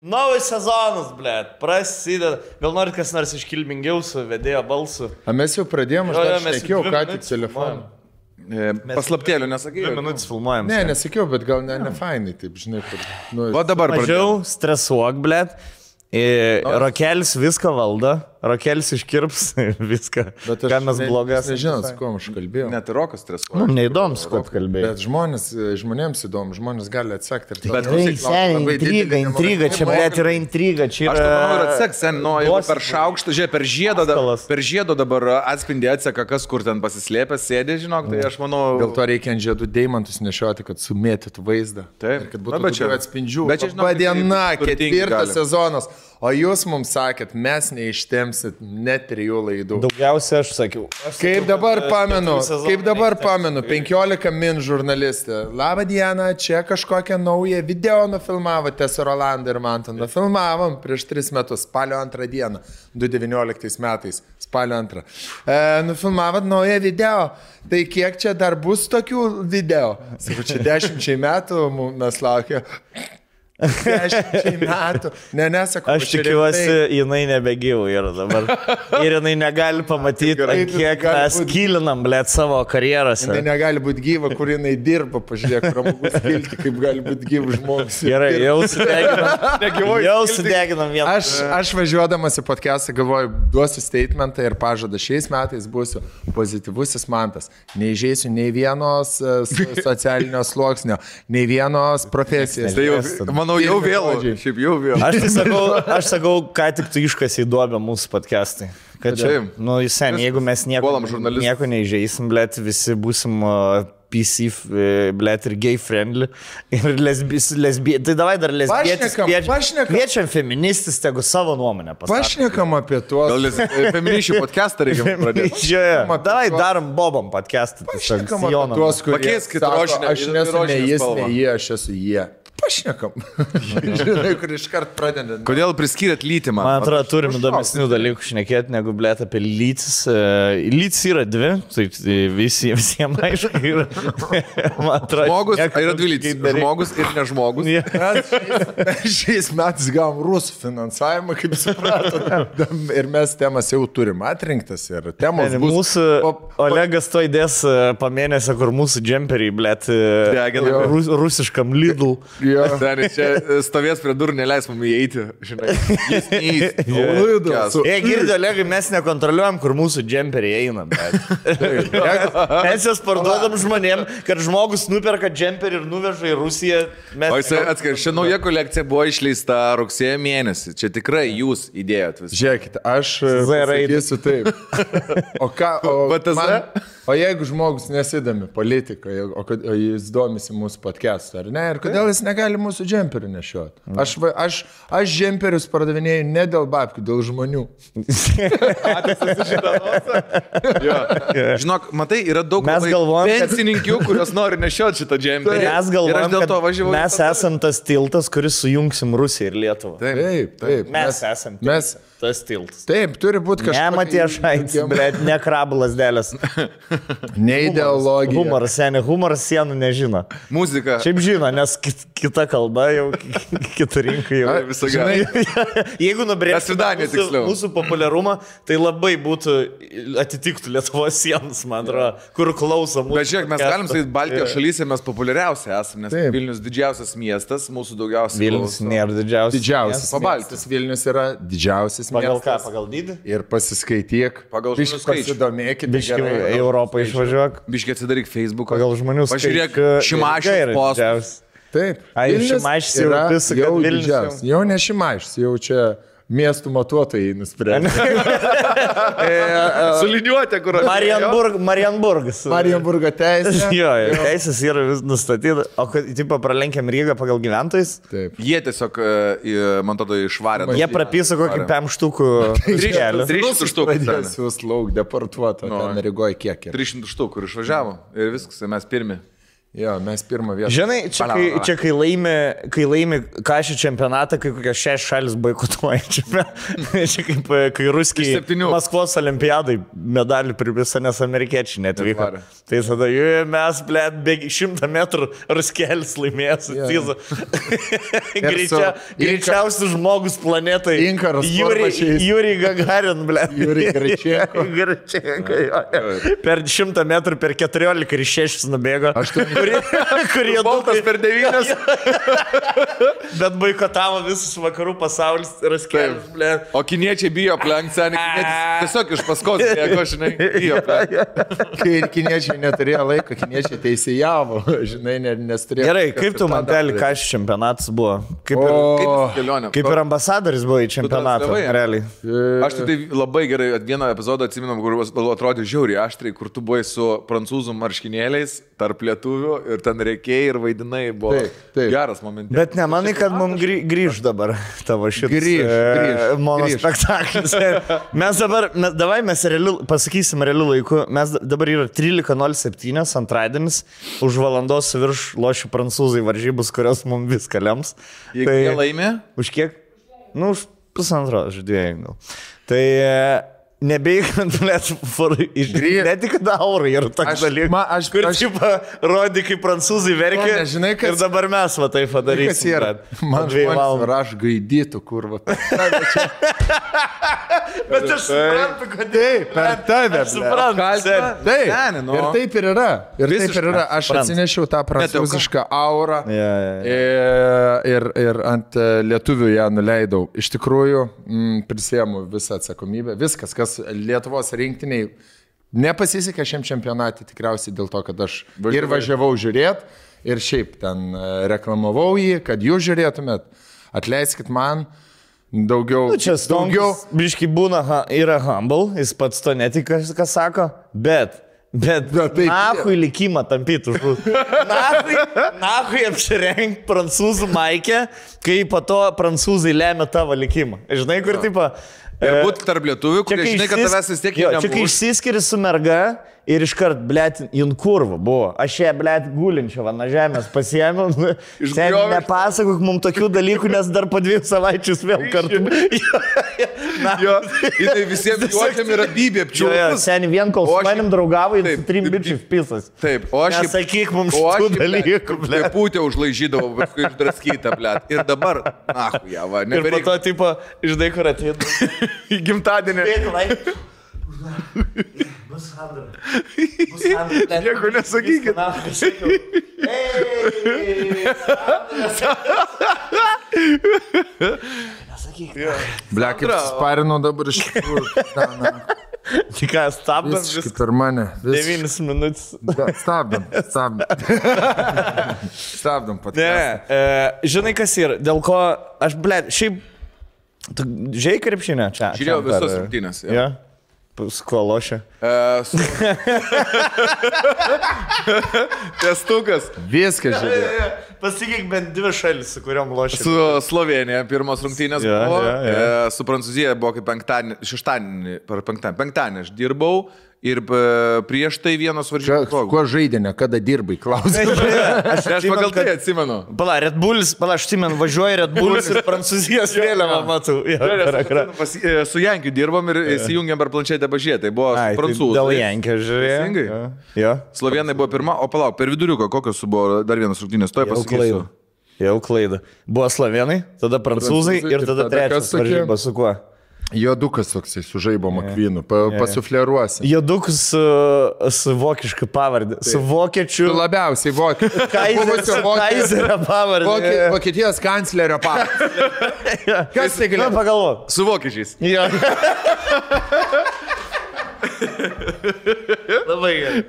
Naujas sezonas, blėt, prasideda. Gal norit kas nors iškilmingiau su vedėjo balsu? A mes jau pradėjome, aš nesakiau, ką tik telefoną. Paslaptėlių nesakai. 2 minutės filmuojam. Ne, nesakiau, bet gal ne fainai, taip, žinai, kur. Nu, O dabar Mažiau stresuok, blėt. Rokelis viską valdo, Rokelis iškirps viską, ką mes blogas. Nežinau, su kuo aš kalbėjau. Net ir Rokas stresuoja. Mums neįdomu, su kuo kalbėjai. Bet žmonėms įdomu, žmonės gali atsekti. Bet Intriga, čia blėt yra intriga, čia Aš yra... manau, ir atseks, jeigu per šaukštą, žiūrėk, per žiedą dabar atspindį atseka, kas kur ten pasislėpęs, sėdė, žinok, tai aš manau... Dėl to reikia ant žiedų deimantus nešioti, kad sumėtytų vaizdą. Taip. Kad būtų daugiau atspindžių. Bet čia, žinok, Padiena, turtingi 4 gali. sezonas. O jūs mums sakėt, mes neištemsit net 3 laidų. Daugiausia aš sakiau. Kaip dabar pamenu, 15 min žurnalistė. Labą dieną, čia kažkokią naują video nufilmavote su Rolandu ir Mantu. Nufilmavom prieš 3 metus, spalio 2 dieną, 2019 metais, spalio 2. Nufilmavot naują video. Tai kiek čia dar bus tokių video? Sakau, čia 10 metų mes laukia. 10 metų. Nesakau, Aš tikiuosi, jinai nebegyvų yra dabar. Ir jinai negali pamatyti, kiek mes kilinam, blėt, savo karjerose. Jinai negali būti gyva, kur jinai dirba, pažiūrėk, pramogus kilti, kaip gali būti gyvas žmogus. Gerai, jau sudeginam vieną. Aš važiuodamas į podcastą galvoju, duosiu statementą ir pažadą, šiais metais būsiu pozityvusis Mantas. Neįžeisiu nei vienos socialinio sluoksnio, nei vienos profesijos. Tai jau, manau, jau vėlu. Šiaip jau vėlu. Aš sakau, ką tik tu iškasi įduobė mūsų podcastai. Kad čia, nu, sen, jeigu mes nieko neįžeisim, blėt, visi būsim PC, blėt, ir gay friendly, ir lesbietis. Tai davai dar lesbietis. Kviečiam feministis, tegu savo nuomonę pasakyti. Pašnekam apie tuos. Gal feministių podcastą reikia pradėti. Davai darom bobom podcastą. Pašnekam apie tuos, kurie Pakeiskit sako, rožinę. aš nesu ne jis, ne jie, aš esu jie. Pašnekam. Žinai, kur iškart pradedant. Kodėl priskyrėt lytį man? Man atrodo, turim įdomesnių dalykų šnekėti, negu blėt apie lytis. Lytis yra 2, taip visiems aišku yra. Žmogus, yra 2 lytis. Žmogus ir nežmogus. Šiais metais gavom rusų finansavimą, kaip supratot. Ir mes temas jau turim atrinktas ir temos bus. Mūsų Olegas to įdės pamėnesio, kur mūsų džemperiai, blėt, rusiškam Lidl. Ten čia stovės prie durų, neleis mums įeiti, žinai. Jis neįs. Girdi, Olegai, mes nekontroliuojam, kur mūsų džemperiai eina. Mes jas parduodam žmonėm, kad žmogus nuperka džemperį ir nuveža į Rusiją. O jis atskir, ši nauja kolekcija buvo išleista rugsėjo mėnesį. Čia tikrai jūs įdėjot visą. Žiūrėkite, aš sakysiu taip. O jeigu žmogus nesidomi politikoje, o jis domisi mūsų podcast'u, ar ne? Ir kodėl jis negali mūsų džemperių nešioti? Aš džemperius pardavinėjau ne dėl babkių, dėl žmonių. Žinok, matai, yra daug pensininkių, kurios nori nešioti šitą džemperį. Mes galvojam, kad mes esam tas tiltas, kuris sujungsim Rusiją ir Lietuvą. Taip. Mes esam tas tiltas. Taip, turi būti kažkas. Ne Matiešaitis, bet ne krablas dėlės. Ne ideologija. Humoras sienų nežino. Muzika. Šiaip žino, nes kita kalba jau, kita rinka jau. Visą gerą. Jeigu nubrėžtų mūsų populiarumą, tai labai būtų, atitiktų Lietuvos sienas, man atrodo, kur klauso mūsų. Bet žiūrėk, mes galim sakyti, Baltijos šalyse mes populiariausi esame, nes Vilnius didžiausias miestas, mūsų daugiausiai. Vilnius nėra didžiausias. Pabaltis Vilnius yra didžiausias miestas. Pagal ką? Pagal dydį? Ir pasiskaityk. Pagal žmonių skaičių. Pasidomėkit. Biški Europą išvažiuok. Biški atsidaryk Facebooką. Pagal žmonių skaičių. Pažiūrėk Šimašiaus postus. Taip. Šimašius jau visą, kad Vilnius. Jau ne Šimašius, jau čia miestų matuotojai nusprendė. Suliniuotė, kur aš. Marienburgas. Marienburgo teisė. Jo, teisės yra vis nustatyta. O kad, tipo, pralenkiam Rygą pagal gyventojus? Taip. Jie tiesiog, man tada, išvarė. Jie prapiso kokį 5 štukų kelių. 300 štukų. Pradės lauk deportuoto. Ten Rygoje kiek yra. 300 štukų, kur išvažiavo. Ir viskas, mes pirmi. Jo, mes pirmą vietą. Žinai, čia kai laimi kažį čempionatą, kai kokios 6 šalis boikotuoja. Čia kaip kai ruskiai Maskvos olimpiadai medalį pripisa, nes amerikiečiai netvyko. Tai tada mes, bėgi 100 metrų ruskelis laimėjęs. Greičiausias žmogus planetai. Juri Gagarin, Juri Greičienko. Per 100 metrų, per 14 ir 6 nubėgo. Kurie Boltas per 9. Bet boikotavo visus vakarų pasaulis raskelis, ble. O kiniečiai bijo aplenkti, tiesiog iš paskos, jeigu žinai, bijo aplenkti. Kai kiniečiai neturėjo laiko, kiniečiai teisėjavo, žinai, nes turėjo... Gerai, kaip tu man teli, ką šis čempionatas buvo? Kaip ir ambasadoris buvo į čempionatą, realiai. Aš tai labai gerai, vieną epizodą atsiminam, kur atrodė žiauriai aštriai, kur tu buvai su prancūzų marškinėliais tarp lietuvių ir ten reikėjai ir vaidinai, buvo geras momentas. Bet nemanai, kad mums grįž dabar tavo šitas monospektaklis. Mes pasakysim realiu laiku, mes dabar yra 13:07 antradienis, už valandos virš lošių prancūzai varžybus, kurios mums viską lems. Jeigu jie laimė? Už kiek? Nu, už 1,5 žaidėjų gal. Tai... Nebeigiant, ne tik daurai yra toks dalykas, kur rodi, kaip prancūzai verkia ir dabar mes va taip padarysim. Man žmonės raš gaidytų, kurva. Bet aš suprantu, kad per tave. Aš suprantu. Ir taip ir yra. Aš atsinešiau tą prancūzišką aurą ir ant lietuvių ją nuleidau. Iš tikrųjų, prisėmu visą atsakomybę. Viskas, kas Lietuvos rinktiniai nepasisekė šiam čempionatui, tikriausiai dėl to, kad aš ir važiavau žiūrėti ir šiaip ten reklamavau jį, kad jūs žiūrėtumėt. Atleiskit man daugiau. Čia Stonkus, biški būna, yra humble, jis pats to netika, ką sako, bet nahui likimą tampytų. Nahui apsirengt prancūzų maikę, kai po to prancūzai lemia tavo likimą. Žinai, kur tipo... Ir būt tarp lietuvių, kurie žinai, kad tavęs vis tiek nebus. Čia kai išsiskiri su merga ir iškart, blėt, jin kurva buvo. Aš ją, blėt, gulinčią na žemės pasiėmiau. Nepasakok mums tokių dalykų, nes dar po 2 savaičius vėl kartu. Jinai visiems juokiam yra bybė apčiūpus. Seniai vien kol su manim draugavo, jis 3 bičius pisas. Taip, o aš... Nesakyk mums šitų dalykų, blėt. Pūtė užlaižydavo, paskui išdraskytą, blėt. Ir dabar, nahu, ją, va. Ir po to, tipo, žinai, kur atėdų. Į gimtadienį. Bus Sandra. Nieko nesakykit. Ble, kaip sparinau dabar iš tikrųjų. Tik ką, stabdam viską. Per mane. 9 minutės. Stabdam. Stabdam podcastą. Žinai, kas yra, dėl ko aš, ble, šiaip, tu žiūrėjai krepšinę čia? Žiūrėjau visos rungtynės. Ja. Su kuo lošia? Testukas. Viskas žiūrėjau. Pasakyk bent 2 šalis, su kuriuom lošia. Su Slovenija pirmos rungtynės buvo. Su Prancūzija buvo kaip penktadienį aš dirbau. Ir prieš tai vienos varžybos. Kuo žaidinė, kada dirbai, klausai? Aš pagal tai atsimenu. Red Bulls, aš atsimenu, važiuoju Red Bulls ir Prancūzijos vėliavą matau. Su Jankiu dirbom ir įsijungėm per planšetę pažiūrėti. Tai buvo prancūzai. Dėl Jankio žiūrėjau. Slovenai buvo pirma, o palauk, per viduriuką kokios buvo dar vienas rungtynės, to pasakysiu. Jau klaida. Buvo slovenai, tada prancūzai ir tada trečias varžybas su kuo? Jodukas toksai su žaibo makvynu, pasufleruosi. Jodukas su vokiška pavardė, su vokiečiu. Labiausiai vokiečiu. Kaizerio pavardė. Vokietijos kanclerio pavardė. Kas tai galėjo? Pagalvok. Su vokiečiais. Jo. Labai gerai.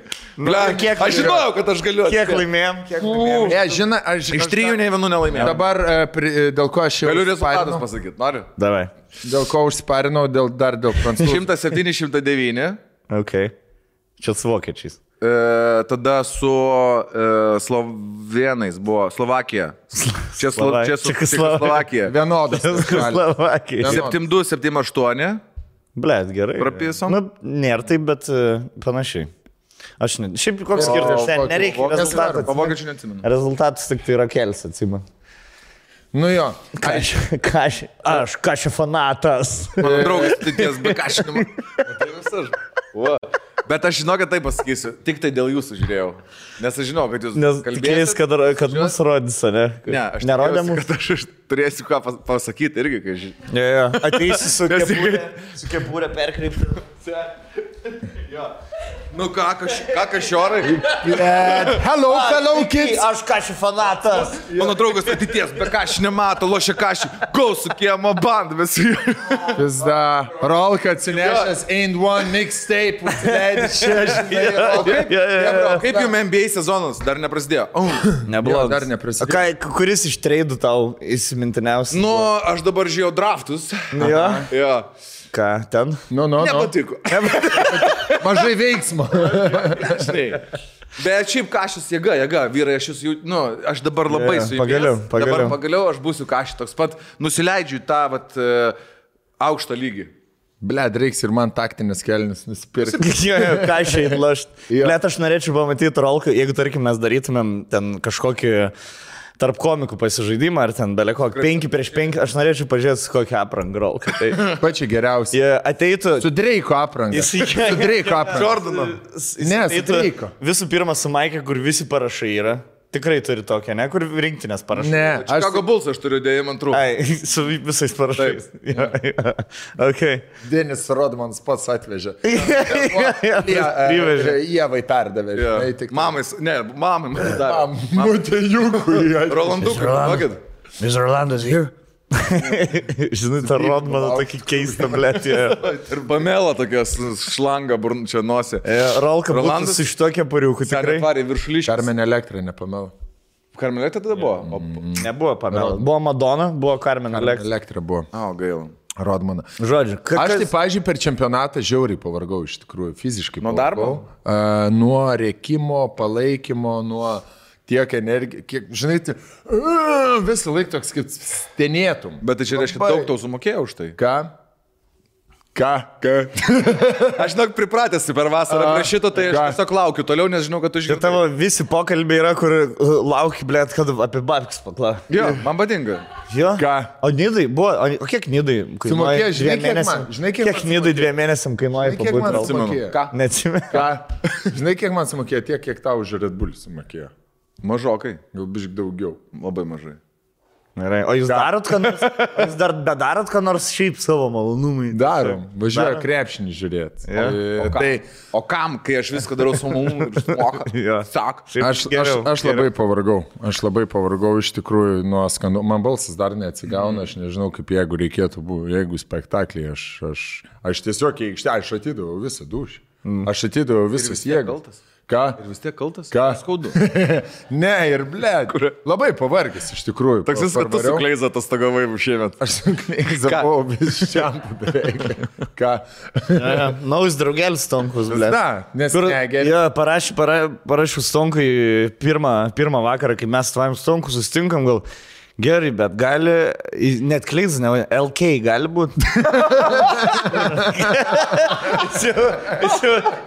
Aš žinojau, kad aš galiu. Kiek laimėjom? Iš 3 nei vienų nelaimėjom. Dabar dėl ko aš jau... Galiu rezultatus pasakyti, noriu? Davai. Dėl ko užsiparinau, dėl prancūzų. 107-109. Ok. Čia su vokiečiais. Tada su slovenais buvo Slovakija. Čia Slovakija. Vienodas. Slovakija. 7-2, 7-8. Blet, gerai. Prapisom? Nu, nėra taip, bet panašiai. Aš ne. Šiaip koks skirtas, nereikia rezultatų. Pavokiečių neatsimenu. Rezultatas tik tai yra kelis, atsimenu. Nu jo. Aš kašė fanatas. Mano draugas, tai ties be kašinimo. Tai visas. Bet aš žinau, kad tai pasakysiu. Tik tai dėl jūsų žiūrėjau. Nes aš žinau, kad jūs kalbėsit. Kad mus rodys, ne? Ne, aš nerodėm. Kad aš turėsiu ką pasakyti irgi, kai žinau. Ja. Ateisi su kepūrė perkreipti. Jo. Nu ką kašiorai? Hello, fellow kids. Aš kašį fanatas. Mano draugas ateities, be kašį nemato, lošia kašį. Go su kiemo band, visi. Pizda. Rolka atsinešęs Ain't One mixtape. Kaip jums NBA sezonas? Dar neprasidėjo? Nebuvo. Dar neprasidėjo. Kuris iš treidų tau įsimintiniausias? Nu, aš dabar žiūrėjau draftus. Jo. Ką, ten? Nepatiko. Mažai veiksmo. Bet šiaip kašis jėga, vyrai, aš dabar labai su jumis. Pagaliau aš būsiu kašį toks pat, nusileidžiu tą aukštą lygį. Bled, reiks ir man taktinės kelnes nusipirkti. Kašiai lašt. Bled, aš norėčiau pamatyti rolką, jeigu, tarkim, mes darytumėm ten kažkokį tarp komikų pasižaidimą, ar ten beleko 5 prieš 5, aš norėčiau pažiūrėti, su kokią aprangą rolką. Tai pačiai geriausiai. Ateitų... Su Dreiko aprangą. Su Dreiko aprangą. Jordano. Ne, su Dreiko. Visų pirma, su Maike, kur visi parašai yra. Tikrai turi tokią, ne? Kur rinktinės parašai. Ne. Chicago Bulls aš turiu dėjimą antrų. Ai, su visais parašais. Okay. Denis Rodmanas pats atvežė. Privežė. Ievai perdavė. Mamai man davė. Mutejukui. Rolandukai, vakit. Mr. Rolandas here. Žinai, tą Rodmaną tokį keistą blėtį. Ir Pamela tokias šlangą čia nosė. Rolka būtų su šitokia pariuku, tikrai. Carmen Electra, ne Pamela. Carmen Electra tada buvo? Nebuvo Pamela. Buvo Madonna, buvo Carmen Electra. Electra buvo. Gaila. Rodmaną. Žodžiu, aš tai, pavyzdžiui, per čempionatą žiauriai pavargau, iš tikrųjų, fiziškai. Nuo darbo? Nuo rėkimo, palaikymo, nuo... tiek energija, kiek, žinai, visą laiką toks, kaip stenėtum. Bet tai čia reiškia, daug tau sumokėjau už tai. Ką? Aš žinok, pripratęs per vasarą prie šito, tai aš tiesiog laukiu toliau, nes žinau, kad tu žinai. Ir tavo visi pokalbiai yra, kur lauki, blėt, kad apie babkis pakla. Jo, man patinka. Jo? Ką? O nidai buvo, o kiek nidai kainuoja? Kiek nidai 2 mėnesiam kainuoja pabūti? Kiek man sumokėjo? Ką? Neatsimenu. Ką? Žinai, kiek man sumokėjo? Tiek, kiek tau už Red Bull sumokėjo. Mažokai. Gal bišk daugiau. Labai mažai. Gerai. O jūs darot, ką nors? Jūs dar bedarot, ką nors šiaip savo malonumui? Darom. Važiuoju krepšinį žiūrėti. O kam, kai aš viską darau su malonumui ir sumoka? Sak. Aš labai pavargau. Aš labai pavargau iš tikrųjų nuo skandų. Man balsas dar neatsigauna. Aš nežinau, kaip jeigu reikėtų, jeigu spektaklį. Aš tiesiog į aikštelę, aš atidaviau visą dušį. Aš atidaviau visas jėgas. Ką? Ir vis tiek kaltas? Ką? Skaudu. Ne, ir blėd. Labai pavargęs iš tikrųjų. Toks vis, kad tu su Kleiza atostogavai šiemet. Aš su Kleiza buvau vis šiandien beveik. Ką? Naujas draugelis Stonkus, blėd. Na, nes negeri. Jo, parašiau Stonkui pirmą vakarą, kai mes su tavim Stonku susitinkam, gal gerai, bet gali, net Kleiza, ne, LK gali būti.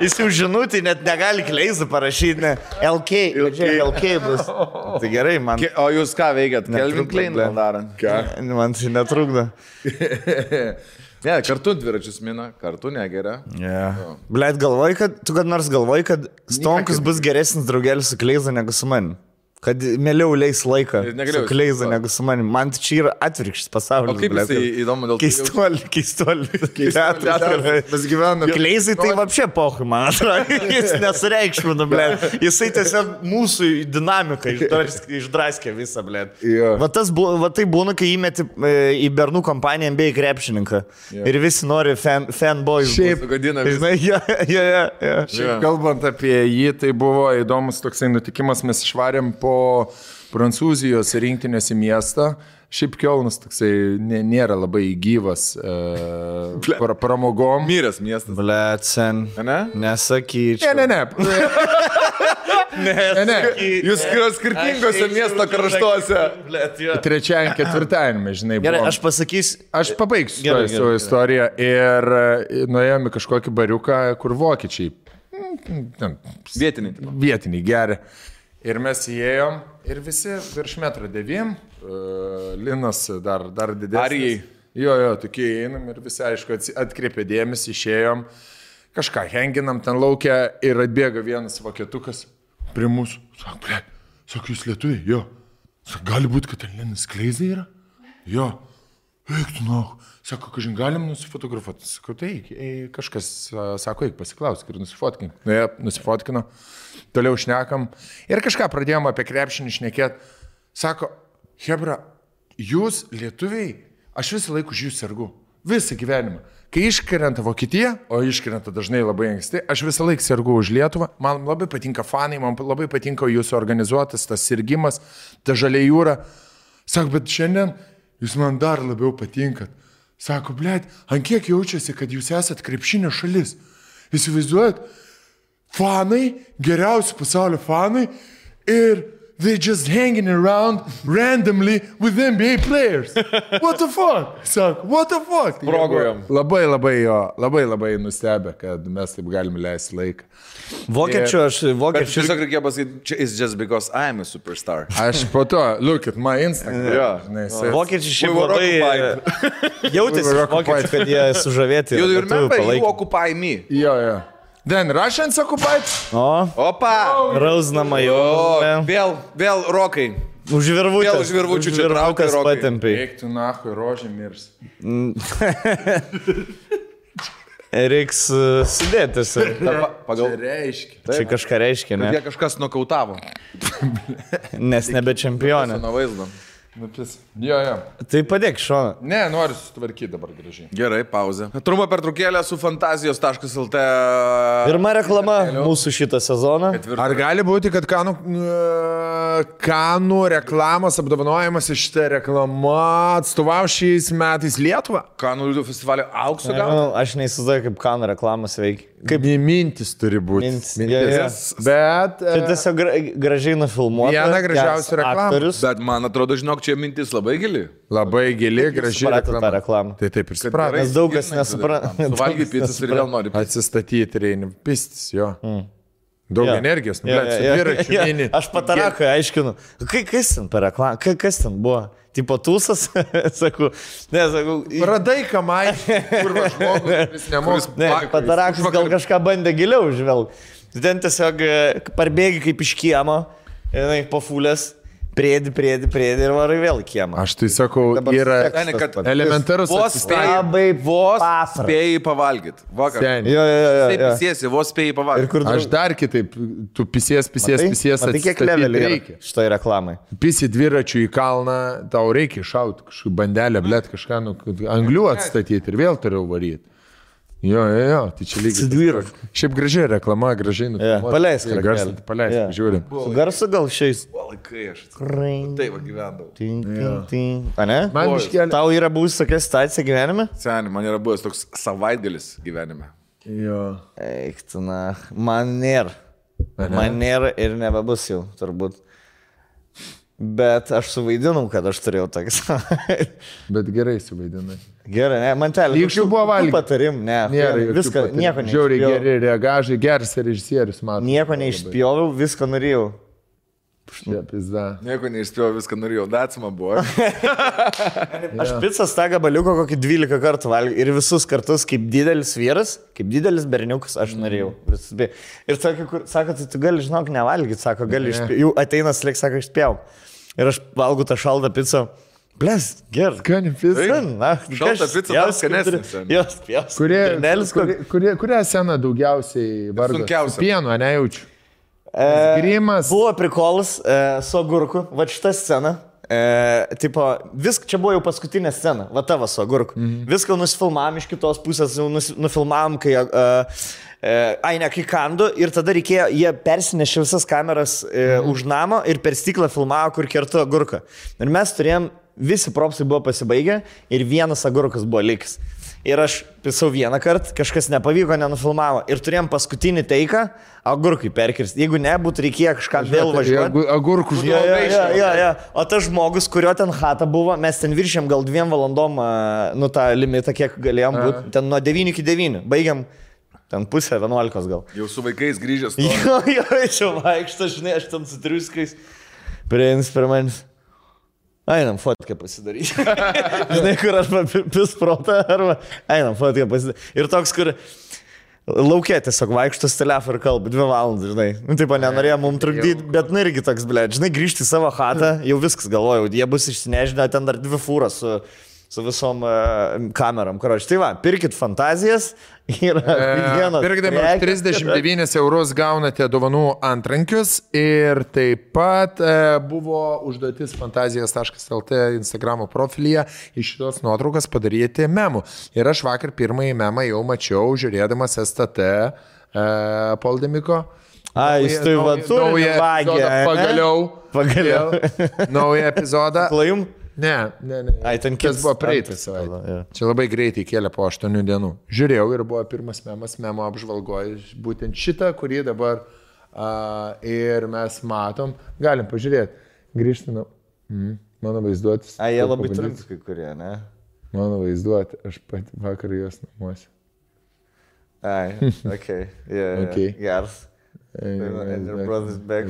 Jis jau žinutį net negali Kleiza parašyti, ne, LK bus. Tai gerai, man. O jūs ką veikiat? Kelvin Klein darant? Ką? Man tai netrukdo. Ne, kartu dviračius mina, kartu negeria. Blėt, tu kad nors galvoji, kad Stonkus bus geresnis draugelis su Kleiza negu su manim. Kad mieliau leis laiką su Kleiza negu su manim. Man čia yra atvirkštis pasaulis. O kaip jisai įdomu dėl to? Keistuolį. Mes gyvename. Kleizai tai vapšė pohui, man atrodo. Jis nesureikšmina, blėt. Jisai tiesiog mūsų dinamiką išdraskė visą, blėt. Va tai būna, kai įmeti į bernų kompaniją NBA krepšininką. Ir visi nori fanboys. Šiaip, kalbant apie jį, tai buvo įdomus toksai nutikimas. Mes išvarėm po Prancūzijos rinktinės į miestą. Šiaip Kielnas toksai nėra labai gyvas pramogom. Myrės miestas. Blet, sen. Ne? Nesakyčiau. Ne. Jūs skirtingose miesto kraštuose. Trečiajam, ketvirtajame, žinai, buvo. Gerai, aš pasakysiu. Aš pabaigsiu savo istoriją ir nuėjome kažkokį bariuką, kur vokiečiai Vietiniai geria. Ir mes įėjom ir visi virš 1,9 m, Linas dar didesnis. Arijai. Jo, tokie įeinam ir visi, aišku, atkreipė dėmesį, išėjom, kažką henginam ten laukia ir atbėga vienas vokietukas prie mūsų. Sako, jūs lietuviai? Jo. Sako, gali būti, kad ten Linas Kleizai yra? Jo. Eik, tu nau. Sako, kažin galim nusifotografuoti. Sako, tai kažkas, sako, eik pasiklausk ir nusifotkink. Nusifotkino, toliau šnekam ir kažką pradėjom apie krepšinį šnekėti. Sako, hebra, jūs lietuviai, aš visą laiką už jūs sergu. Visą gyvenimą. Kai iškrenta Vokietija, o iškrenta dažnai labai anksti, aš visą laiką sergu už Lietuvą. Man labai patinka fanai, man labai patinka jūsų organizuotas, tas sirgimas, ta žalia jūra. Sako, bet šiandien jūs man dar labiau patinkat. Sako, blėt, ant kiek jaučiasi, kad jūs esat krepšinio šalis. Įsivaizduojat, fanai, geriausi pasaulio fanai ir they just hanging around randomly with NBA players. What the fuck? Sako, what the fuck? Progojom. Labai nustebę, kad mes taip galime leisti laiką. Vokiečių. Tiesiog reikia pasakyti, it's just because I'm a superstar. Aš po to, look at my Instagram. Vokiečiai šiaip labai jautėsi vokiečiai, kad jie sužavėti. You remember, you occupy me. Jo. Then Russians occupied. Opa! Rausnama jau. Vėl rokai. Už virvučių čia traukas patempiai. Eik tu nahui, rožė mirs. Reiks sudėtis. Pagal reiškia. Čia kažką reiškia, ne? Jie kažkas nokautavo. Nes nebe čempionė. Nuo vaizdo. Jo. Tai padėk šoną. Ne, noriu sutvarkyti dabar gražiai. Gerai, pauzė. Trumpa pertraukėlė su fantazijos.lt. Pirma reklama mūsų šitą sezoną. Ar gali būti, kad Kanų reklamos apdovanojimas iš šitą reklamą atstovau šiais metais Lietuvą? Kanų liūdų festivalio aukso gal? Aš neįsivaizduoju, kaip Kanų reklamos veikia. Kaip mintis turi būti. Bet... Čia tiesiog gražiai nufilmuota. Viena gražiausių reklamų. Bet man atrodo, žinok, čia mintis labai gili. Labai gili, graži reklama. Tai taip ir suprato. Nes daug kas nesupranta. Suvalgyti pizzas ir vėl nori. Atsistatyti reikia. Pistis, jo. Daug energijos. Aš patarakai aiškinu. Kas ten per reklamą? Kas ten buvo? Tipo tūsas, sakau, Radai kamai, kur žmogus, kuris nemoks. Patarakas gal kažką bandė giliau žvelgti. Ten tiesiog parbėgi kaip iš kiemo, pafulės, priedi ir varai vėl į kiemą. Aš tai sakau, yra elementarus atsispėjai. Vos spėjai pavalgyti. Vakar. Taip pisiesi, vos spėjai pavalgyti. Aš dar kitaip, tu pisies. Tai kiek levelį reikia šitai reklamai? Pisi dviračių į kalną, tau reikia šauti kažkokį bandelę, blėt, kažką, anglių atstatyti ir vėl turiu varyti. Jo, tai čia lygiai. Šiaip gražiai reklama, gražiai nufilmuota. Paleisk, žiūrim. Su garsu gal šiais. O laikai aš. Taip gyvendavau. A ne? Tau yra buvus tokia situacija gyvenime? Seniai, man yra buvęs toks savaitgalis gyvenime. Jo. Eik, tu na, man nėra. Man nėra ir nebebus jau, turbūt. Bet aš suvaidinau, kad aš turėjau tokį savaitę. Bet gerai suvaidinai. Gerai, ne, man telė. Lygšių buvo valgyti. Patarim, ne. Viską, nieko neišpjoviau. Žiauriai geri reagažai, geras režisierius, matau. Nieko neišpjoviau, viską norėjau. Nieko neišspėjau, viską norėjau, datsima buvo. Aš pizzas tą gabaliuką kokį 12 kartų valgiau ir visus kartus kaip didelis vyras, kaip didelis berniukas aš norėjau. Ir sako, tai tu gali, žinok, nevalgyti, sako, gali išspėjau. Jau ateina slik, sako, išspėjau. Ir aš valgau tą šaltą pizzą. Bles, gerai. Skani pizza. Šaltą pizzą dar skanesnis. Jos, Kurią sceną daugiausiai vardo? Sunkiausia. Pieno, nejaučiu. Grimas. Buvo prikolas su agurku, va šitą sceną. Tipo, čia buvo jau paskutinė scena, va tavo su agurku. Viską nusifilmavom iš kitos pusės, nufilmavom, kai kai kandu ir tada reikėjo, jie persinešė visas kameras už namo ir per stiklą filmavo, kur kertu agurką. Ir mes turėjom, visi propsai buvo pasibaigę ir vienas agurkas buvo likęs. Ir aš pisau vieną kartą, kažkas nepavyko, nenufilmavo. Ir turėjom paskutinį teiką, agurkai perkirsti. Jeigu ne, būtų reikėjo kažką vėl važiuoti. Agurkų žmogų. O tas žmogus, kurio ten chata buvo, mes ten viršėm gal 2 valandom, tą limitą, kiek galėjom būti. Ten nuo 9 iki 9. Baigiam Ten pusė 11 gal. Jau su vaikais grįžęs. Jo, čia vaikšto, žinai, aš ten su triuskais. Prieins per manis. Einam fotkę pasidaryti. Žinai, kur aš pisprotą, arba einam fotkę pasidaryti. Ir toks, kur laukė tiesiog vaikštos telefą ir kalba 2 valandas, žinai. Nu, taip, nenorėjo mums trukdyti, bet nu irgi toks, blėt, žinai, grįžti į savo chatą, jau viskas galvojau, jie bus išsinežinę, ten dar 2 fūras su visom kamerom. Karoči, tai va, pirkit fantazijas. Pirkdami 39 eurus gaunate dovanų antrankius ir taip pat buvo užduotis fantazijas.lt Instagramo profilyje iš šitos nuotraukas padaryti memų. Ir aš vakar pirmąjį memą jau mačiau, žiūrėdamas STT Poldemiko. Jis tai va turi vagį. Pagaliau. Naują epizodą. Klajum? Ne. Ai, ten kitas buvo praeitas savaitę. Čia labai greitai kėlė po 8 dienų. Žiūrėjau ir buvo pirmas memas, memo apžvalgoje, būtent šitą, kurį dabar ir mes matom. Galim pažiūrėti. Grįžtinu. Mano vaizduotis. Jie labai trumpi kai kurie, ne? Mano vaizduoti. Aš pati vakar jos namuose. Okay. Yeah. Okay. Geras. And your brother's back.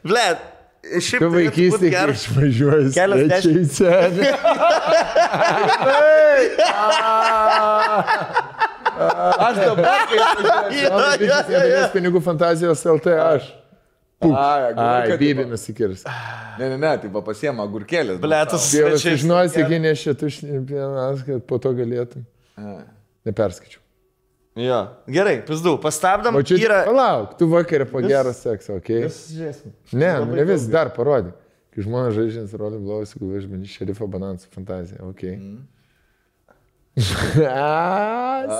Blet. Tu vaikystėje, kai išvažiuoji svečiai į senį. Aš dabar, kai išvažiuoju pinigų fantazijos LT, aš. Bybį nusikirs. Ne, tai pasiema agurkėlės. Blėtas svečiai. Dievas, žinosi, kai nešia tušnienas, kad po to galėtum. Neperskaičiu. Jo, gerai, pizdu, pastabdam. O čia yra... Palauk, tu vakarė po gero sekso, okei? Ne, ne vis, dar parodyk. Kai žmonės žaidžiant rolį blovasi, kai važiuoju šerifo banansų fantaziją, okei?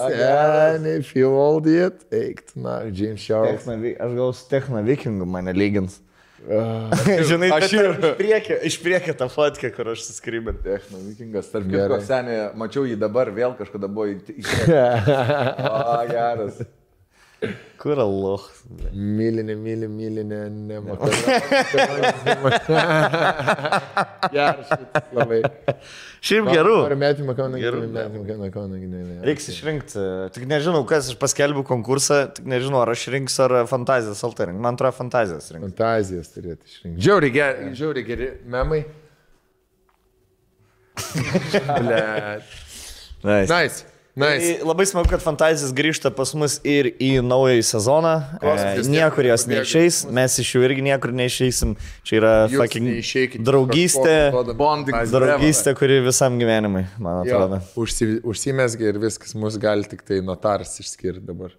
Seniai, feel old yet? Eik, na, James Charles. Aš gal su Techno Vikingu mane lygins. Žinai, aš iš priekio tą fotkę, kur aš suskrybė. Techno Vikingas, tarp kitko, seniai, mačiau jį dabar, vėl kažkada buvo geras. Kur aloch? Mylinė, nematau. Geras šitas labai. Šiaip gerų. Ar metimą kauną gynėjai. Reiks išrinkti. Tik nežinau, kas aš paskelbiu konkursą, tik nežinau, ar aš rinksiu, ar fantazijas alterink. Man atrodo, fantazijas rinkti. Fantazijas turėtų išrinkti. Žiauriai geri memai. Nice. Labai smagu, kad fantazijas grįžta pas mus ir į naująjį sezoną. Niekur jos neišeis, mes iš jų irgi niekur neišeisim. Čia yra draugystė, kuri visam gyvenimui, man atrodo. Užsimesgi ir viskas, mus gali tik tai notaras išskirti dabar.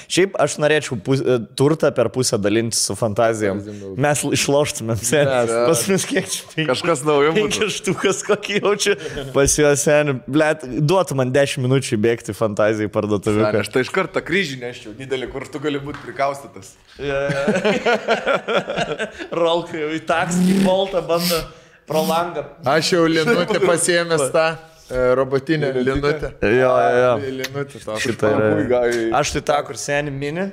Šiaip aš norėčiau turtą per pusę dalinti su fantazijom. Mes išloštumėm senis. Pas mus kiek čia? Kažkas naujo. 5 štukas kokį jaučiu pas juos senį. Blet, duotų man 10 minučių bėgti fantazijai parduotuvį. Aš tai iš karto kryžį neščiau, didelį, kur tu gali būti prikaustytas. Rolka jau į taksį, boltą bando pro langą. Aš jau linutę pasiėmęs tą robotinę linutę. Jo. Linutę tą. Aš tai tą, kur seni mini,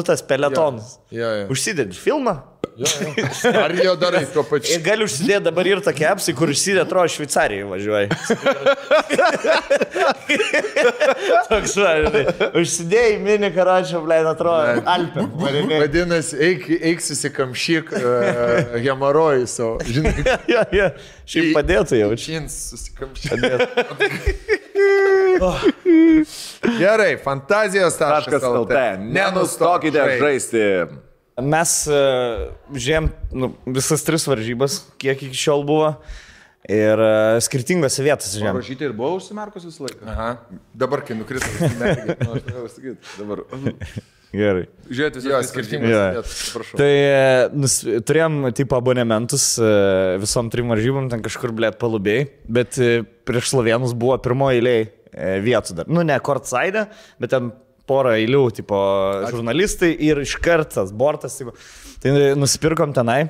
tas peletonas. Užsidedi filmą. Ar jau darai tuo pačiu? Ir gali užsidėti dabar ir tokie apsai, kur užsidė, atrodo, Šveicarijai važiuoji. Toks važiuoji. Užsidėjai mini karačio, blėt, atrodo, Alpė. Vadinasi, eik susikamšyk hemorojų savo. Žinai. Jo. Šiaip padėtų jau. Čins susikamšyk. Gerai, fantazijos.lt. Nenustokite žaisti. Mes žiūrėjom visas 3 varžybas, kiek iki šiol buvo. Ir skirtingose vietose žiūrėjom. Rašyti ir buvo užsimerkus visą laiką. Aha. Dabar, kai nukristas, užsimerkė. Dabar. Gerai. Žiūrėti visas skirtingos. Tai turėjom tipo abonementus visom 3 varžybom, ten kažkur, blėt, palubėjai. Bet prieš Slovėnus buvo pirmoji eilėje vietų dar. Nu, ne courtside, bet ten porą eilių, tipo, žurnalistai ir iš kartas, bortas, tipo. Tai nusipirkom tenai,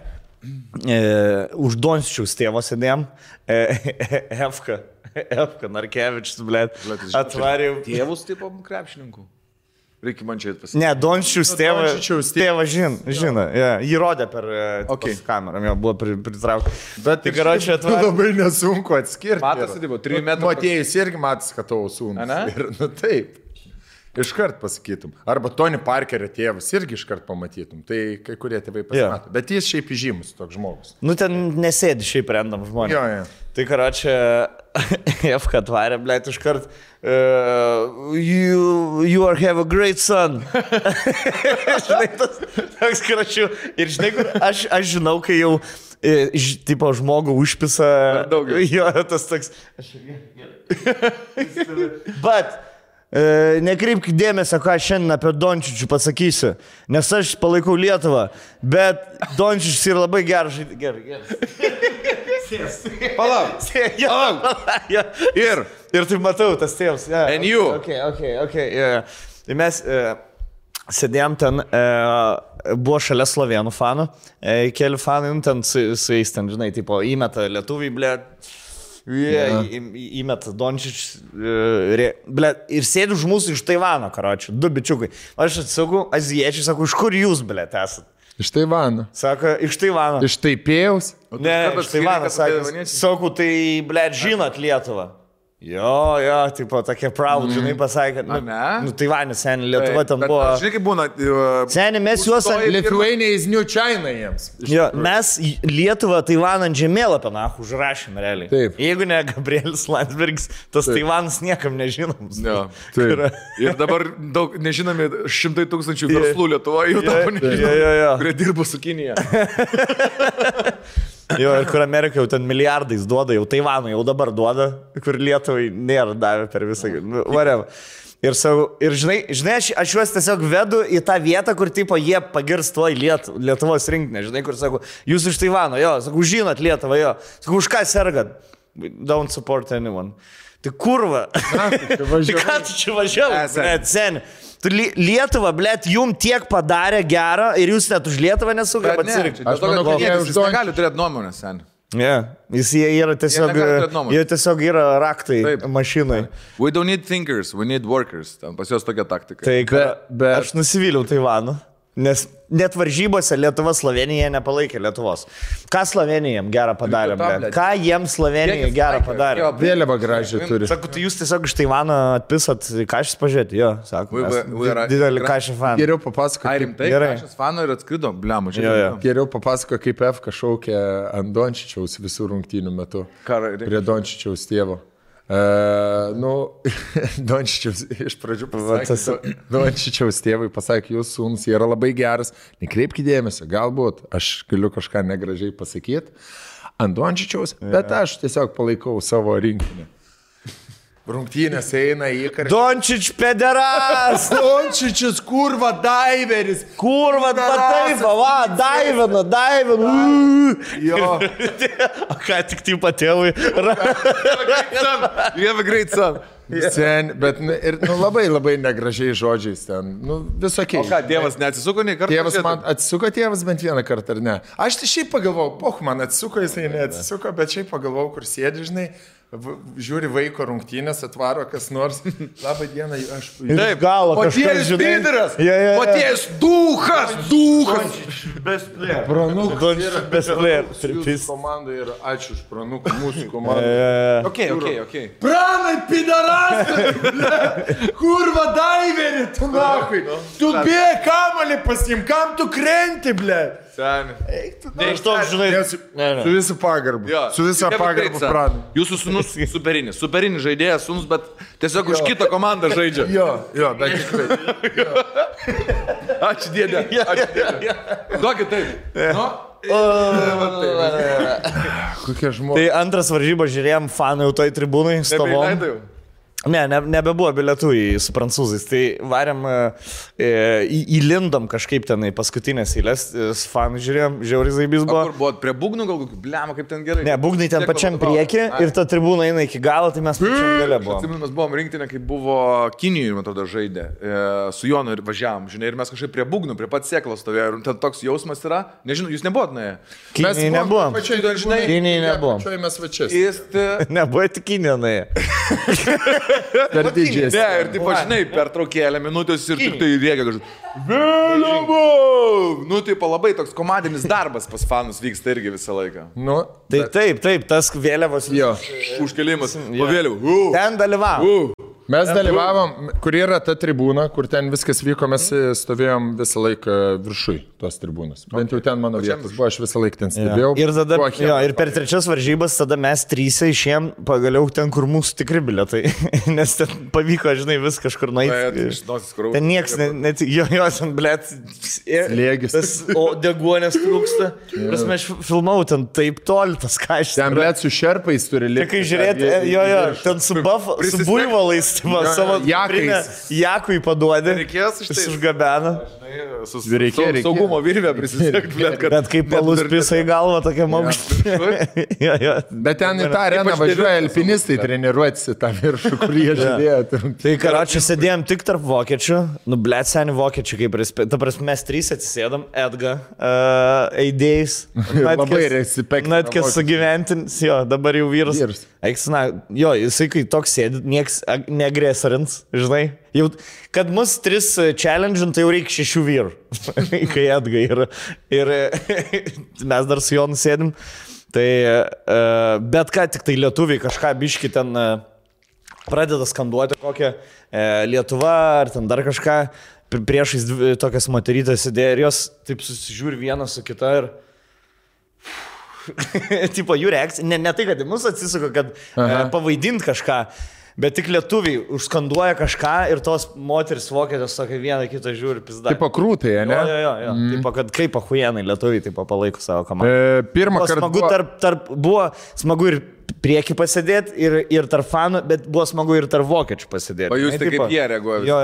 už Dončičiaus tėvo sėdėjom, Efka Narkevičius, blėt, atvarė. Tėvus, tipo, krepšininkų. Reikia man čia pasakyti. Ne, Dončičiaus tėvas žino. Jį rodė per kamerą, jo buvo pritraukti. Bet tai karočią labai nesunku atskirti. Matas, tai buvo 3 metrų. Matėjus irgi matas, kad tavo sūnus. Ir, taip. Iškart pasakytum. Arba Tony Parkerio tėvas irgi iškart pamatytum. Tai kai kurie tėvai pasimato. Bet jis šiaip įžymus toks žmogus. Nu ten nesėdi šiaip randam žmonės. Jo. Tai karočią F atvarė, blėt, iškart you have a great son. Žinai, toks karočių. Ir žinai, kur aš žinau, kai jau tipo žmogų užpisa. Jo, tas toks. But nekreipk dėmesio, ką aš šiandien apie Dončičių pasakysiu, nes aš palaikau Lietuvą, bet Dončičius yra labai geras. Gerai. Palauk. Ir tai matau, tas tėvas. And you. Okay. Tai mes sėdėjom ten, buvo šalia slovėnų fanų, keli fanai, ten su jais ten, žinai, tipo, įmeta lietuviai, blėt. Įmet Dončičius ir sėdi už mūsų iš Taivano, karočių, 2 bičiukai. Aš atsisakau, azijiečiai, sako, iš kur jūs, blėt, esat? Iš Taivano. Sako, iš Taivano. Iš Taipėjaus? Ne, iš Taivano, sakau, tai, blėt, žinot Lietuvą. Jo, tipo, tokie proud, žinai, pasakė, nu Taivanis, seniai, Lietuva ten buvo. Žinai, kaip būna. Seniai, mes juos ant... Lithuania is New China jiems. Jo, mes Lietuvą Taivaną ant žemėlapio, užrašėm realiai. Taip. Jeigu ne Gabrielis Landsbergis, tas Taivanas niekam nežinomas. Jo, taip. Ir dabar daug nežinomi 100 000 verslų Lietuvoje jau dabar nežinomi, kurie dirbo su Kinija. Jo, ir kur Amerika jau ten milijardais duoda, jau Taivanui jau dabar duoda, kur Lietuvai nėra davę per visą, whatever. Ir žinai, aš juos tiesiog vedu į tą vietą, kur tipo jie pagirs tuoj Lietuvos rinkinę, žinai, kur sako, jūs iš Taivano, jo, sako, žinot Lietuvą, jo, sako, už ką sergat? Don't support anyone. Tai kurva, tai ką tu čia važiavai, seni? Lietuva, blėt, jum tiek padarė gerą ir jūs net už Lietuvą nesugebat atsirinkti. Aš manau, kad jis negali turėti nuomonės, sen. Jie yra tiesiog yra raktai mašinai. We don't need thinkers, we need workers. Ten pas juos tokia taktika. Tai aš nusivyliau Taivanu. Nes net varžybose Lietuva Slovenija nepalaikė Lietuvos. Ką Slovenija jiems gerą padarė, blėt? Ką jiems Slovenija gerą padarė? Vėliavą gražią turi. Sako, tai jūs tiesiog iš Taivano atpisat Kašis pažiūrėti, jo, sako, didelį Kašį faną. Geriau papasako. Ai, rimtai, Kašis faną ir atskrido, bliamu, žiūrėjau. Geriau papasako, kaip F šaukė ant Dončičiaus visų rungtynių metu. Prie Dončičiaus tėvo. Dončičiaus iš pradžių pasakė, Dončičiaus tėvai pasakė, jūsų sūnus yra labai geras, nekreipkite dėmesio, galbūt aš galiu kažką negražiai pasakyti ant Dončičiaus, bet aš tiesiog palaikau savo rinkinį. Rungtynės eina į karštą. Dončič pederas! Dončičius, kurva, daiveris! Kurva, taip, va, daivina. Jo. O ką tik tai patėvui? You have a great son. Sen, bet ir labai negražiai žodžiais ten, visokiai. O ką, tėvas neatsisuko nei kartą? Tėvas man atsisuko bent vieną kartą, ar ne? Aš tai šiaip pagalvojau, man atsisuko, jisai neatsisuko, bet šiaip pagalvojau, kur sėdi, žinai. Žiūri vaiko rungtynės, atvaro kas nors. Labą dieną, aš... Taip, galo kažkas, žinai. Paties duhas. Best player. Pranuk. Best player. Jūsų komanda ir ačiū už Pranuk, mūsų komanda. Okay. Pranai, pidarastai! Kurva, daiveri, tu nakui. Tu bėg kamalį pasim, kam tu krenti, ble? Seni. Ne, iš to, žinai. Su visų pagarbu. Su visą pagarbu Pranai. Jūsų sūnus superinis žaidėjas sūnus, bet tiesiog už kitą komandą žaidžia. Jo, bet tikrai. Ačiū dėdė. Duokit taip. Kokie žmonės. Tai antras varžybos žiūrėjom, fanai jau toj tribūnai stovom. Ne, nebebuvo bilietų su prancūzais, tai varėm, įlindom kažkaip tenai paskutinės eilės, fanų žiūrėjom, žiauriai zaibys buvo. Kur buvo, prie būgnų gal kokių, bliamo, kaip ten gerai? Ne, būgnai ten pačiam priekį ir ta tribūna eina iki galo, tai mes pačiam gale buvom. Atsimenu, mes buvom rinktinė, kai buvo Kinijoje, man atrodo, žaidė, su Jonu ir važiavom, žinai, ir mes kažkaip prie būgnų, prie pat sėklos stovėjo, ir ten toks jausmas yra, nežinau, jūs nebuvot nuėję? Kinijoje nebuvom. Kinijoje nebuvom. Pačioj mes vačias. Nebuvo tik Kinijoje nuėję. Per didžiai. Ne, ir taip, žinai, per traukėlę minutės ir tik tai rėkia kažkaip. Vėliavau! Nu, taip, labai toks komandinis darbas pas fanus vyksta irgi visą laiką. Nu, taip, tas vėliavos. Jo. Užkelimas. Po vėliavų. Ten dalyvavom. Mes dalyvavom, kur yra ta tribūna, kur ten viskas vyko, mes stovėjom visą laiką viršui tos tribūnos. Bent jau ten mano vietas buvo, aš visą laiką ten stebėjau. Ir tada, ir per trečias varžybas tada mes trysia išėjom pagaliau ten, kur mūsų tikri bilietai. Nes ten pavyko, žinai, vis kažkur nueiti. Ten nieks, net jo, ten, blėt, slėgis. O deguonės trūksta. Prasme, aš filmau ten taip toli, tas kažkas. Ten, blėt, su šerpais turi likti. Kai žiūrėti, jo, ten su buivalais. Savo jakui paduodė, jis užgabena. Reikėjo saugumo virvę prisisiekti. Bet kaip palus pisa į galvą, tokia maukštė. Bet ten į tą areną važiuoja alpinistai treniruotis į tą viršų, kur jie žiūrėjo. Tai karočią sėdėjom tik tarp vokiečių, nu blėt seni vokiečių, kaip ta prasme mes trys atsisėdom, Edga, eidėjais. Labai respekt. Natkės sugyventins, jo, dabar jau vyras. Eiksina, jo, jisai kai toks sėdi, nieks neagresorins, žinai. Jau, kad mus tris challenge, tai jau reikia 6 vyrų, kai Edga yra. Ir mes dar su juo nusėdim. Tai, bet ką, tik tai lietuviai kažką biški ten pradeda skanduoti kokią Lietuva ar ten dar kažką. Priešais tokias moterytės sėdėjo ir jos taip susižiūri vieną su kita ir... tipo, jų reakcija, ne tai, kad į mus atsisuka, kad pavaidint kažką, bet tik lietuviai užskanduoja kažką ir tos moteris vokietės tokia vieną kitą žiūri pizda. Tipo krūtai, ne? Jo. Tipo, kad kaip ahuienai lietuviai tipo palaiko savo komandą. Pirmą kartą buvo smagu ir prieki pasėdėti ir tarp fanų, bet buvo smagu ir tarp vokiečių pasėdėti. O jūs tai kaip jie reaguoja? Jo,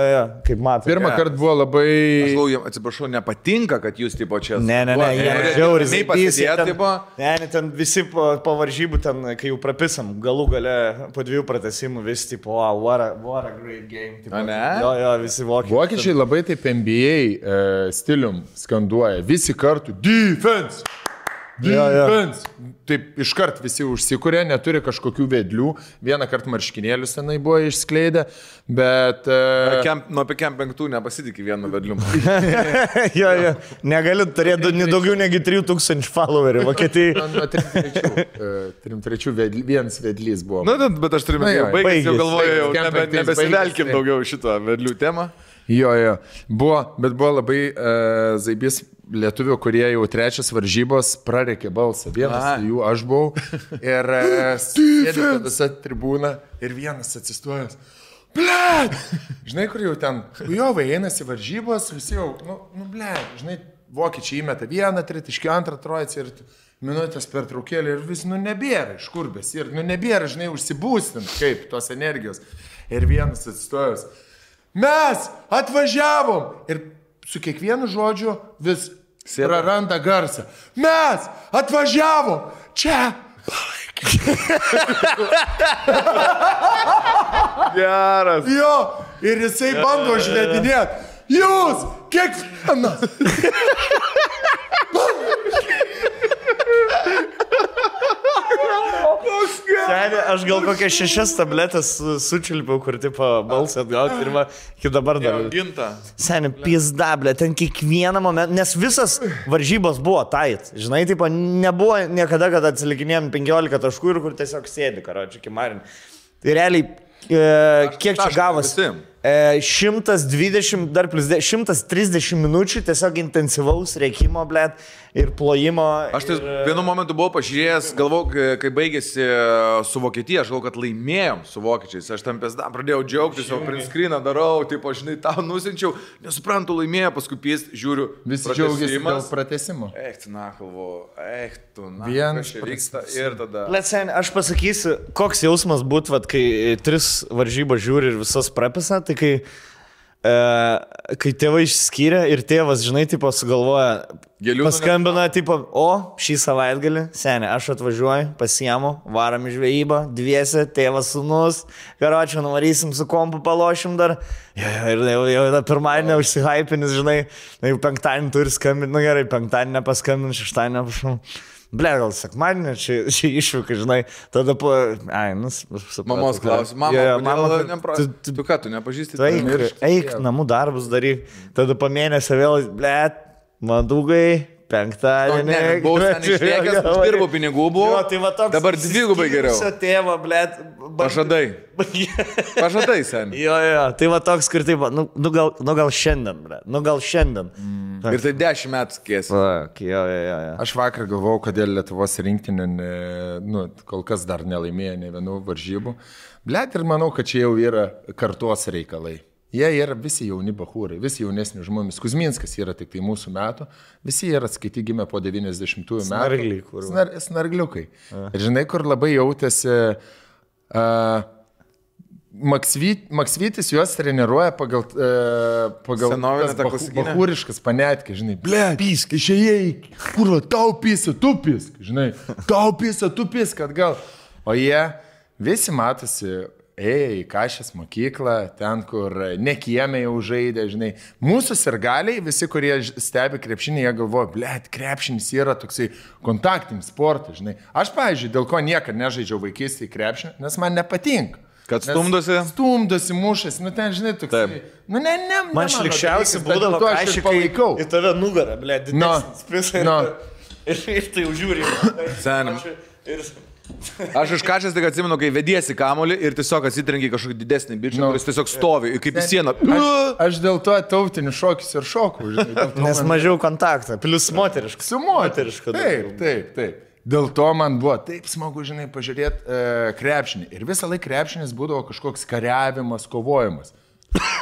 kaip matai. Pirmą kartą buvo labai... Aš galvoju, atsiprašau, nepatinka, kad jūs tipo čia... Ne, jie žiauriai. Nei pasėdėti, tipo... Ne, ten visi po varžybų, ten, kai jau prapisam, galų gale po 2 pratesimų vis tipo, what a great game. Tipo, ne? Jo, visi vokiečiai. Vokiečiai labai taip NBA stilium skanduoja. Visi kartu defense! Defense! Taip iškart visi užsikūrė, neturi kažkokių vedlių. Vieną kartą marškinėlius tenai buvo išskleidę, bet... Nuo apie Camp 5 nepasitikė vienu vedliu. Jo. Negaliu turėti daugiau negu 3000 followerių Vokietijai. Nuo 3-3 vienas vedlys buvo. Na, bet aš turiu baigęs, jau galvoju, jau nebesivelkim daugiau šitą vedlių temą. Jo. Bet buvo labai zaibys lietuvių, kurie jau 3 varžybos prarekė balsą. Vienas jų aš buvau. Ir sėdė visa tribūna ir vienas atsistojęs. Blet! Žinai, kur jau ten, jo einasi varžybos, visi jau, blet, žinai, vokiečiai įmeta vieną, tritaškį, antrą, trojacį ir minutės per traukėlį ir vis, nebėra iš kur bes. Ir, nebėra, žinai, užsibūstint, kaip tos energijos. Ir vienas atsistojęs. Mes atvažiavom! Ir su kiekvienu žodžiu vis praranda garsą. Mes atvažiavom! Čia! Geras. Jo, ir jisai bando žvedinėti. Jūs, kiekvienas. Seni, aš gal kokias 6 tabletės sučilpiau, kur tipo balsą atgauti ir iki dabar dar. Seni, pizdablė, ten kiekvieną momentą, nes visas varžybos buvo tait. Žinai, tipo, nebuvo niekada, kad atsilikinėjom 15 taškų ir kur tiesiog sėdi, karočiui, kimarin. Tai realiai, kiek čia gavosi? 120, dar plus 130 minučių tiesiog intensyvaus reikimo, blėt, ir plojimo. Aš tai vienu momentu buvau pažiūrėjęs, galvau, kai baigėsi su Vokietija, aš galvau, kad laimėjom su vokiečiais. Aš tam pradėjau džiaugtis, jau print screeną darau, taip, žinai, tau nusinčiau, nesuprantu, laimėjo, paskui žiūriu. Visi džiaugiasi dėl pratęsimo. Vienas vyksta ir tada. Letsen, aš pasakysiu, koks jausmas būtų, kai 3 varžybas žiūri ir visas prapisa, tai kai tėvai išskyrė ir tėvas, žinai, tipo sugalvoja, Paskambina, tipo, šį savaitgalį, seniai, aš atvažiuoju, pasiemu, varam į žvejybą, dviese, tėvas, sūnus, karočią, nuvarysim su kompu, palošim dar. Ir jau pirmadienį užsihypinis, žinai, jau penktadienį turi skambinti, gerai, penktadienį nepaskambinti, šeštadienį nepašau. Ble, gal sekmadienį, čia išvyka, žinai, tada po... Mamos klausim, mama, tu ką, tu nepažįsti? Tu eik, namų darbus daryk, tada po mėnesio vėl, ble, madugai, penktadienį. Ne, buvau seniai išlėkęs, uždirbau pinigų buvo, dabar dvigubai geriau. Tėvo, ble, Pažadai seniai. Jo, tai va toks, kur taip, nu gal šiandien, ble, Ir tai 10 metų skėsi. Jo. Aš vakar galvojau, kodėl Lietuvos rinktinė, kol kas dar nelaimėjo ne vienų varžybų. Blet, ir manau, kad čia jau yra kartos reikalai. Jie yra visi jauni bachūrai, visi jaunesni žmonės. Kuzminskas yra tik tai mūsų metų. Visi yra atskaiti gimę po 90-ųjų metų. Snargliukai. Ir žinai, kur labai jautėsi... Maksvytis juos treniruoja pagal bachūriškas panetkė, žinai, ble, pisk, išėjai, kurva, tau pisa, tu pisk, žinai, tau pisa, tu pisk, atgal. O jie visi matosi, ėjo į Kašės mokyklą, ten, kur ne kieme jau žaidė, žinai. Mūsų sirgaliai, visi, kurie stebi krepšinį, jie galvoja, ble, krepšinis yra toksai kontaktinis sportas, žinai. Aš, pavyzdžiui, dėl ko niekada nežaidžiau vaikystėje krepšinį, nes man nepatinka. Kad stumdosi? Stumdosi, mušasi, ten, žinai, toksai. Man šlikščiausiai būdavo, kai aš palaikau. Į tave nugarą, ble, didesnis. Ir tai užžiūrė. Senim. Aš iš Kašės tik atsimenu, kai vediesi kamolį ir tiesiog atsitrenki kažkokį didesnį bičią, kuris tiesiog stovi, kaip į sieną. Aš dėl to tautinių šokis ir šokų, žinai. Nes mažiau kontaktą, plus moterišką. Su moterišką. Taip. Dėl to man buvo taip smagu, žinai, pažiūrėti krepšinį. Ir visą laiką krepšinis būdavo kažkoks kariavimas, kovojimas.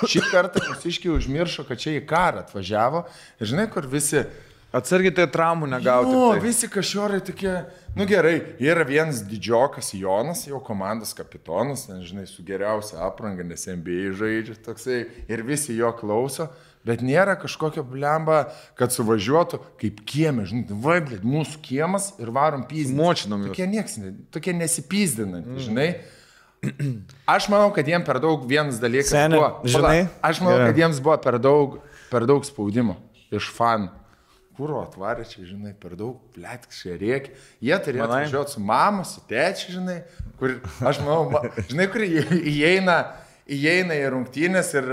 Šį kartą mūsiškiai užmiršo, kad čia į karą atvažiavo. Ir žinai, kur visi... Atsargiai tai traumų negauti. Visi kažiorai tokie, gerai, yra vienas didžiokas Jonas, jau komandos kapitonas, žinai, su geriausia apranga, nes NBA žaidžia toksai, ir visi jo klauso, bet nėra kažkokio blemba, kad suvažiuotų kaip kieme, žinai, vaiblet, mūsų kiemas ir varom pyzdinti. Močinom jūs. Tokie nesipyzdinantys, žinai. Aš manau, kad jiems per daug vienas dalykas buvo. Žinai? Aš manau, kad jiems buvo per daug spaudimo iš fanų. Kuro atvarė čia, žinai, per daug, plėtkščiai rėkia. Jie turėjo atvažiuoti su mama, su tėčiu, žinai, kur, aš manau, žinai, kur įeina į rungtynės ir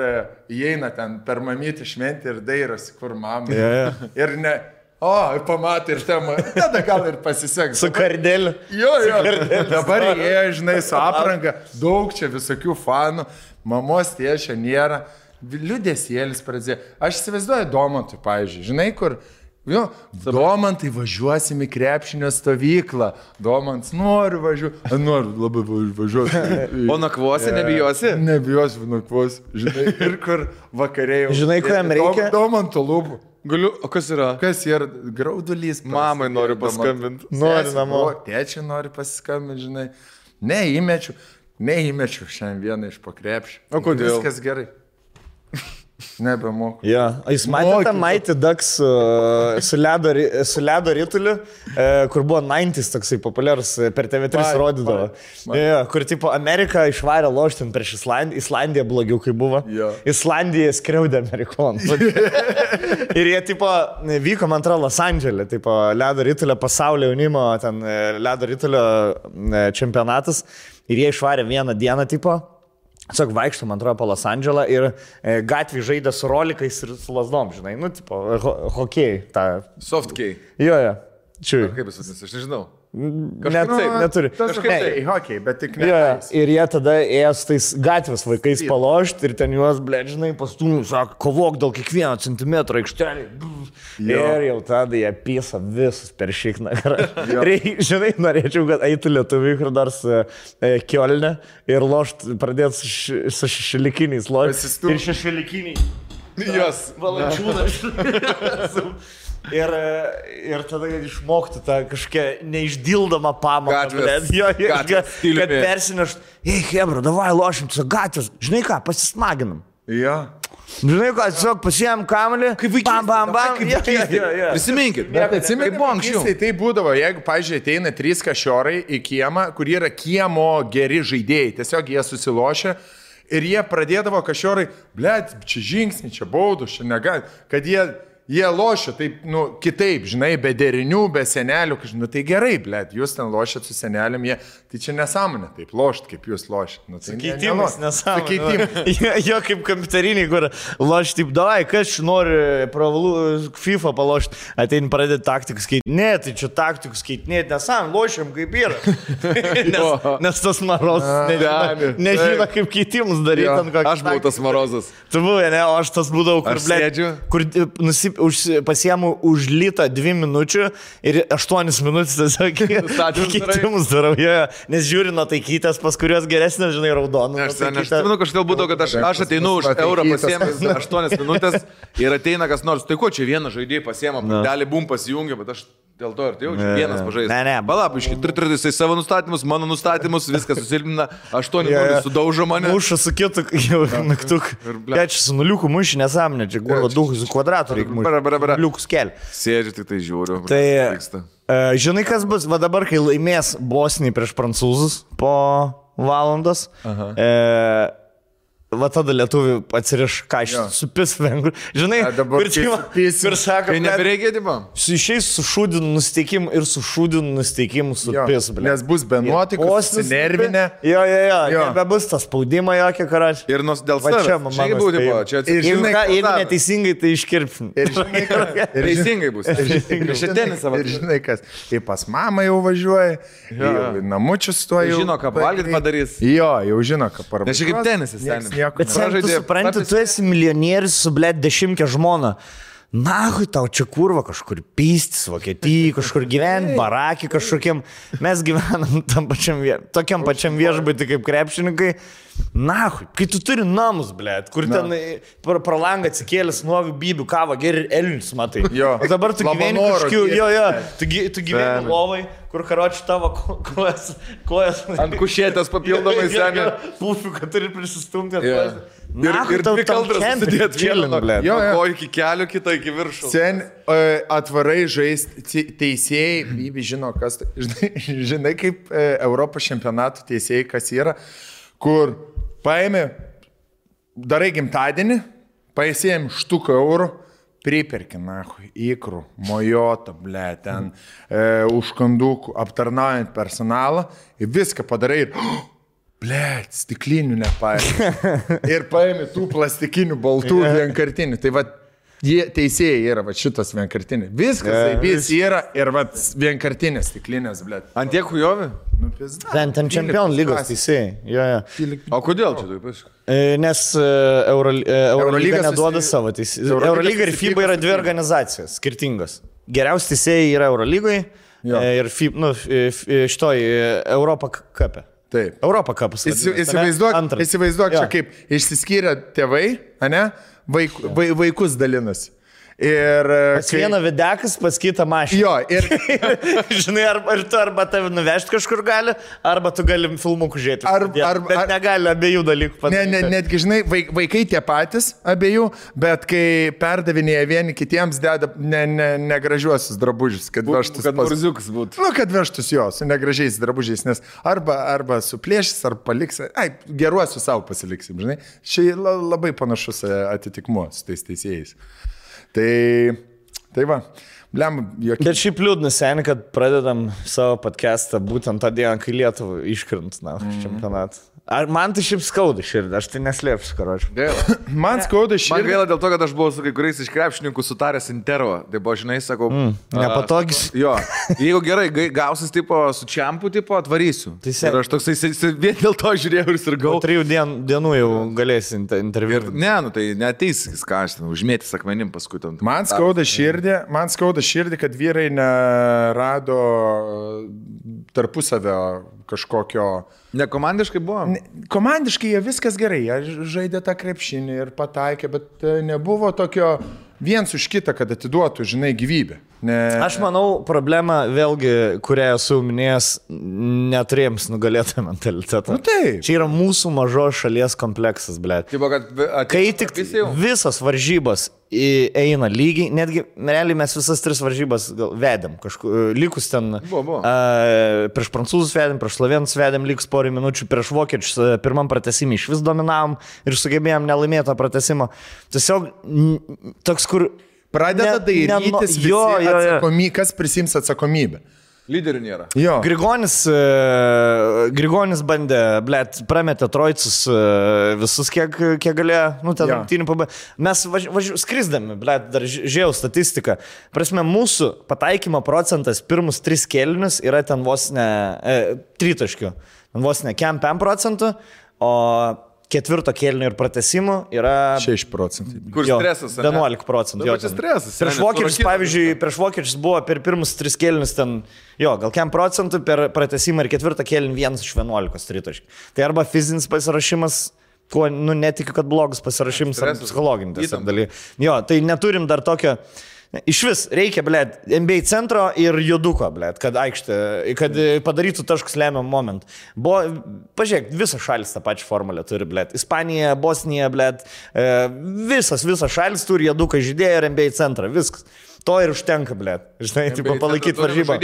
įeina ten per mamytį šventį ir dairosi, kur mama. Ir ne, pamatė ir tema, tada gal ir pasiseks. Su kardeliu. Jo, dabar įėjo, žinai, su apranga, daug čia visokių fanų, mamos tėčio nėra, liūdėsėlis pradėjo. Aš įsivaizduoju Domantui, pavyzdžiui, žinai, kur... Domantai, važiuosim į krepšinio stovyklą. Domants, noriu labai važiuoti. O nakvosi, nebijosi? Nebijosi, nakvosi. Žinai, ir kur vakarėjau. Žinai, ko jam reikia? Domanto lūpų. Galiu, o kas yra? Kas yra? Graudulys. Mamai noriu paskambinti. Noriu namo. Tėčiai nori pasiskambinti, žinai. Neįmečiu šiandien vieną iš po krepšį. O kodėl? Viskas gerai. Nebemoku. Jūs matėte Mighty Ducks su ledo rituliu, kur buvo 90s toksai populiarus, per TV3 rodydavo. Kur tipo Amerika išvarė loštin prieš Islandiją blogiau, kai buvo. Islandija skriaudė amerikonų. Ir jie tipo vyko, man atrodo, Los Andželė, tipo ledo ritulio pasaulio jaunimo, ten ledo ritulio čempionatas. Ir jie išvarė vieną dieną tipo. Tiesiog vaikštų, man atrodo, po Los Andželą ir gatvį žaidė su rolikais ir su lasdom, žinai, tipo, hokėjai. Softkei. Jo. Čiūjai. Kaip jis vadinasi, aš nežinau. Neturi. Kažkaip hockey, bet tik ne. Ir jie tada ėjo su tais gatvės vaikais palošti ir ten juos, žinai, pastumų, sako, kovok dėl kiekvieno centimetro aikštelį. Ir jau tada jie pisa visus per šikną. Žinai, norėčiau, kad eitų lietuviai, kur dar su Kielne ir lošti, pradėti su šešelikiniais lošti. Ir šešelikiniai. Jos. Valančiūnas. Ir tada išmokti tą kažkokią neišdildomą pamoką. Kad persinešt, hebra, davai lošim, gatvės, žinai ką, pasismaginam. Jo. Žinai, ką, tiesiog pasiėm kamelį, bam, bam, bam. Prisiminkit, bet atsimenu, buvo anksčiau. Tai būdavo, jeigu, pažiūrėjau, ateina 3 kašiorai į kiemą, kur yra kiemo geri žaidėjai, tiesiog jie susilošia ir jie pradėdavo kašiorai, blėt, čia žingsnį, čia baudų, čia negali, kad jie lošia taip, kitaip, žinai, be derinių, be senelių, tai gerai, blėt, jūs ten lošėt su seneliam, tai čia nesąmonė, taip lošt, kaip jūs lošėt. Tai keitimas nesąmonė. Jo kaip kompiuteriniai, kur loš taip, davai, kas nori FIFA palošti, atein pradėti taktikus keiti. Ne, tai čia taktikus keiti, nesąmonė, lošiam kaip yra. Nes tas marozas nežino, kaip keitimus daryti. Aš buvau tas marozas. Tu buvai, ne, o aš tas būdavau, kur pasiemu už litą 2 minučių ir 8 minutės tiesiog keitimus darau, nes žiūri nuo taikytės, pas kurios geresnės, žinai, raudonų. Aš kažkaip būdavau, kad aš ateinu už eurą pasiemęs 8 minutės ir ateina kas nors, tai ko čia vieną žaidėjį pasiemą, dalį bum pasijungia, bet aš dėl to ir tai jaučiu, vienas pažaidžiu. Ne. Palapiškai, jisai savo nustatymus, mano nustatymus, viskas susilpina, 8 minutės sudaužo mane. Muša su kitu, jau naktuk. Čia su nuliuku muši nesąmonė, čia gurva duhų su kvadratu reikia mušti. Nuliukus keli. Sėdžiu, tik tai žiūriu. Tai, žinai, kas bus, va dabar, kai laimės Bosnija prieš prancūzus po valandos, va tada lietuvių atsiriš kažką, supis vengrų. Žinai, kur sako, kai nebereikia, tipo? Išeis su šūdinu nusteikimu ir su šūdinu nusteikimu supis. Nes bus be nuotikos, nervinė. Jo, nebebus tas spaudimo jokio karačių. Ir dėl savęs. Jeigu neteisingai, tai iškirpsim. Teisingai bus. Ir žinai kas, kai pas mamą jau važiuoja, namučius tuo jau. Žino, ką valgyt padarys. Jo, jau žino, ką parvažiuoja. Nes čia kaip tenisas ten. Bet sen, tu supranti, tu esi milijonierius su, blėt, 10 žmona. Nahui, tau čia kurva kažkur pystis, Vokietijai, kažkur gyventi, barakį kažkokiam. Mes gyvenam tokiam pačiam viešbutį kaip krepšininkai. Nahui, kai tu turi namus, blėt, kur ten pro langą atsikėlęs nuovių bybių kavą, geri elnius, matai. O dabar tu gyveni kažkiu, tu gyveni lovai, kur karoči tavo kojas. Ant kušėtės papildomai seniai. Pufiu, kad turi prisistumti. Ir 2 kaldras susidėt vieną, blėt. Ko iki kelių, kitą iki viršų. Sen atvarai žaisti teisėjai, bybi žino, kas tai. Žinai, kaip Europos čempionatų teisėjai, kas yra. Kur paėmė, darai gimtadienį, paėsėjom štuką eurų, priperki, nahui, įkrų, mojotą, ble, ten, užkandukų, aptarnaujant personalą, ir viską padarai ir, ble, stiklinių nepaėmė. Ir paėmė tų plastikinių baltų vienkartinių. Tai va, jie teisėjai yra va šitas vienkartinis. Viskas, vis yra ir va vienkartinės stiklinės, ble. Ant tiek hujovi? Ten čempionų lygos teisėjai. O kodėl čia taip? Nes Eurolyga neduoda savo teisėjų. Eurolyga ir FIBA yra 2 organizacijos skirtingos. Geriausi teisėjai yra Eurolygoje ir šitoj Europa Cup. Taip. Europa Cup. Įsivaizduok čia kaip išsiskyrė tėvai, ane? Vaikus dalinasi. Ir pas vieną videkas, pas kitą mašiną. Jo, ir žinai, arba tave nuvežti kažkur gali, arba tu gali filmukų žiūrėti. Bet negali abiejų dalykų padaryti. Netgi, žinai, vaikai tie patys abiejų, bet kai perdavinėja vieni kitiems, deda negražiuosius drabužius, kad vežtus. Kad murziukas būtų. Kad vežtus jo, su negražiais drabužiais, nes arba suplėšys, arba paliks. Geruosius savo pasiliksim, žinai. Čia labai panašus atitikmuo su tais teisėjais. Tai va, blem, jokie. Bet šiaip liūdna seniai, kad pradedam savo podcastą būtent tą dieną, kai Lietuva iškrint čempionatą. Ar man tai šiaip skauda širdį, aš tai neslėpsiu, karočiu. Man skauda širdį. Man gaila dėl to, kad aš buvau su kai kuriais iš krepšininkų sutaręs intervą. Tai buvo, žinai, sakau... nepatogis. Jo, jeigu gerai gausis tipo su čempu, tipo atvarysiu. Ir aš toksai vien dėl to žiūrėjau ir sirgau. 3 dienų jau galėsi interviu. Ne, tai neateis, ką aš ten, užmėtis akmenim paskui tam. Man skauda širdį, kad vyrai nerado tarpusavio kažkokio... Ne komandiškai buvo? Komandiškai jie viskas gerai, jie žaidė tą krepšinį ir pataikė, bet nebuvo tokio viens už kitą, kad atiduotų, žinai, gyvybę. Aš manau, problema vėlgi, kurią esu minėjęs, neturėjams nugalėtą mentalitetą. Nu, taip. Čia yra mūsų mažos šalies kompleksas, blėt. Kai tik visas varžybos eina lygiai, netgi realiai mes visas 3 varžybas vedėm, likus ten prieš prancūzus vedėm, prieš slovėnus vedėm, likus porą minučių, prieš vokiečius pirmam pratesimį iš vis dominavom ir sugebėjom nelaimėtą pratesimą. Tiesiog toks, kur pradeda dairytis visi, kas prisims atsakomybę. Lyderių nėra. Jo. Grigonis bandė, blėt, prametė trojcus visus, kiek galėjo, ten rungtynių pabaigė. Mes skrisdami, blėt, dar žiūrėjau statistiką. Prasme, mūsų pataikymo procentas pirmus 3 kėlinius yra ten vos ne 3, vos ne 5%, o 4 kėlinio ir pratesimų yra 6%. Kur stresas? 11%. Jo, čia stresas. Prieš vokiečius, pavyzdžiui, prieš vokiečius buvo per pirmus 3 kėlinius ten, gal 5%, per pratesimą ir 4 kėlinį 1 iš 11 tritaškių. Tai arba fizinis pasirašymas, kuo, netikiu, kad blogas pasirašymas, ar psichologinis dalykas. Jo, tai neturim dar tokio. Iš vis reikia, blėt, NBA centro ir juduko, blėt, kad padarytų taškus lemiamą momentą. Pažiūrėk, visas šalis tą pačią formulę turi, blėt. Ispanija, Bosnija, blėt, visas šalis turi juduką žaidėją ir NBA centrą, viskas. To ir užtenka, blėt. Žinai, tipo palaikyti varžybą.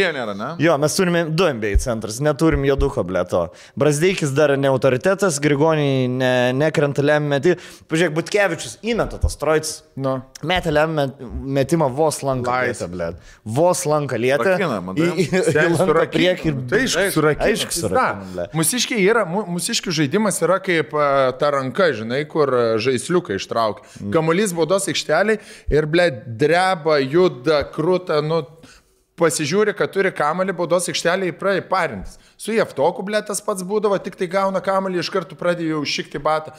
Jo, mes turime 2 NBA centras, neturim juduko, blėt, to. Brazdėkis dar ne autoritetas, Grigoniai nekrenta lemiamą metimą. Pažiūrėk, Butkevičius įmeta tas trojcis. Metė lemiamą metimą vos lanką lietę, blėt. Vos lanką lietę. Lanką priekį. Tai aišku, surakina. Mūsiškių žaidimas yra kaip ta ranka, žinai, kur žaisliukai ištraukia. Kamuolys baudos aikšteliai ir, blėt, dreba, juda, krūta, pasižiūri, kad turi kamalį, baudos aikštelį įpradė parintis. Su Jeftoku, blė, tas pats būdavo, tik tai gauna kamalį, iš karto pradėjo šikti batą.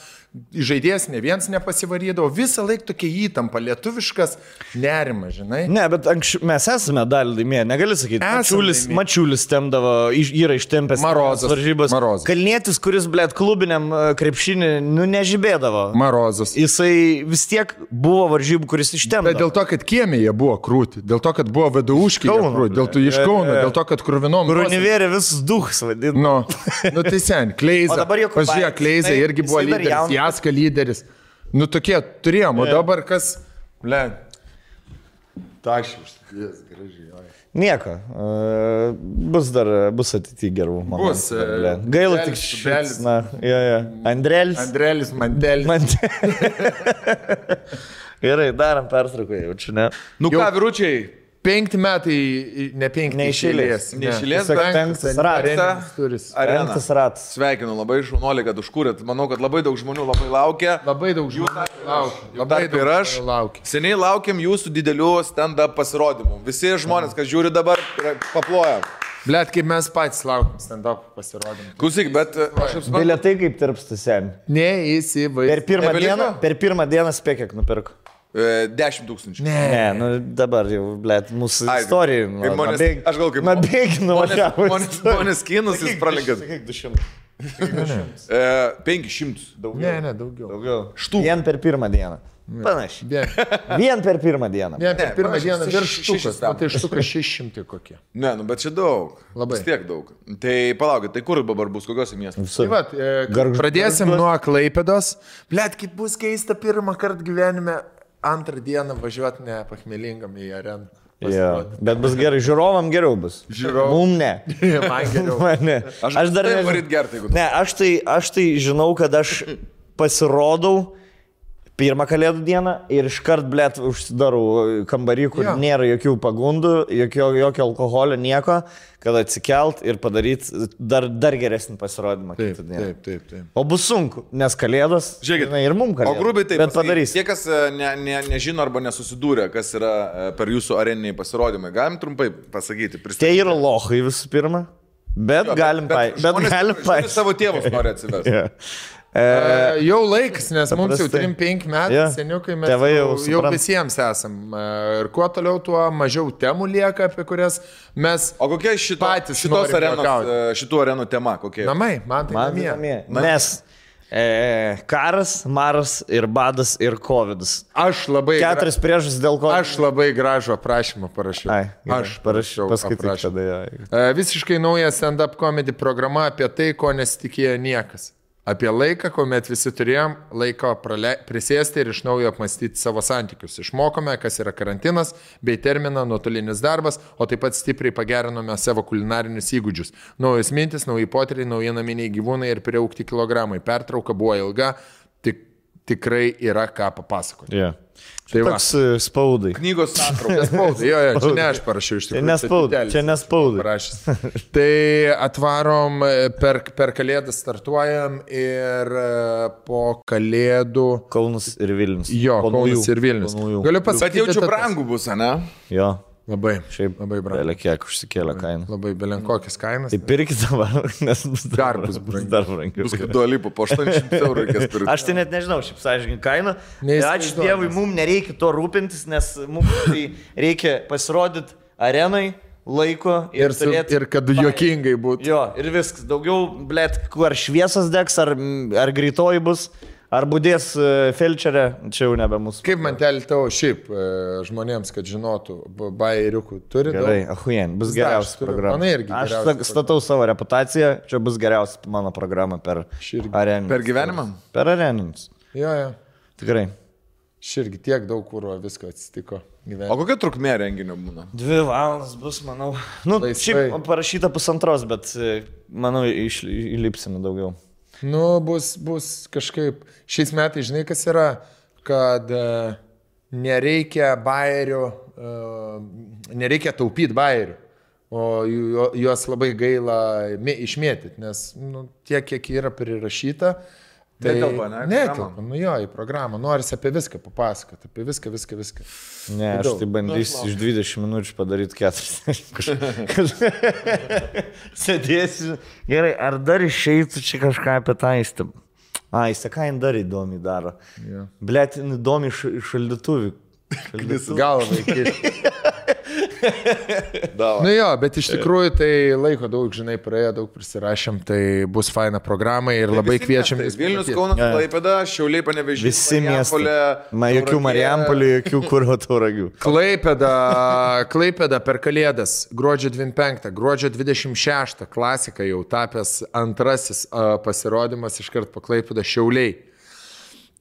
Žaidėjas ne vienas nepasivarydavo, visą laiką tokia įtampa, lietuviškas nerimas, žinai. Ne, bet mes esame dalį laimėję, negali sakyti. Mačiulis temdavo, yra ištempęs varžybas. Kalnietis, kuris, blė, klubiniam krepšinį, nežibėdavo. Marozas. Jisai vis tiek buvo varžybų, kuris ištempdavo. Bet dėl to, kad kiemėje buvo krūti, dėl to, kad buvo VDU-škiai krūti, dėl to iš Kauno, dėl to, kad kruvinom. Grunivėrė visus duhus. Nu, tai sen, Kleiza, pažiūrėk, Kleiza irgi buvo lyderis, Jaska lyderis. Nu, tokie turėjom, o dabar kas, ble, tašius, gražiai. Nieko, bus ateityje gerų momentų. Gaila tik švelis. Andrelis, Mandelis. Gerai, darom pertrauką, jaučiu, ne? Nu ką, vyručiai? 5 metai, ne 5, neišėlės, penktas ratas. Sveikinu, labai šaunuolį, kad užkūrėt. Manau, kad labai daug žmonių labai laukia. Labai daug žmonių laukia. Seniai laukiam jūsų didelių stand-up pasirodymų. Visi žmonės, kas žiūri dabar, paploja. Blet, kaip mes patys laukiam stand-up pasirodymų. Klausyk, bet aš apsiprantu. Bilietai kaip tirpsta sen. Neįsivaizduoju. Per pirmą dieną spėk, kiek nupirko. 10 000. Ne, dabar jau, blėt, mūsų istorijų. Aš gal kaip... Nabėginu, Žmonės kinus jūs pralenkėt. Kiek 200? 500. Daugiau. Ne, daugiau. Štų. Vien per pirmą dieną. Panašiai. Vien per pirmą dieną. Vien per pirmą dieną virš štukas. Tai štukas 600 kokie. Ne, bet čia daug. Labai. Vis tiek daug. Tai palaukit, tai kur dabar bus, kokiuose miestuose? Pradėsim nuo Klaipėdos. Blet, kaip bus keista pirmą kartą gyvenime. Antrą dieną važiuoti ne pachmelingam į areną. Bet bus gerai, žiūrovam geriau bus. Mum ne. Man geriau. Ne. Aš dar nevaryt gerti, jeigu. Ne, aš tai žinau, kad aš pasirodau pirmą kalėdų dieną ir iškart, blėt, užsidarau kambarį, kur nėra jokių pagundų, jokio alkoholio, nieko, kad atsikelt ir padaryti dar geresnį pasirodymą. Taip. O bus sunku, nes kalėdos, žiūrėkit, ir mums kalėdos. O grubiai taip, bet padarys. Tie, kas nežino arba nesusidūrė, kas yra per jūsų areniniai pasirodymai, galim trumpai pasakyti, pristatyti. Tai yra lochai visų pirma, bet galim paaiškinti. Savo tėvus nori atsivesti. Jau laiks, nes mums jau 3-5 metai, seniukai mes jau visiems esam. Ir kuo toliau, tuo mažiau temų lieka, apie kurias mes patys šitų arenų tema. Kokie? Namai, man tai namie. Nes Karas, maras ir badas ir covidas. Aš labai... 4 priežastis dėl ko... Aš labai gražų aprašymą parašiau. Aš parašiau aprašymą. Visiškai nauja stand-up comedy programa apie tai, ko nesitikėjo niekas. Apie laiką, kuomet visi turėjom laiko prisėsti ir iš naujo apmastyti savo santykius. Išmokome, kas yra karantinas, bei terminą nuotolinis darbas, o taip pat stipriai pagerinome savo kulinarinius įgūdžius. Naujos mintis, nauji potyriai, nauji naminiai gyvūnai ir priaugti kilogramai. Pertrauka buvo ilga, tikrai yra ką papasakoti. Yeah. Tai toks spaudai. Knygos santrauka. Spaudai, jo, čia ne aš parašiau iš tikrųjų. Čia nespaudai. Tai atvarom, per Kalėdas startuojam ir po Kalėdų... Kaunas ir Vilnius. Jo, Kaunas ir Vilnius. Galiu pasakyti, kad jaučiu brangų bus, ne? Jo. Labai. Šiaip labai brangu. Belė kiek užsikėlė kainą. Labai belenkokias kainas. Tai pirkit dabar, nes bus dar brangiau. Bus kaip duolipų, po 800 eurų reikės pirkti. Aš tai net nežinau, šiaip sąžininkai kainą. Ačiū Dievui, mums nereikia to rūpintis, nes mums tai reikia pasirodyti arenai, laiko ir turėti... Ir kad juokingai būtų. Jo, ir viskas. Daugiau, blėt, ar šviesas degs, ar greitoji bus. Ar būdės felčerė, čia jau nebe mūsų. Kaip mantelį tavo šiaip žmonėms, kad žinotų, bairiukų turi? Gerai, ahujen, bus geriausia programa. Aš statau savo reputaciją, čia bus geriausia mano programa per areninus. Per gyvenimą? Per areninus. Jo. Tikrai. Širgi tiek daug kūro visko atsitiko gyvenime. O kokia trukmė renginio būna? 2 valandas bus, manau. Nu, šiaip parašyta 1,5, bet manau, įlipsime daugiau. Nu, bus kažkaip, šiais metais, žinai, kas yra, kad nereikia bairių, nereikia taupyti bairių, o juos labai gaila išmėtyti, nes tiek, kiek yra prirašyta, tai netelpa, jo, į programą, norisi apie viską papasakoti, apie viską. Ne, aš tai bandysiu iš 20 minučių padaryti 40. Sėdėsiu. Gerai, ar dar išeitų čia kažką apie tą įstabą? Jis ką jin dar įdomiai daro. Yeah. Blet, įdomi šaldytuvį. Galvą įkišti. Nu jo, bet iš tikrųjų tai laiko daug, žinai, praėjo, daug prisirašėm, tai bus faina programa ir labai kviečiam. Vilnius, Kaunas, Klaipėda, Šiauliai, Panevėžys. Visi miestai. Jokių Marijampolį, jokių Kurvo Tauragių. Klaipėda per Kalėdas, gruodžio 25, gruodžio 26, klasika jau tapęs antrasis pasirodymas iškart po Klaipėdą Šiauliai.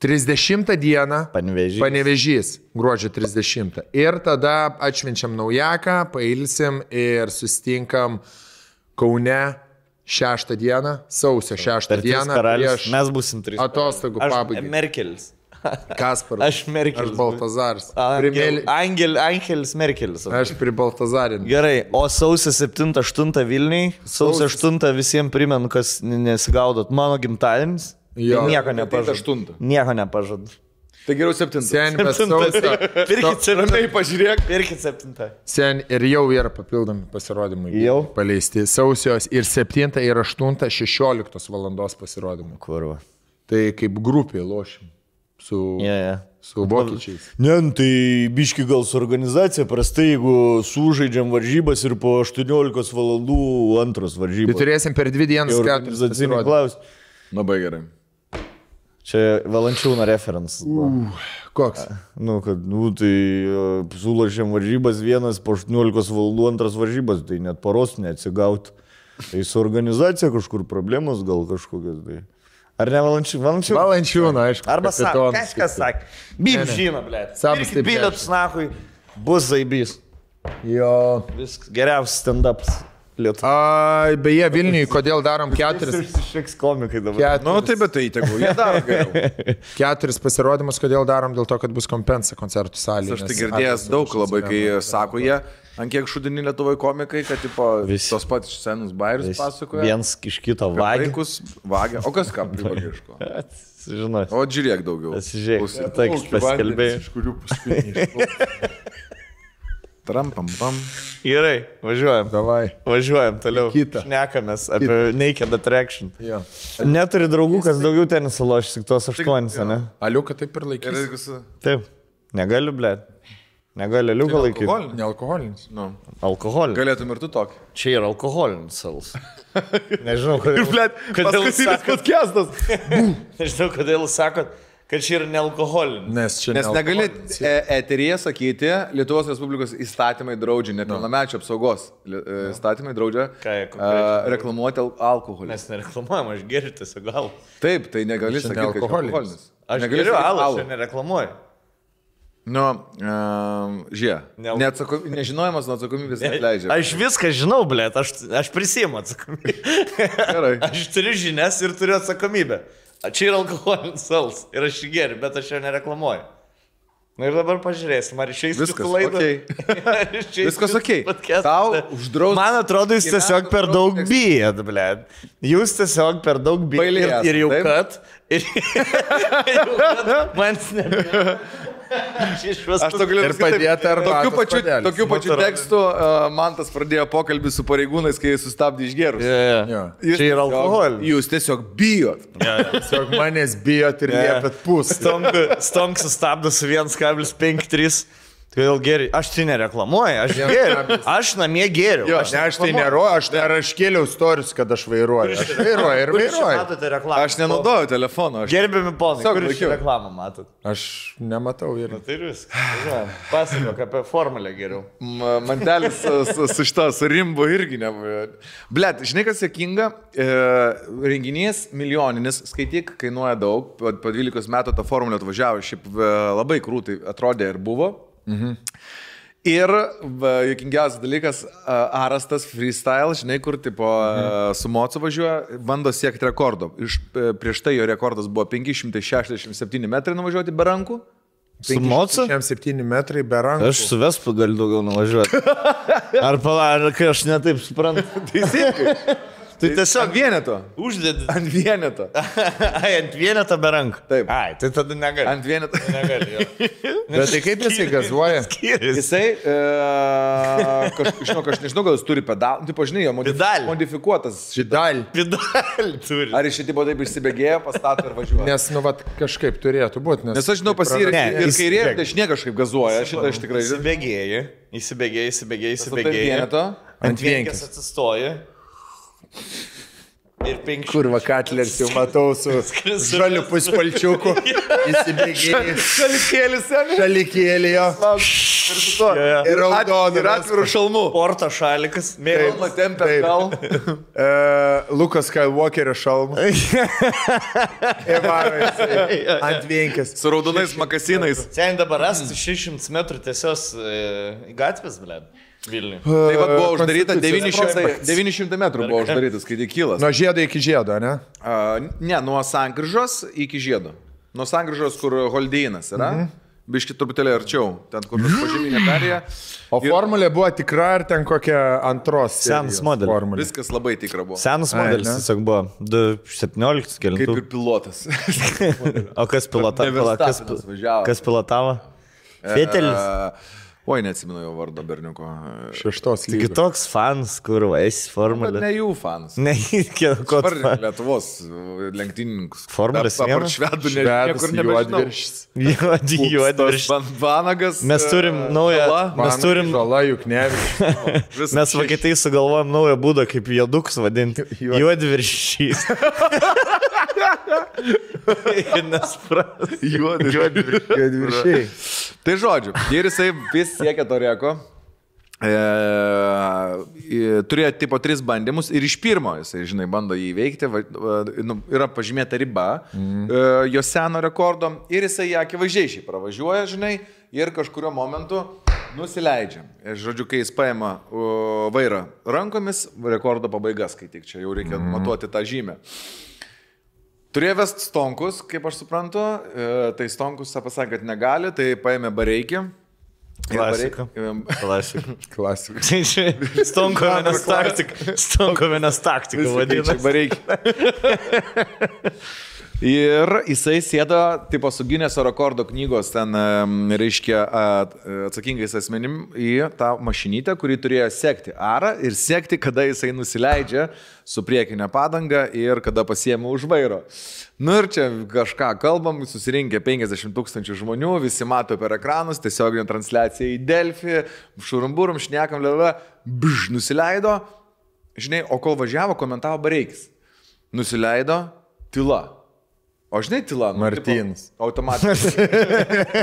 30 dieną Panevėžys, gruodžio 30. Ir tada atšvenčiam naujaką, pailsim ir susitinkam Kaune 6 dieną, sausio 6 dieną. Mes būsim 3. Atostogų pabaigai. Merkelis. Kasparas. Aš Merkelis. Aš Baltazaras. Angelis Merkelis. Aš prie Baltazarin. Gerai, o sausio 7-8 Vilniui, sausio 8 visiems primenu, kas nesigaudot, mano gimtadienis. Tai nieko nepažadu. Nieko nepažadu. Tai geriau 7. Pirkit 7. Pažiūrėk. Pirkit 7. Sen ir jau yra papildomi pasirodymai. Jau paleisti. Sausijos ir 7 ir 8 16 valandos pasirodymai. Kurva. Tai kaip grupė lošim. Su vokiečiais. Ne, tai biški gal su organizacija, prastai, jeigu sužaidžiam varžybas ir po 18 valandų antros varžybos. Tai turėsim per 2 dienas 4 pasirodymus. Labai gerai. Čia Valančiūno referencas. Koks? Tai sulošėm varžybas vienas po 18 valandų antras varžybas, tai net paros neatsigaut. Tai su organizacija kažkur problemos gal kažkokios. Tai. Ar ne Valančiūno? Valančiūno, aišku. Arba kažkas sakė. Bim žino, blėt. Pirkit bilietus, nahui, bus zaibys. Jo. Viskas, geriausias stand-ups. Beje, Vilniui, kodėl darom 4? Išliks komikai dabar. Bet tai tegu, jie daro geriau. 4 pasirodymus, kodėl darom, dėl to, kad bus kompensa koncertų salėje. Aš tai girdėjęs daug labai, kai sako jie, ant kiek šudini Lietuvoje komikai, kad tos pat senus bairius pasakoja. Vienas iš kito vagia. O kas ką privagiško? Žinai. O žiūrėk daugiau. Pasižiūrėk, tai paskelbėjai. Iš kurių paskutiniai. Trampam. Gerai, važiuojam. Davai. Važiuojam toliau. Šnekamės apie Naked Attraction. Neturi draugų, kas daugiau tenisą lošys, tik tos 8, ne? Aliuka taip ir laikys. Taip, negaliu, blėt. Negali liuką laikyti. Nealkoholinis. Nu. Alkoholinis. Galėtum ir tu tokį. Čia yra alkoholinis alus. Nežinau, kodėl. Kodėl sakot podcastas? Nežinau, kodėl sakot, kad čia yra nealkoholinis. Nes negali eteryje sakyti, Lietuvos Respublikos įstatymai draudžia, nepilnamečio apsaugos įstatymai draudžia reklamuoti alkoholį. Mes nereklamuojam, aš geriu tiesiog gal. Taip, tai negali sakyti, kad alkoholinis. Aš geriu alų, aš nereklamuoju. Nu, nežinojimas nuo atsakomybės neatleidžia. Aš viską žinau, blėt, aš prisiimu atsakomybę. Gerai. Aš turiu žinias ir turiu atsakomybę. Čia yra alkoholinis alus ir aš jį geriu, bet aš jo nereklamuoju. Na ir dabar pažiūrėsim, ar išeis viskas laidą. Okay. Viskas ok. Tau uždraus. Man atrodo, jūs tiesiog per daug bijat, blėt. Jūs tiesiog per daug bijat ir jau kad. Man nebijat. Aš to galiu pasakyti. Tokiu pačiu tekstu Mantas pradėjo pokalbį su pareigūnais, kai jis sustabdė išgerus. Čia yra alkoholis. Jūs tiesiog bijot. Tiesiog manęs bijot ir liepėt pūs. Stonk sustabdo su 1,53. Kodėl geriu? Aš tai nereklamuoju, aš geriu. Aš namie geriu. Aš tai neroju, aš kėliau storius, kad aš vairuoju. Aš vairuoju ir vairuoju. Aš nenaudoju telefono. Gerbiami ponai, kur iš reklamą matot? Aš nematau ir. Tai viskas. Pasakok apie formulę geriau. Mantelis su šito, su rimbu irgi nebuvo. Blet, žinai kas juokinga? Renginys milijoninis, skaityk, kainuoja daug. Po 12 metų tą formulę atvažiavo, šiaip labai krūtai atrodė ir buvo. Ir juokingiausias dalykas, Arastas freestyle, žinai, kur tipo su Mocu važiuoja, bando siekti rekordo. Prieš tai jo rekordas buvo 567 metrai nuvažiuoti be rankų. Su Mocu? 7 metrai be rankų. Aš su Vespu galiu daugiau nuvažiuoti. Ar kai aš netaip suprantu. Teisingai. Tai tiesiog ant vieneto. Uždėdi. Ant vieneto. Ant vieneto be rankų. Taip. Ai, tai tada negali. Ant vieneto. Negali, jo. Bet tai kaip jisai gazuoja? Jisai, aš nežinau, gal jis turi pedalą. Taip, žinai, jo modifikuotas. Pedalį turi. Ar iš šitimo taip išsibėgėjo, pastato ir važiuoja? Nes, nu, vat, kažkaip turėtų būti. Nes aš žinau, pasirinkti ir kairė, ir dešinė kažkaip gazuoja. Šitą aš tikrai žinau. Įsibėgėji. Ant vienkės atsistoji. Ir 5. Kurva Katlers jau matau su žaliu puspalčiuku. Įsibėgėjai. Šalikėlį jo. Ir raudonų. Ir atvirų šalmų. Porto šalikas. Mėlama tempė gal. Lukas Skywalkerio šalmų. Ant vienkės. Su raudonais makasinais. Sen dabar rasti 600 metrų tiesios gatvės, blėd. Vilniui. Tai va buvo uždaryta 900 metrų buvo uždarytas, kai kylas. Nuo žiedo iki žiedo, ne? Ne, nuo sankryžos iki žiedo. Nuo sankryžos, kur Holdeinas yra. Biški truputėlį arčiau, ten kur pažeminė perėja. O formulė buvo tikra ar ten kokia antros? Senas modelis. Viskas labai tikra buvo. Senas modelis tiesiog buvo 2017 kelintų. Kaip ir pilotas. O kas pilotavo? Kas pilotavo? Fetelis? Oi, neatsimenu jo vardo berniuko. 6 lygos. Taigi toks fans, kur esi formulė. Ne jų fans. Ne, ko tu. Lietuvos lenktynininkus. Formulės apart švedų, niekur nebežinau. Juodviršis. Vanagas. Mes turim naują. Žala, Juknevičius. Mes Vokietijai sugalvojom naują būdą, kaip jodukus vadinti. Juodviršys. Juodviršiai. Tai žodžiu, ir jisai vis siekia to reko. Turėjo tipo 3 bandymus ir iš pirmo jisai, žinai, bando jį įveikti. Yra pažymėta riba jo seno rekordo ir jisai ją akivaizdžiai šiai pravažiuoja, žinai, ir kažkurio momentu nusileidžia. Ir, žodžiu, kai jis paima vairą rankomis, rekordo pabaigas, kai tik čia jau reikia matuoti tą žymę. Turėjo vest Stonkus, kaip aš suprantu, tai Stonkus pasakė, kad negali, tai paėmė Bareikį. Klasika. Klasika. Stonkovinas taktika vadina. Bareikį. Ir jisai sėdo, tipo, su Gineso rekordo knygos ten, reiškia, atsakingais asmenim į tą mašinytę, kuri turėjo sekti arą ir sekti, kada jisai nusileidžia su priekinė padanga ir kada pasiėmė už vairo. Nu ir čia kažką kalbam, susirinkė 50 000 žmonių, visi mato per ekranus, tiesioginė transliacija į Delfį, šurumburum, šnekam, nusileido, žinai, o kol važiavo, komentavo Bareikis. Nusileido, tyla. O žinai, tyla, Martynas. Automatiškai.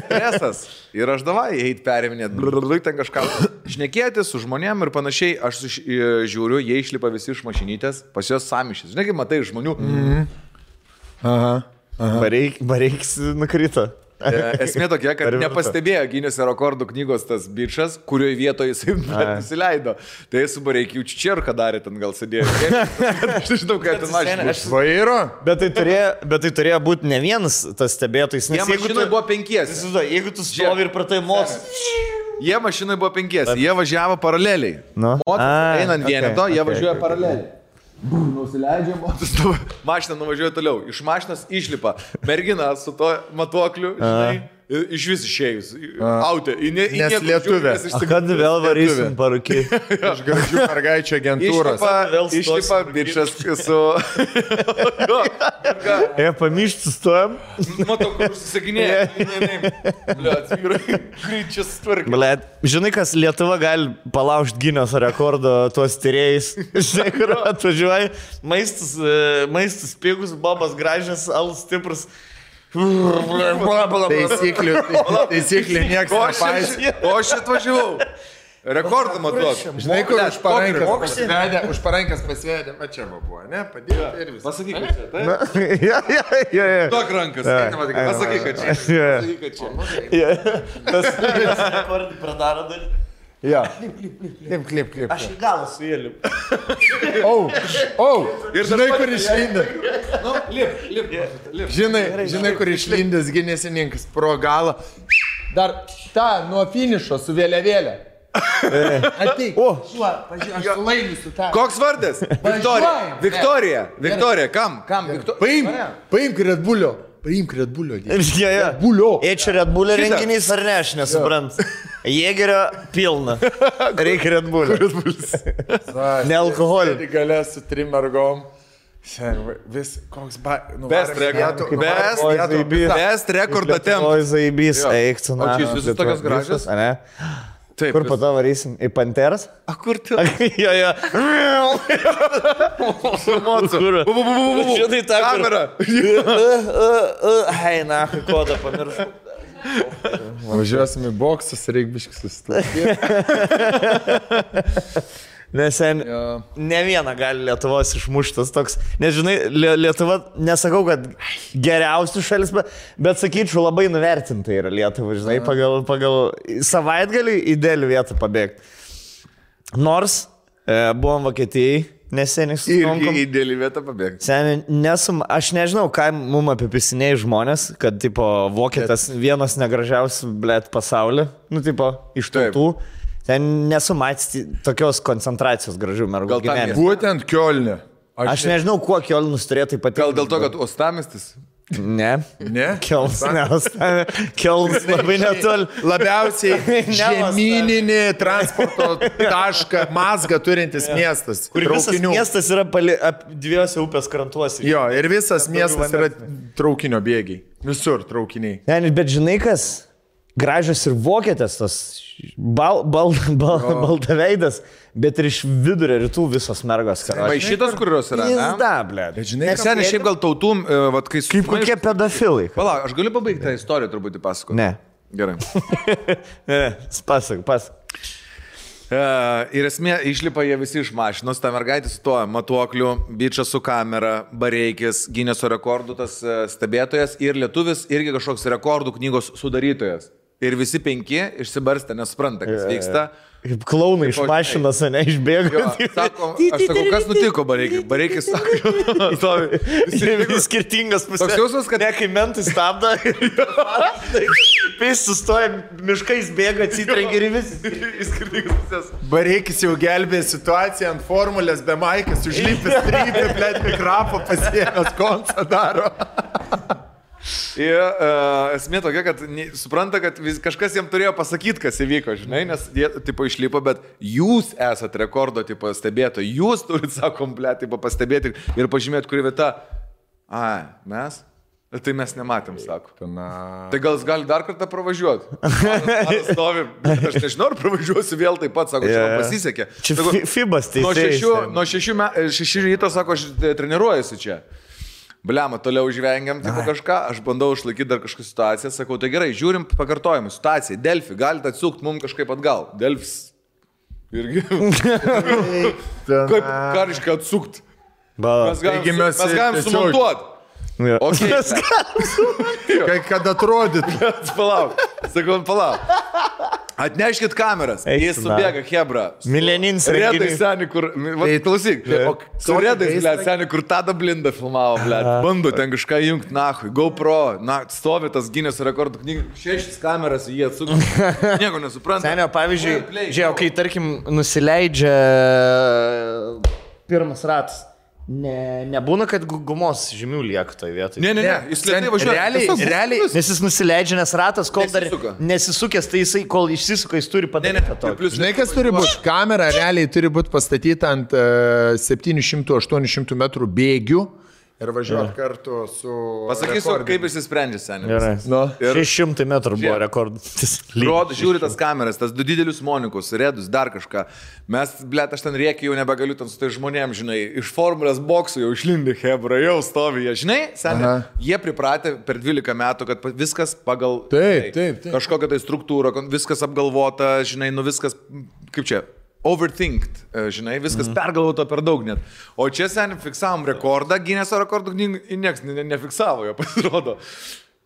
Stresas. Ir aš davai, eit periminėt, ten kažką šnekėti su žmonėm ir panašiai. Aš žiūriu, jie išlipa visi iš mašinytės, pas juos samišis. Žinai, kaip matai žmonių. Aha. Bareikis nukrito. Esmė tokia, kad nepastebėjo Gineso rekordų knygos tas bičas, kurioje vietoje jisai nusileido. Tai su Bareikiu Čerką darė, ten gal sėdėjo. Aš nežinau, kaip ten mašina. Vairo? Bet tai turėjo būti ne vienas tas stebėtojas. Jie mašinai buvo 5. Jeigu tu stovi ir pratai mots. Jie mašinai buvo 5. Jie važiavo paraleliai. Einant vieneto, jie važiuoja paraleliai. Nusileidžia, mašina nuvažiuoja toliau. Iš mašinas išlipa mergina su to matuokliu, žinai, iš vis išėjus. Autė. Nes lietuvė. Kad vėl varysim parūkį. Iš gražių mergaičių agentūros. Išlipa bičas su... Pamišti stojam. Matau, kur susisakinėja. Greičias tvarkai. Blet, žinai, kas Lietuva gali palaužti Gineso rekordo tuos tyrėjais. Žinai, kur atvažiuoja. Maistas pigus, bobas gražias, alus stiprus. Taisyklių nieks nepaisė. O aš atvažiavau. Rekordą matuok. Žinai, kur už parankės pasvedė. Va čia buvo, ne? Padėjo ir visą. Pasakyk, kad čia. Duok rankas. Pasakyk, kad čia. Tas rekordį pradaro dalį. Jo. Klip. Aš į galą su jėliu. Ir žinai, kur išlindė. Nu, lip. Žinai, kur išlindęs Ginesininkas pro galą. Dar tą nuo finišo su vėliavėlė. Ateik. Pažiūrėk, aš laimėsiu tą. Koks vardas? Viktorija. Viktorija, kam? Paimk Red Bullio. Paimk Red Bullio. Čia Red Bullio renginys ar ne, aš nesuprantu. Jėgerio pilna. Reikia Red Bullio. Ne alkoholio. Galės su 3 mergom. Vis koks best rekordą temp. Oi, zaibys, eik tu na. O čia jūs visus tokios gražios? Taip. Kur po to varysim? Į Panteras? A, kur tu? Jo. Šitai tą kamerą. Hei, na, kodą pamiršau. Važiuosim į boksus, reik biškis susitvarkyti. Nes ne vieną gali Lietuvos išmuštas toks. Nes žinai, Lietuva, nesakau, kad geriausių šalis, bet sakyčiau, labai nuvertinta yra Lietuva, žinai, pagal savaitgalį idealią vietą pabėgti. Nors buvom Vokietijai, neseniai susitikom. Irgi idealią vietą pabėgti. Seniai, aš nežinau, ką mum apipisinėjai žmonės, kad, tipo, Vokietas vienas negražiausių, blėt, pasaulį, nu, tipo, iš tautų. Ten nesu matęs tokios koncentracijos gražių mergų gyvenime. Būtent Kiolne. Aš nežinau, kuo Kiolnus turėtų ypatingai. Gal dėl to, kad Uostamiestis? Ne. Kiolnas labai netoli. Labiausiai žemyninį transporto tašką mazgą turintis miestas. Kur visas miestas yra 2 upės krantuose. Jo, ir visas miestas yra traukinio bėgiai. Visur traukiniai. Ne, bet žinai kas? Gražios ir vokietės, tas baltaveidas, bet ir iš vidurio rytų visos mergos. Šitos, kurios yra, ne? Pizda, blėt. Žinai, seniai šiaip gal tautų, kai su... Kaip kokie pedofilai. Pala, aš galiu pabaigti tą istoriją truputį pasakoti? Ne. Gerai. Pasak. Ir esmė, išlipa jie visi iš mašinos, ta mergaitė su tuo matuokliu, bičas su kamera, Bareikis, Gineso rekordų tas stebėtojas ir lietuvis irgi kažkoks rekordų knygos sudarytojas. Ir visi 5 išsibarstę, nesupranta, kas vyksta. Kaip klaunai iš mašinos, ne, išbėgo. Sako, aš sakau, kas nutiko Bareikis? Bareikis sako, vis skirtingas pusės. Toks jausmas, kad ne, kai mentai stabdo, vis sustoja, miškais bėga, atsitrengia ir vis skirtingas pusės. Bareikis jau gelbė situaciją ant formulės be maikės, užlipęs trypė, blėt, mikrofą pasiėmęs, koncą daro. Ir esmė tokia, kad supranta, kad kažkas jam turėjo pasakyti, kas įvyko, žinai, nes jie, tipo, išlipo, bet jūs esate rekordo, tipo, stebėtojai, jūs turite savo kompletą, tipo, pastebėti ir pažymėti, kuri vieta. Mes? Tai mes nematėm, sako. Tai gal jis gali dar kartą pravažiuoti? Stovi, aš nežinau, ar pravažiuosiu vėl taip pat, sako, čia man pasisekė. Čia Fibas, tai nuo 6 ryto, sako, aš treniruojuosi čia. Bliama, toliau žvengiam, tipo kažką, aš bandau išlaikyti dar kažkokią situaciją, sakau, tai gerai, žiūrim pakartojimą, situaciją, Delfi, galite atsukti mums kažkaip atgal. Delfis. Irgi. Kaip kariškai atsukti? Mes galim sumontuoti. Okay. Kad atrodyt. Palauk. Atneškit kameras. Jis subėga, hebra. Milenins redai seni, kur... Klausyk. Su redais, blėt, seni, kur tada blindą filmavo, blėt. Bando ten kažką jungti, nahui. GoPro. Stovi tas Guinness rekordų knygų. 6 kameras, jie atsukti. Nieko nesupranta. Senio, pavyzdžiui, žiūrėjau, kai, tarkim, nusileidžia pirmas ratas. Nebūna, kad gumos žymių lieka toje vietoje. Ne, jis lėtai važiuoja. Realiai, nes jis nusileidžia, nes ratas, kol dar nesisukęs, tai jisai, kol išsisuka, jis turi padaryti to. Žinai, kas turi būti? Kamera realiai turi būti pastatyta ant 700-800 metrų bėgių ir važiuoti kartu su... Pasakysiu, kaip jis sprendžia, seniai. 600 metrų buvo rekordas. Žiūri tas kameras, tas 2 didelius monikus, redus, dar kažką. Mes, blėt, aš ten rėkiu, jau nebegaliu ten su tai žmonėm, žinai, iš formulės boksų jau išlindi hebra, jau stovi jie, žinai, seniai, jie pripratę per 12 metų, kad viskas pagal... Taip. Kažkokią tai struktūrą, viskas apgalvota, žinai, viskas, kaip čia... overthinked, žinai, viskas pergalvota per daug net. O čia seniai fiksavom rekordą, Guinnesso rekordų knygų, nieks nefiksavo jo, pasirodo.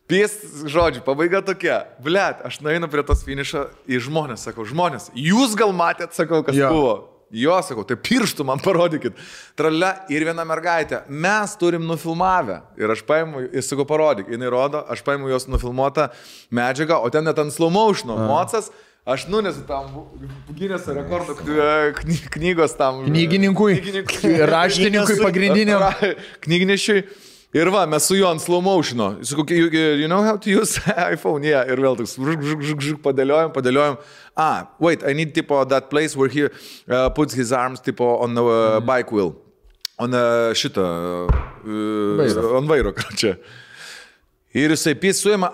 Žodžiu, pabaiga tokia. Blet, aš nueinu prie tos finišo į žmonės, sakau, žmonės, jūs gal matėt, sakau, kas buvo. Jo, sakau, tai pirštų man parodykit. Tralia ir viena mergaitė, mes turim nufilmavę. Ir aš paimu, jis sakau, parodyk, jinai rodo, aš paimu jos nufilmuotą medžiagą, o ten net ant slow motiono, mocas. Aš nunesu tam Guinnesso rekordų knygos tam... Knygininkui, raštininkui pagrindiniam. Knygnešiui. Ir va, mes su juo ant slow motiono. Sakau, you know how to use iPhone? Yeah. Ir vėl toks padėliojam. Wait, I need tipo that place where he puts his arms tipo on the bike wheel. On on vairo, čia. Ir jisai suima,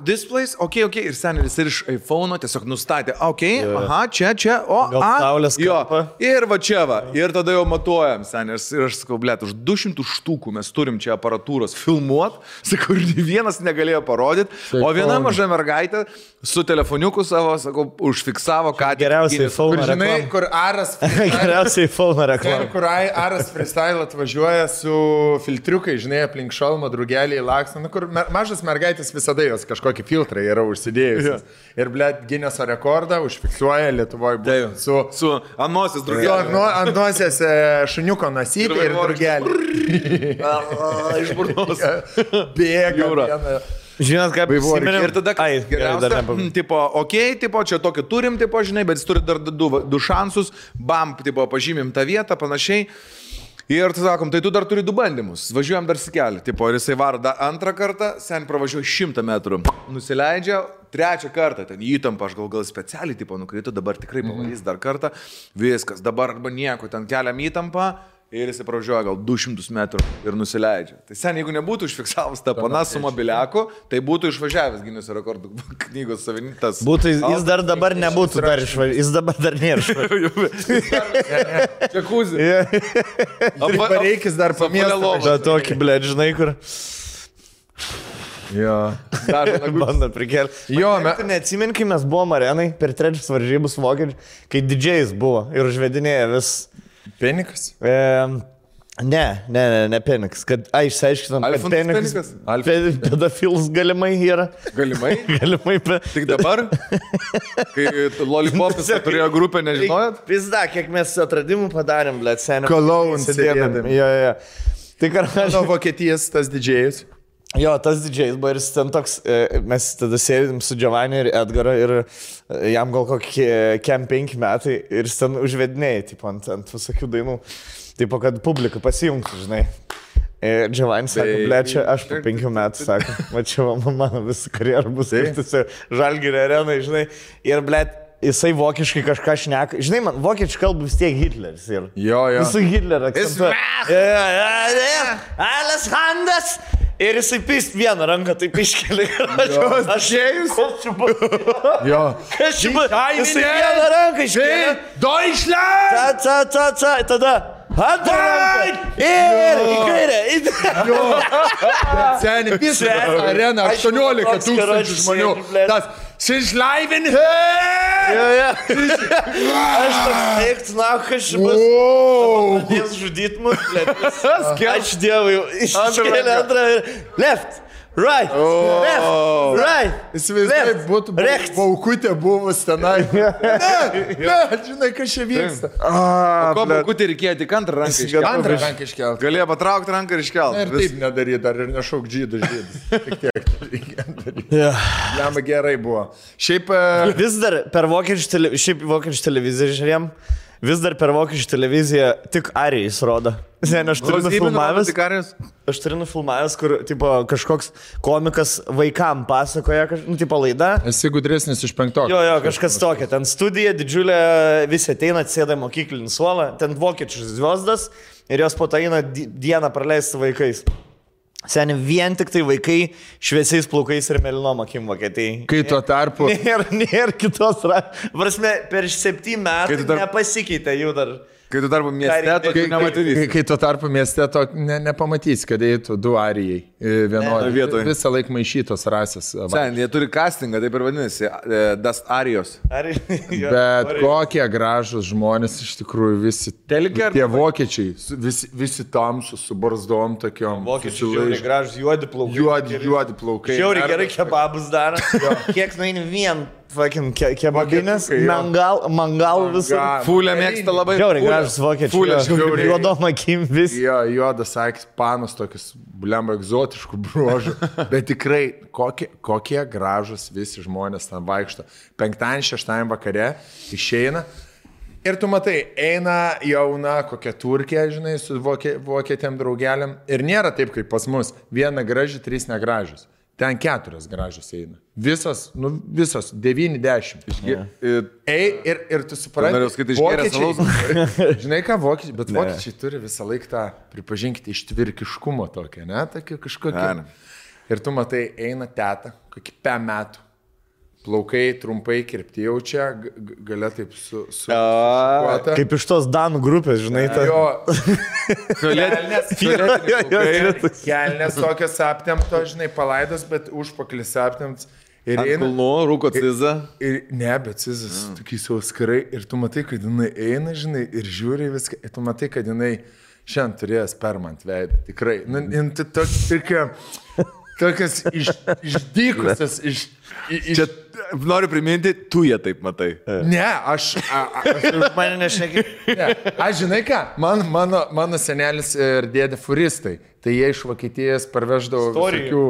this place, okay, ir senelis ir iš iPhone'o tiesiog nustatė, čia, saulės kampą. Ir va čia va, ir tada jau matuojam, senelis, ir aš sakau, blėt, už 200 štukų mes turim čia aparatūros filmuot, sakau, ir vienas negalėjo parodyti, o viena maža mergaitė su telefoniuku savo, sakau, užfiksavo, ką... Geriausiai iPhone'o reklama. Kur Aras... Geriausiai iPhone'o reklama. Kur Aras freestyle atvažiuoja su filtriukai, žinai, aplink šalmą, drugeliai, laksną, kur mažas mergaitės visada jos kažkokį filtrą yra užsidėjusios. Ir, blėt, Guinnesso rekordą užfiksuoja Lietuvoje būtent su ant nosies drugelį. Ant nosies šuniuko nasytė ir drugelį. Iš burnos. Bėga. Žinot, kaip įsiminėm. Ir tada geriausia, tipo, čia tokį turim, tipo, žinai, bet jis turi dar 2 šansus, bam, tipo, pažymim tą vietą, panašiai. Ir tai sakom, tai tu dar turi 2 bandymus, važiuojam dar sikelį, tipo, ir jisai varo antrą kartą, sen pravažiuoja 100 metrų, nusileidžia, 3 kartą, ten įtampa, aš gal specialiai, tipo, nukrito, dabar tikrai pavarys dar kartą, viskas, dabar arba nieko, ten keliam įtampą. Ir jis pravažiuoja gal 200 metrų ir nusileidžia. Tai sen, jeigu nebūtų užfiksavus tą paną su mobiliaku, tai būtų išvažiavęs Guinnesso rekordų knygos savininkas. Jis dar dabar nebūtų dar išvažiavęs. Jis dabar dar nėra išvažiavęs. Džakuzį. Pareikis dar pamėlą. Bet tokį, blėt, žinai, kur... Jo. Bando prikelti. Jo, tu neatsimeni, kai mes buvom arenai per 3 varžybus vokiečių, kai didžėjais buvo ir užvedinėja vis... Penikas? Ne Penikas. Išsiaiškinom, kad Penikas. Pedofils galimai yra. Galimai? Galimai. Tik dabar? Kai Lollipopis turėjo grupę, nežinojot? Pizda, kiek mes atradimų padarėm, blėt, seniai. Cologne sėdėdami. Jo. Tai nuo Vokietijos tas didžėjus. Jo, tas didžėjus buvo ir jis ten toks, mes tada sėdėm su Giovanni ir Edgaru ir jam gal kokie 5 metai ir jis ten užvedinėjai, tipo, ant visokių dainų, tipo, kad publika pasijungtų, žinai. Džiavanis sako, blečia, aš po 5 metų, sako, va čia mano visą karjerą bus Žalgirio arenai, žinai, ir blėt, jisai vokiškai kažką šneka, žinai, man vokiečių kalba vis tiek Hitleris ir. Jo. Visų Hitlerio akcentuoja. Alles Handas. Ir jisai pist vieną ranką, taip iškeli. Aš ėjus. Jo. Kas čia buvo? Jisai vieną ranką iškeli. Deutschland! Tada. Antrą ranką. Ir į kairę. Seniai, visą areną, 18 tūkstančių žmonių. Tas Sižlaivin Aš toks eikts, na, kas čia bus. Jis žudyt mus, blėt. Ačiū Dievui, iškėlė antrą ir left. Right, left, right. Įsivaizduoju, būtų baukutė buvus tenai. Ne, žinai, kas čia vyksta. Ko baukutė reikėjo tik antrą ranką iškelti? Antrą ranką iškelti. Galėjo patraukti ranką ir iškelti. Ir taip nedaryti, dar ir nešauk žydus. Tik tiek reikia daryti. Lemba gerai buvo. Šiaip... Vis dar per vokiečių televiziją žiūrėjom. Vis dar per vokiečių televiziją tik Arijais rodo. Aš turiu nufilmavęs, kur tipo, kažkoks komikas vaikam pasakoja, tipo laida. Esi gudresnis iš 5. Jo, kažkas tokia. Ten studija, didžiulė, visi ateina, atsėda mokyklinį suolą, ten vokiečių zviesdas ir jos po to eina dieną praleisti vaikais. Seniai, vien tik tai vaikai šviesiais plaukais ir melinom akim Vokietijai. Kai tuo tarpu... Nėra kitos... Prasme, per 7 metų nepasikeitė jų dar... Kai tu tarpu mieste, to nematysi. Kai tu tarpu mieste, to nepamatysi, kad eitų 2 arijai vienoje. Visą laiką maišytos rasės. Sen, jie turi castingą, taip ir vadinasi, Das Arijos. Bet kokie gražus žmonės iš tikrųjų visi. Tie vokiečiai, visi tamsus, su barzdom tokiom. Vokiečiai žiauriai gražus, juodi plaukai. Juodi plaukai. Žiauriai gerai kebabus daro. Kiek nueini vien. Fucking kebabinės, mangal visur. Fulė mėgsta labai. Žiauriai gražus vokiečiai. Juodom akim vis. Jo, juodas akis, panos tokius, blemba, egzotiškų bruožų. Bet tikrai, kokie gražus visi žmonės ten vaikšto. 5-6 vakare išeina. Ir tu matai, eina jauna kokia Turkija, žinai, su vokietėm draugeliam. Ir nėra taip, kaip pas mus. 1 graži, 3 negražius. Ten 4 gražios eina. Visos 9-10. Ir tu supranti, vokiečiai, žinai ką vokiečiai, bet vokiečiai turi visą laiką tą, pripažinkite, ištvirkiškumo tokią, ne, tokia kažkokia. Ir tu matai, eina teta, kokį 5 metų. Plaukai trumpai kirpti jau čia, galia taip šukuota. Kaip iš tos Danų grupės, žinai, ta. Kelnes tokios aptemto, žinai, palaidos, bet užpakalis aptemts. Ir eina. Kulnu, rūko cizą. Ne, bet cizas tokiais jau skarai. Ir tu matai, kad jinai eina, žinai, ir žiūri viską. Ir tu matai, kad jinai šiandien turėjęs permant veidą. Tikrai. Tokias išdykusias, Čia noriu priminti, tu jie taip matai. Ne, aš mane nešneki. Aš žinai ką, mano senelis ir dėdė furistai, tai jie iš Vokietijos parveždavo visokių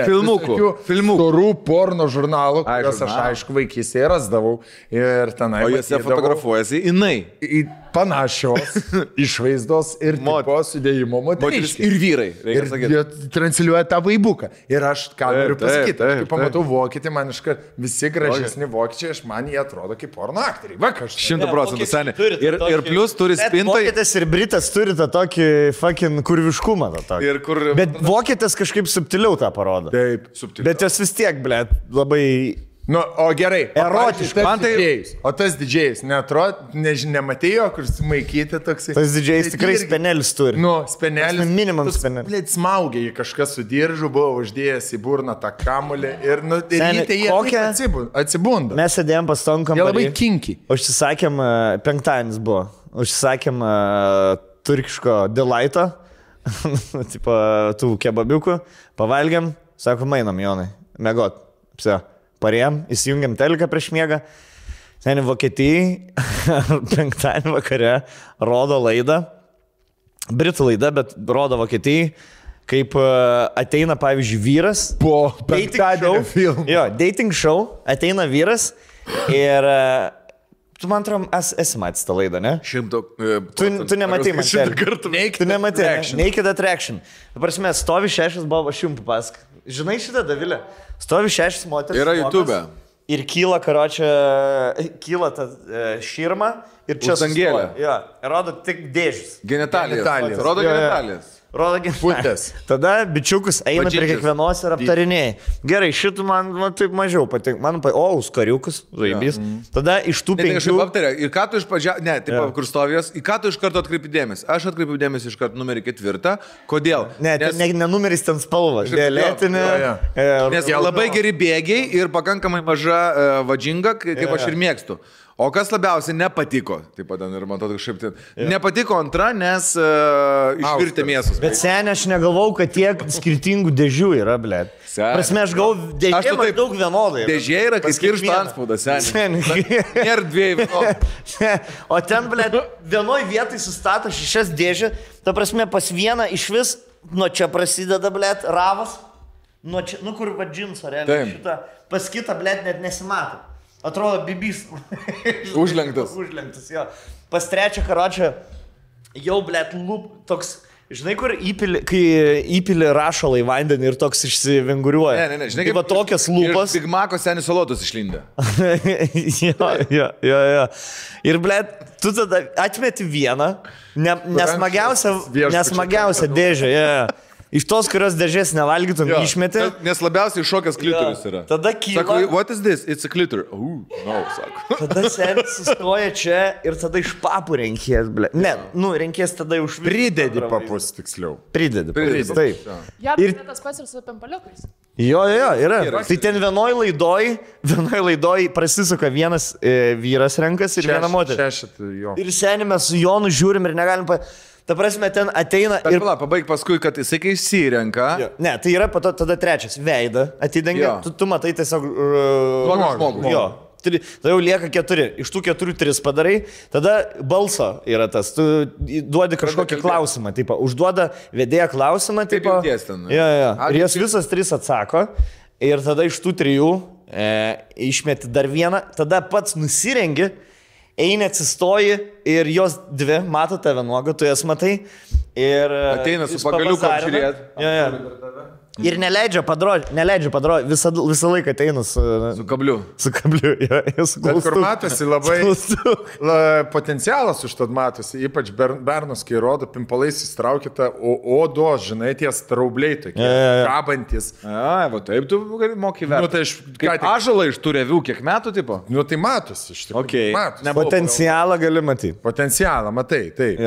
filmukų, storų porno žurnalų, kuriuos aš aišku vaikystėje rasdavau. Ir tenai. O jose fotografuojasi jinai. Panašios išvaizdos ir tipo sudėjimo moteriškės. Ir vyrai. Ir jie transliuoja tą vaibuką. Ir aš ką noriu pasakyti, kai pamatau vokietį, man iškart visi gražesni vokiečiai, man jie atrodo kaip porno aktoriai. Va, kažkas. 100% seniai. Ir plus turi spintai. Vokietis ir britas turi tą tokį fucking kurviškumą. Bet vokietis kažkaip subtiliau tą parodo. Taip, subtiliau. Bet jos vis tiek, blėt, labai... Nu, o gerai, erotiškai. O tas didžėjus, nematėjo, kur sumaikyti toksai. Tas didžėjus tikrai spenelis turi. Nu, spenelis. Minimum spenelis. Blėt, smaugia jį kažkas su diržu, buvo uždėjęs į burną tą kamulį ir ryte jie atsibunda. Mes sėdėjom pas tom kambarį. Jie labai kinki. Užsisakėm, 5-dienis buvo, užsisakėm turkiško delighto, tipo tų kebabiukų, pavalgiam, sakom, einam, Jonai, mėgot, pse. Parėjom, įsijungiam teliką prieš miegą. Seniai Vokietijai 5 vakare rodo laidą. Britų laida, bet rodo Vokietijai, kaip ateina, pavyzdžiui, vyras. Po penktadienio filmų. Jo, dating show. Ateina vyras ir Tu man atrodo, esi matęs tą laidą, ne? 100%. Tu nematai man. 100 kartų. Tu nematai. Naked Attraction. Dabar mes stovi 6 buvo, aš jums papasak. Žinai šitą, Davilė? Stovi 6 moteris. Yra YouTube. Ir kyla, karočią, kyla ta širma ir čia sangėlė. Jo, rodo tik dėžis. Genitalijas. Rodo genitalijas. Putės. Tada bičiukus eina prie kiekvienos ir aptarinėja. Gerai, šitų man taip mažiau patinka. Man skariukus, zaibys. Tada iš tų 5... Aptarė, ir ką tu iš pradžio... Ne, taip, kur stovės. Į ką tu iš karto atkreipi dėmesį? Aš atkreipiu dėmesį iš karto numerį 4. Kodėl? Ne, ne numeris ten spalva. Violetinė. Nes labai geri bėgiai ir pakankamai maža vadžinga, kaip aš ir mėgstu. O kas labiausiai nepatiko, taip pat ir man atrodo kažkaip, nepatiko antra, nes išvirtė mėsos. Bet seniai aš negalvau, kad tiek skirtingų dėžių yra, blėt. Prasme, aš galvau, dėžė maždaug vienodai. Dėžė yra, kai skiršta antspaudas, seniai. Nėra dviejų vienodų. O ten, blėt, vienoj vietoj sustato 6 dėžė, ta prasme, pas vieną iš vis, nuo čia prasideda, blėt, ravas, nuo čia, kur va džinsą, realiai, šitą, pas kitą, blėt, net nesimato. Atrodo, bibys. Užlenktas. Užlenktas, jo. Pas trečią karočią jau, blėt, toks, žinai, kur kai įpili rašalą į vandenį ir toks išsivinguriuoja. Ne, žinai, kaip tokias lūpas. Big Maco senis salotus išlindė. Jo. Ir, blėt, tu tada atmeti vieną, nesmagiausią dėžę, Iš tos, kurios dėžės nevalgytum, išmeti. Nes labiausiai šokęs klitoris yra. Tada kyla. Sako, what is this? It's a clitor. No, sako. Tada senis sustoja čia ir tada iš papų renkės, ble. Ne, renkės tada už... Pridedi papus, tiksliau. Pridedi, taip. Ir tas pats ir su pimpaliukais. Jo, yra. Tai ten vienoj laidoj prasisuka vienas vyras renkas ir viena moteris. Ir senį mes su Jonu žiūrim ir negalim... Ta prasme, ten ateina ir... Pabaig paskui, kad jisai kai įsirenka. Ne, tai yra tada trečias. Veidą atidengia. Tu matai tiesiog... Žmogų. Jo. Tada jau lieka 4. Iš tų 4 3 padarai. Tada balso yra tas. Tu duodi kažkokį klausimą. Taip, užduoda vedėją klausimą. Taip, ir jas visas 3 atsako. Ir tada iš tų 3 išmeti dar vieną. Tada pats nusirengi. Eini atsistoji ir jos 2 mato tave nuogą, tu jas matai. Ir ateina su pagaliuku apžiūrėti. Ir neleidžia padroti, visą laiką ateina su kabliu. Bet kur matosi labai potencialas už to matosi, ypač bernus, kai rodo, pimpalais įstraukite odos, žinai, tie straubliai tokie, kabantis. Va taip tu moki verti. Kaip ąžuolą iš tų revių, kiek metų tipo? Nu tai matosi iš tikrųjų. Potencialą gali matyti. Potencialą, matai, taip.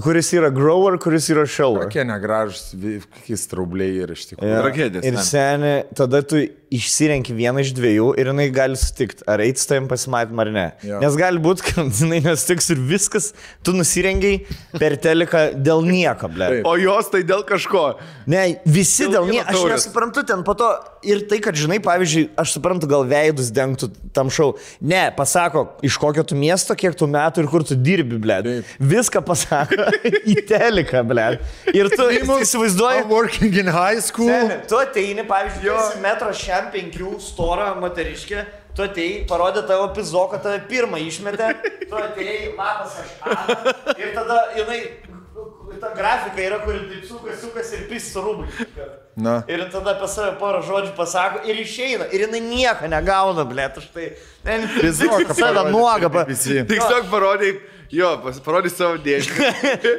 Kuris yra grower, kuris yra shower. Kokie negražus, kokie straubliai yra iš tikrųjų. Tragedijas. Ir seniai, tada tu išsirenki vieną iš 2 ir jinai gali sutikti, ar eiti su tavim pasimatymą ar ne. Nes gali būti, kad jinai nesutiks ir viskas, tu nusirengiai per teliką dėl nieko, ble. O jos tai dėl kažko. Ne, visi dėl nieko. Aš nesuprantu ten po to ir tai, kad žinai, pavyzdžiui, aš suprantu, gal veidus dengtų tam šau. Ne, pasako, iš kokio tu miesto, kiek tu metų ir kur tu dirbi, ble. Viską pasako į teliką, ble. Ir tu įsivaizduoji. Working in high school. Tu ateini, pavyzdžiui, metro 5 storą moteriškę, tu atėjai, parodė tavo pizoką, tave pirmą išmetė, tu atėjai, matas aš ir tada jinai, ta grafika yra, kuri taip sukas ir pis su rūbai. Ir tada apie save porą žodžių pasako ir išeina, ir jinai nieko negauna, blėt, už tai. Pizoką save nuogą. Tiesiog parodai. Jo, parodys savo dėžį.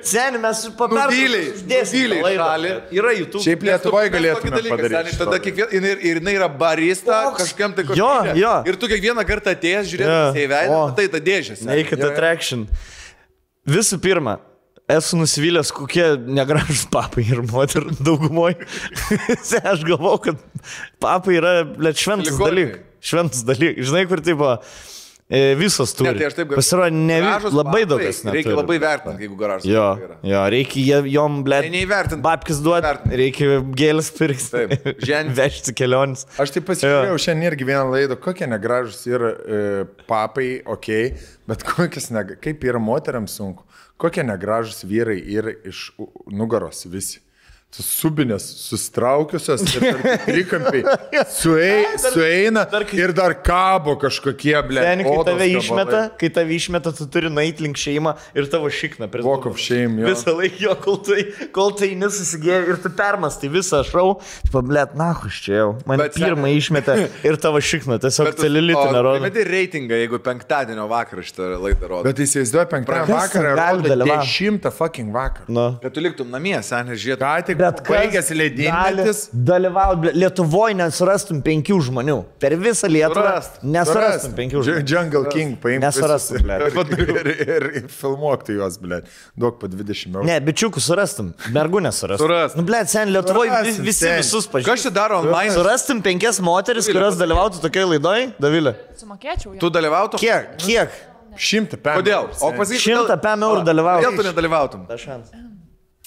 Seniai, mes uždėsime šalį. Yra YouTube. Šiaip Lietuvoje galėtume padaryti. Tada kiekvieną, ir jinai yra barista, kažkam tai kažkam. Ir tu kiekvieną kartą atėjęs žiūrėdamas į veidą, tai ta dėžė. Naked Attraction. Visų pirma, esu nusivylęs, kokie negražus papai ir moterų daugumoje. Aš galvau, kad papai yra šventas dalykas. Žinai, kur tipo... Visos turi. Ne, tai aš taip galiu. Pasirodo, labai daug kas neturi. Reikia labai vertinti, jeigu garažas. Jo, reikia jom, blėt, babkis duoti, reikia gėlės pirkti, vežti kelionis. Aš taip pasižiūrėjau šiandien irgi vieną laidą, kokie negražus yra papai, bet kaip yra moteriams sunku, kokie negražus vyrai yra iš nugaros visi. subinės sustraukiusios ir trikampiai sueina ir dar kabo kažkokie, ble. Seni, kai tave išmeta, tu turi nueiti link šeimą ir tavo šikna. Walk of shame, jo. Visą laiką jo, kol tai nesusigėjo ir tu permastai visą šau, blėt, nahuš čia jau. Man pirmą išmetė ir tavo šikna, tiesiog celilitinę rodo. Metė reitingą, jeigu penktadienio vakarą šitą laidą rodo. Bet įsivaizduoju, penktadienio vakarą rodo 10 fucking vakarą. No. Kad tu liktum namie, seniai, žiūrėtum. Bet baigęs leidinėtis. Dalyvauti Lietuvoje nesurastum 5 žmonių. Per visą Lietuvą nesurastum 5 žmonių. Jungle King paimti. Nesurastum, blėt. Ir filmuokti juos, blėt. Duok po 20 eurų. Ne, bičiukų surastum. Mergų nesurastum. Surastum. Nu, blėt, sen, Lietuvoje visus pažįstum. Kas čia daro online? Surastum 5 moteris, kurios dalyvautų tokiai laidoj, Davilė. Sumokėčiau. Tu dalyvautum? Kiek? 100 pėm. Kodėl? O pasakyk, 100 pėm eurų dalyvautum. Kodėl tu nedalyvautum?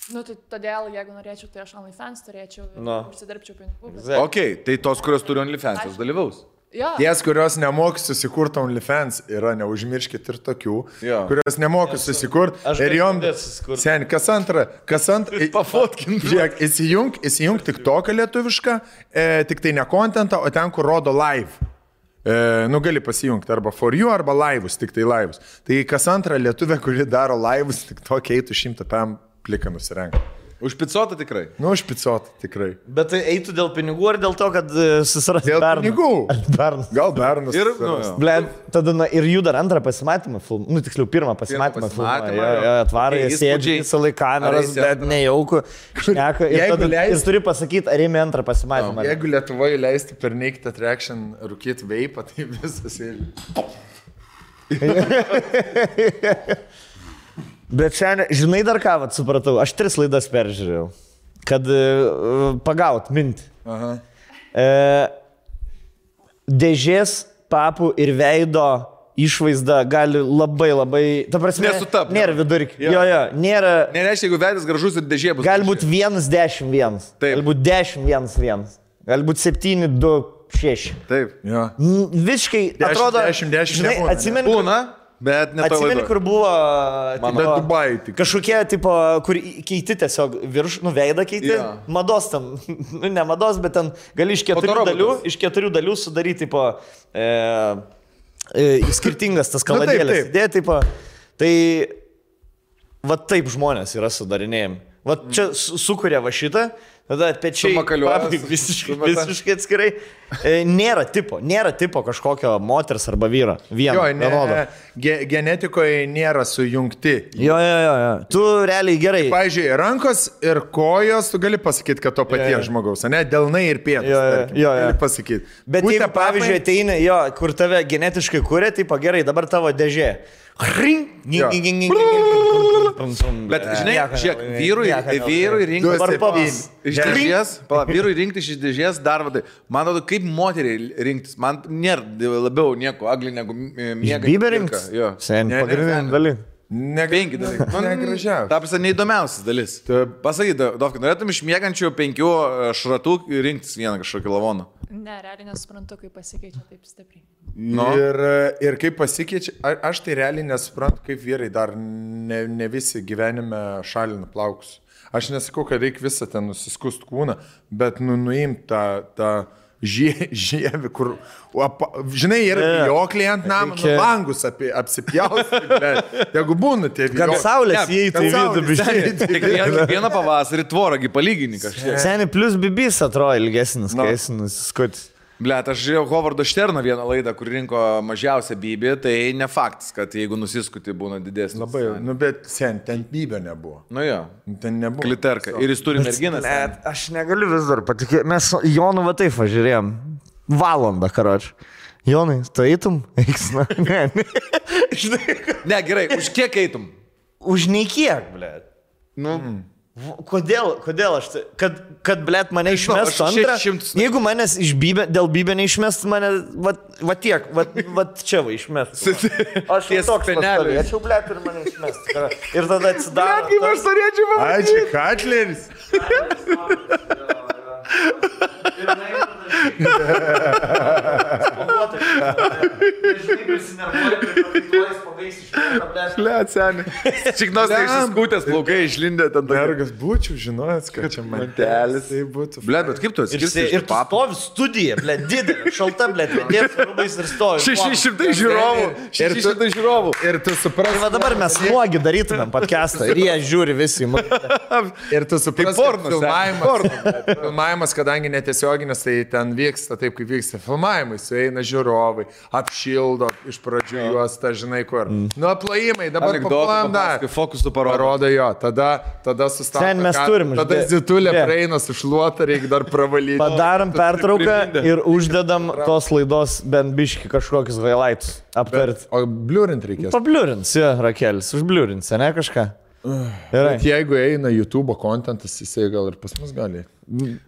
Nu, tai todėl, jeigu norėčiau, tai aš OnlyFans turėčiau ir užsidirbčiau pinigų. Ok, tai tos, kurios turi OnlyFans, jos dalyvaus. Jo. Ties, kurios nemoka susikurti OnlyFans, yra, neužmirškit ir tokių, kurios nemoka susikurti. Ir jom, sen, kas antra, pafotkint. Žiūrėk, įsijung tik toką lietuvišką, tik tai ne kontentą, o ten, kur rodo live. Nu, gali pasijungti arba for you, arba laivus, tik tai laivus. Tai kas antra lietuvė, kuri daro laivus, tik tokia eitų 100 pėm pliką nusirenka. Už picotą tikrai? Nu, už picotą tikrai. Bet tai eitų dėl pinigų ar dėl to, kad susirasti dėl bernų? Pinigų. Gal bernus. Ir, Blėt, tada ir jų dar antrą pasimatymą filmą. Nu, tiksliau, pirmą pasimatymą filmą. Atvarai, sėdžiai, visą laiką kameras, bet nejauku. Šneka. Ir turi pasakyti, ar ėmė antrą pasimatymą. Jeigu Lietuvoje leisti per Naked Attraction rūkyti veipą, tai visas ir... Bet šiandien, žinai dar ką, vat, supratau, aš 3 laidas peržiūrėjau, kad pagaut mintį. Dėžės, papų ir veido išvaizda gali labai, ta prasme, nesutapti. Nėra vidurkį. Jo, nėra. Nereiškia, jeigu veidas gražus ir dėžė bus. Gali būti 1-10-1. Gali būti 10-1-1. Gali būti 7-2-6. Taip. Jo. Visiškai atrodo, 10-10 žinai, atsimeni. Būna. Bet atsimeni, kur buvo Dubai, kažkokie, tipo, kur keiti tiesiog nu, veidą keiti, mados tam, nu, ne mados, bet ten gali iš 4 dalių sudaryti, tipo, skirtingas tas kaladėlės. Idėja, tipo, tai, va taip žmonės yra sudarinėjami. Va čia sukuria va šitą, tada pečiai visiškai atskirai. Nėra tipo kažkokio moters arba vyro. Vienodo. Genetikoje nėra sujungti. Jo. Tu realiai gerai. Pavyzdžiui, rankos ir kojos, tu gali pasakyti, kad to paties žmogaus, ne? Delnai ir pėdas. Gali pasakyti. Bet jeigu, pavyzdžiui, ateina, kur tave genetiškai kuria, tipo gerai, dabar tavo dėžė. Bet žinai, žiūrėk, vyrui rinkti iš dėžės dar vadai. Man atrodo, kaip moteriai rinktis. Man nėra labiau nieko agli negu miega. Bybė rinktis? Sen, pagrindinė dalis. 5 dalykai. Negražiausia. Ta prasme, neįdomiausias dalis. Pasakyk, Dovka, norėtum iš miegančių 5 šratų rinktis vieną kažkokį lavoną? Ne, realiai nesuprantu, kaip pasikeičia taip stipriai. No. Ir kaip pasikeičia, aš tai realiai nesuprantu, kaip vyrai dar ne visi gyvenime šalina plaukus. Aš nesakau, kad reikia visą ten nusiskust kūną, bet nuimti tą žievį, kur, žinai, yra vijokliai ant namą, langus apsipjausti, bet jeigu būna tie vijokliai. Kad saulės įeitų į vidų biškai. Vieną pavasarį tvorągi palygini kažkiek. Seni, plus bibis atrodo ilgesnis, kai esi nusiskutis. Blet, aš žiūrėjau Hovardo Šterno vieną laidą, kur rinko mažiausią bybį, tai ne faktas, kad jeigu nusiskuti būna didesnis. Labai, nu bet sen, ten bybė nebuvo. Nu jo. Ten nebuvo. Kliterka. Ir jis turi merginas. Net, aš negaliu vis dar patikėti. Mes Jonu va taip važiūrėjom. Valandą, karoči. Jonai, tu eitum? Eiksna. Ne. Ne, gerai, už kiek eitum? Už nei kiek, blet. Nu. Kodėl aš tai, kad blėt, mane išmestų antrą, jeigu manęs dėl bybė neišmestų, mane, va tiek, va čia va išmestų. Aš toks pastovėčiau, blėt, ir mane išmestų. Ir tada atsidaro. Blėt, kaip aš norėčiau man. Ačiū, Katleris. Liat, seniai. Čiknos neišsiskūtęs, plaukai išlindė ten. Mergas būčiau, žinojęs, kad čia mantelis. Tai būtų. Blet, bet kaip tu atskirsi? Ir tu stovi studija, blet, didelė, šalta, blet, dėt rūbais ir stovi. 600 žiūrovų. 600 žiūrovų. Ir tu supras. Tai va dabar mes nuogi darytumėm podcastą ir jie žiūri visi. Ir tu supras, filmavimas, kadangi netiesioginis, tai ten vyksta taip, kaip vyksta filmavimai, sueina žiūrovai, apšildo iš pradžių juos, ta žinai kur. Nu, plojimai, dabar paplojam dar. Fokusų parodo jo, tada sustabdo. Ten mes turim. Tada zitulė praeina su šluota, reikia dar pravalyti. Padarom pertrauką ir uždedam tos laidos bent biški kažkokius highlights aptarti. O bliurint reikės? Pabliurins, jo, Rakelis, užbliurins, ne kažką? Bet jeigu eina YouTube kontentas, jisai gal ir pas mus gali.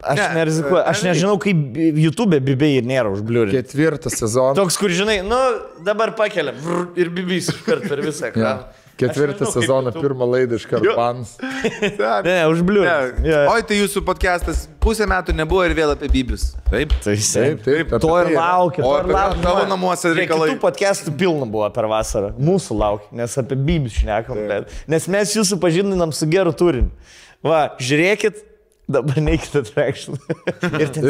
Aš nerizikuoju, aš nežinau, kaip YouTube bibiai ir nėra užbliurinti. 4 sezonas. Toks, kur žinai, nu dabar pakeliam ir bibys iškart per visą ekraną. 4 sezoną, pirmą laidą iškart bans. Ne, užbliurinti. Oi, tai jūsų podcastas pusę metų nebuvo ir vėl apie bibius. Taip? Taip. To ir laukia. O apie tavo namuose reikalai. Kitų podcastų pilna buvo per vasarą. Mūsų laukia, nes apie bibius šnekam. Nes mes jūsų pažindinam su geru turiniu. Va, žiūrėkit. Dabar neikit Attraction. Ir ten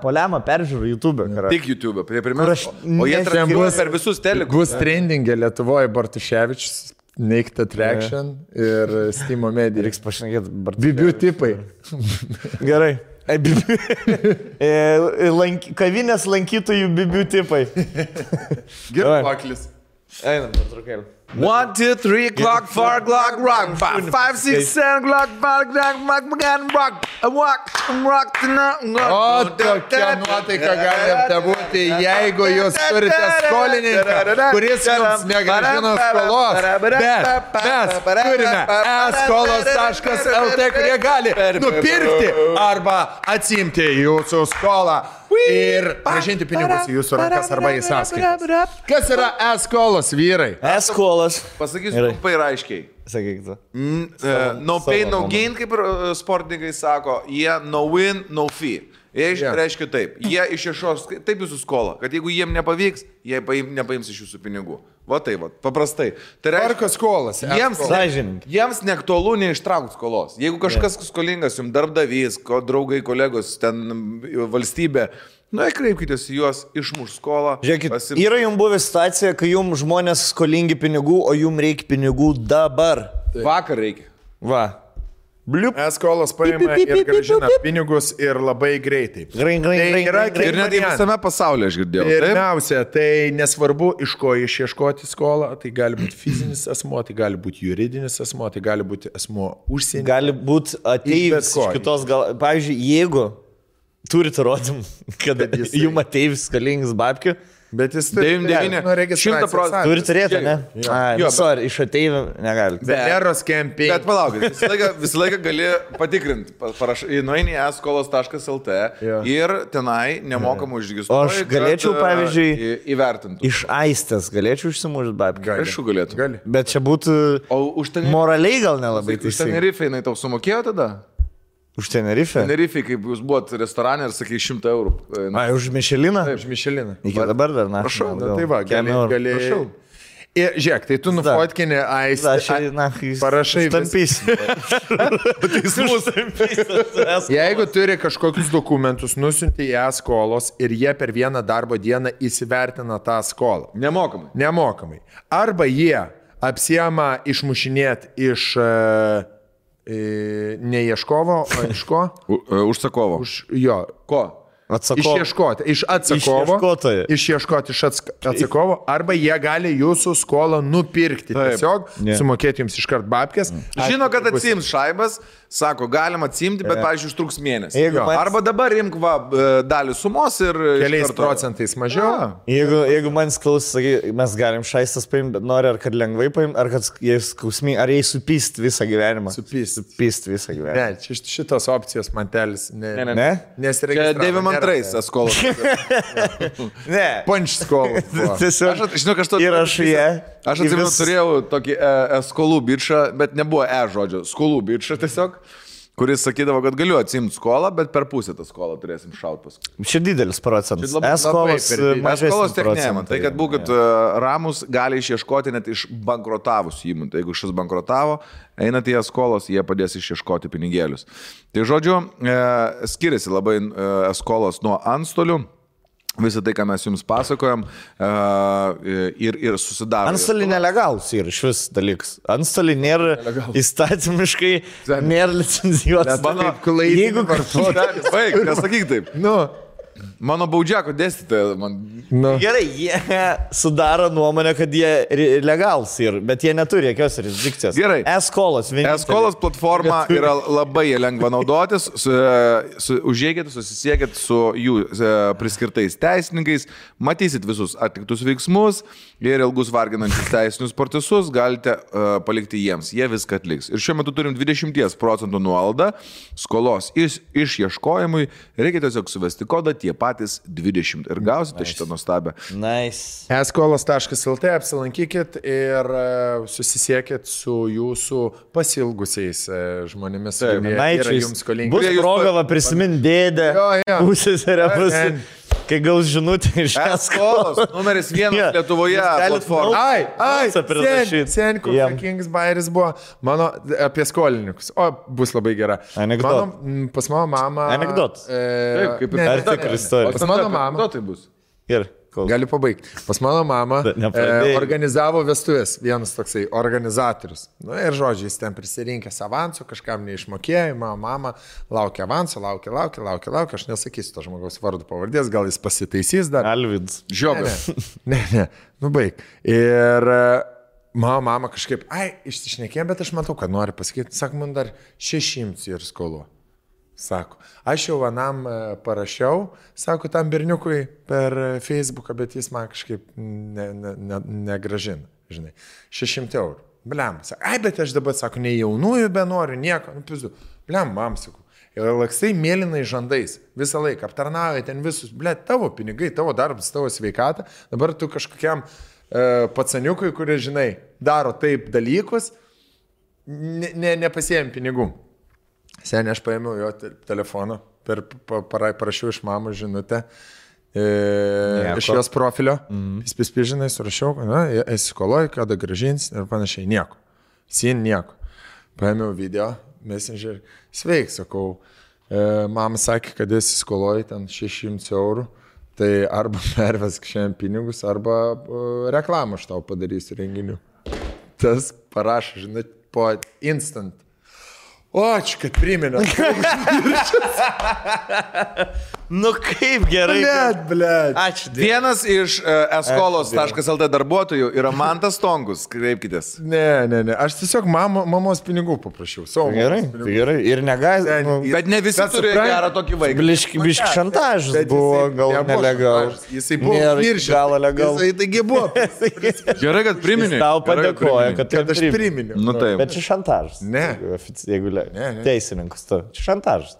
poliamą peržiūrų YouTube. Tik YouTube, prie pirmiausia. O jie transliuoja per visus telekus. Bus trendingė Lietuvoje Bartuševičius, Naked Attraction ir Steam Media. Reiks pašnekėti Bibių tipai. Gerai. Kavinės lankytojų bibių tipai. Gerai, paklis. Einam, patrukėlį. 1, 2, 3, clock, 4, clock, rock, 5, 6, 7, clock, 5, rock, O tokia nuotaika galite būti, jeigu jūs turite skolininką, kuris jums negrąžino skolos, bet mes turime eskolos.lt, kurie gali nupirkti arba atsimti jūsų skolą ir grąžinti pinigus į jūsų rankas arba į sąskaitas. Kas yra eskolos, vyrai? Eskolos. Pasakysiu trumpai ir aiškiai. Sakyk tu. No pain, no gain, kaip sportininkai sako, jie no win, no fee. Jie reiškia taip, jie išieškos taip jūsų skolą, kad jeigu jiem nepavyks, jie nepaims iš jūsų pinigų. Va tai, va, paprastai. Tai reiškia skolas. Jiems neaktualu neištraukti skolos. Jeigu kažkas skolingas, jums darbdavys, draugai, kolegos, ten valstybė, kreipkitės į juos, išmuš skolą. Žiūrėkit, yra jums buvę situacija, kai jums žmonės skolingi pinigų, o jums reikia pinigų dabar. Vakar reikia. Va. Bliup. Eskolas paima ir grąžina pinigus ir labai greitai. Ir net visame pasaulyje aš girdėjau. Pirmiausia, tai nesvarbu, iš ko išieškoti skolą. Tai gali būti fizinis asmuo, tai gali būti juridinis asmuo, tai gali būti asmuo užsienį. Gali būti ateivis iš kitos gal. Pavyzdžiui, jeigu turite įrodymų, kad jums ateivis skolingas babkių, bet jis turi 100%. Turi turėti, ne? Sorry, iš ateivių negali. Veneros campaign. Bet palaukit, visą laiką gali patikrinti. Nueini į eskolos.lt ir tenai nemokamai užregistruoji. Aš galėčiau, pavyzdžiui, įvertinti. Iš Aistės galėčiau išsimušti babkių. Aišku, galėtų. Bet čia būtų moraliai gal nelabai teisingai. Už Tenerifę jinai tau sumokėjo tada? Už Tenerifę? Tenerifę, kaip jūs buvot restorane ir sakai 100 eurų. Už Mišeliną? Taip, už Mišeliną. Iki dabar dar, na. Prašau. Tai va, gali. Ir žiūrėk, tai tu nufotkinė Aistę. Parašai. Stampysi. Jeigu turi kažkokius dokumentus, nusiunti į eskolos ir jie per vieną darbo dieną įsivertina tą skolą. Nemokamai. Arba jie apsiema išmušinėti iš... ne ieškovo, o iš ko? Užsakovo. Jo. Ko? Išieškoti iš atsakovo. Išieškoti iš atsakovo. Arba jie gali jūsų skolą nupirkti. Tiesiog sumokėti jums iškart babkės. Žino, kad atsiims šaibas, sako, galima atsimti, bet, pavyzdžiui, užtruks mėnesį. Arba dabar imk dalį sumos ir... Keliais procentais mažiau. Jeigu man klaus, sakai, mes galim šaistas paimti, bet nori ar kad lengvai paimti, ar kad jie skausmi, ar jie supyst visą gyvenimą. Supyst visą gyvenimą. Ne, šitos opcijos mantelis. Ne? Nesiregistravo. 92 skolos. Ne. Punch skolos. Tiesiog, žinok, aš atsimenu, turėjau tokį skolų bičą, bet nebuvo žodžio. Skolų bičą tiesiog. kuris sakydavo, kad galiu atsimti skolą, bet per pusę tą skolą turėsim šaut paskui. Čia didelis procentas. Eskolos mažesnis procentas. Tai, kad būkit ramus, gali išieškoti net iš bankrotavusių įmonių. Tai jeigu šis bankrotavo, einat į eskolos, jie padės išieškoti pinigėlius. Tai žodžiu, skiriasi labai eskolos nuo antstolių. Visą tai, ką mes jums pasakojam ir susidaro. Antstoliai nelegalus yra šis dalykas. Antstoliai nėra įstatymiškai, nėra licencijuotas. Jeigu vartotojas. Baig, nesakyk taip. Mano baudžiako dėstytoja man. Gerai, jie sudaro nuomonę, kad jie legalus yra, bet jie neturi jokios jurisdikcijos. Gerai. Eskolos platforma yra labai lengva naudotis. Užėjkite, susisiekit su jų priskirtais teisininkais, matysit visus atliktus veiksmus ir ilgus varginančius teisinius procesus galite palikti jiems. Jie viską atliks. Ir šiuo metu turim 20% nuolaidą skolos išieškojimui. Reikia tiesiog suvesti kodą tie patys 20 ir gausite šitą nuostabę. Nice. eskolos.lt apsilankykit ir susisiekit su jūsų pasilgusiais žmonėmis, kurie yra jums skolingi. Bus proga prisiminti dėdę, pusėserę, kai gaus žinutę iš eskolos. Numeris 1 Lietuvoje platforma. Sen, koks Kings Bairis buvo mano apie skolininkus. O, bus labai gera. Pas mano mamą. Anekdotas. Pas mano mamą. Tai bus. Ir. Galiu pabaigti. Pas mano mamą organizavo vestuvės, vienas toksai organizatorius. Ir žodžiai, jis ten prisirinkęs avansų, kažkam neišmokėjo, mano mama laukia avansų, laukia, aš nesakysiu to žmogaus vardu pavardės, gal jis pasitaisys dar. Alvids. Žiobas. Ne, baig. Ir mano mama kažkaip, išsišnekėjo, bet aš matau, kad nori pasakyti, sako, man dar 600 ir skolu. Sako, aš jau vienam parašiau, sako, tam berniukui per Facebooką, bet jis man kažkaip negražina, žinai, 600 eurų. Bliam, sako, bet aš dabar, sako, nei jaunųjų be noriu, nieko, pizu. Bliam, mam, sako, ir laksai mėlynai žandais, visą laiką aptarnauja ten visus, tavo pinigai, tavo darbas, tavo sveikata, dabar tu kažkokiam pacaniukui, kurie, žinai, daro taip dalykus, nepasiėm pinigų. Seniai aš paėmiau jo telefoną, parašiau iš mamos žinutę iš jos profilio, žinai, surašiau, esi skoloji, kada grąžins ir panašiai, nieko. Nieko. Paėmiau video, messenger, sveik, sakau, mama sakė, kad esi skoloji ten 600 eurų, tai arba pervesk šiandien pinigus, arba reklamą aš tau padarysiu renginių. Tas parašo, žinai, po instant. O, ačiū, kad priminė. Nu kaip gerai. Blet. Ačiū. Vienas iš eskolos.lt darbuotojų yra Mantas Tonkus, kreipkitės. Ne, aš tiesiog mamos pinigų paprašiau. Gerai. Ir negazinu. Bet ne visi turi gerą tokį vaiką. Biški šantažas buvo, gal nelegal. Jisai buvo gal legal. Jisai taigi buvo. Gerai, kad priminė. Tau padėkoja, kad aš priminiau. Nu taip. Bet čia šantažas. Ne. Jeigu teisininkus, čia šantažas.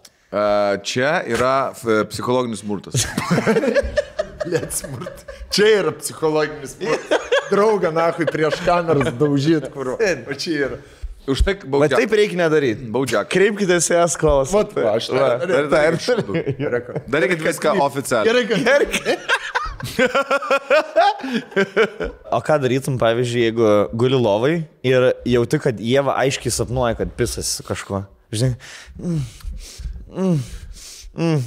Čia yra psichologinis smurtas. Čia yra psichologinis smurtas. Draugą, nahui, prieš kameras daužyt, kur. O čia yra. Už tai baudžiak. Bet taip reikia nedaryti. Baudžiak. Kreipkitės į eskolas. Aš darykit viską oficialiai. Gerai. O ką darytum, pavyzdžiui, jeigu guli lovai ir jauti, kad Ieva aiškiai sapnuoja, kad pisas su kažkuo. Žinai,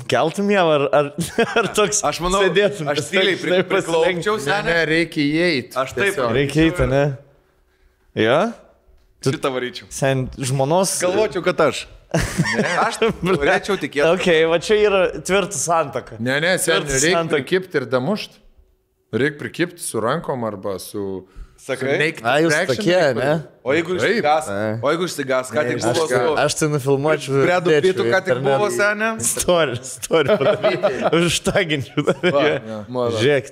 keltum Ievą ar toks aš manau, sėdėtum. Aš tyliai priklaupčiau, ne, reikia įeiti. Aš taip. Reikia įeiti, ne? Jo? Šitą varyčiau. Sen žmonos. Galvočiau, kad aš. Ne, aš norėčiau tikėti. Ok, va čia yra tvirtas santaka. Ne, sen, reikia prikipti ir damušti. Reikia prikipti su rankom arba su... Sakai? Jūs tokie, ne? O jeigu išsigas, ką tik buvo su... Aš tai nufilmuočiau. Bredu Pitu, ką tik buvo, senė? Story padaryti. Užtaginčiau. Žiūrėk,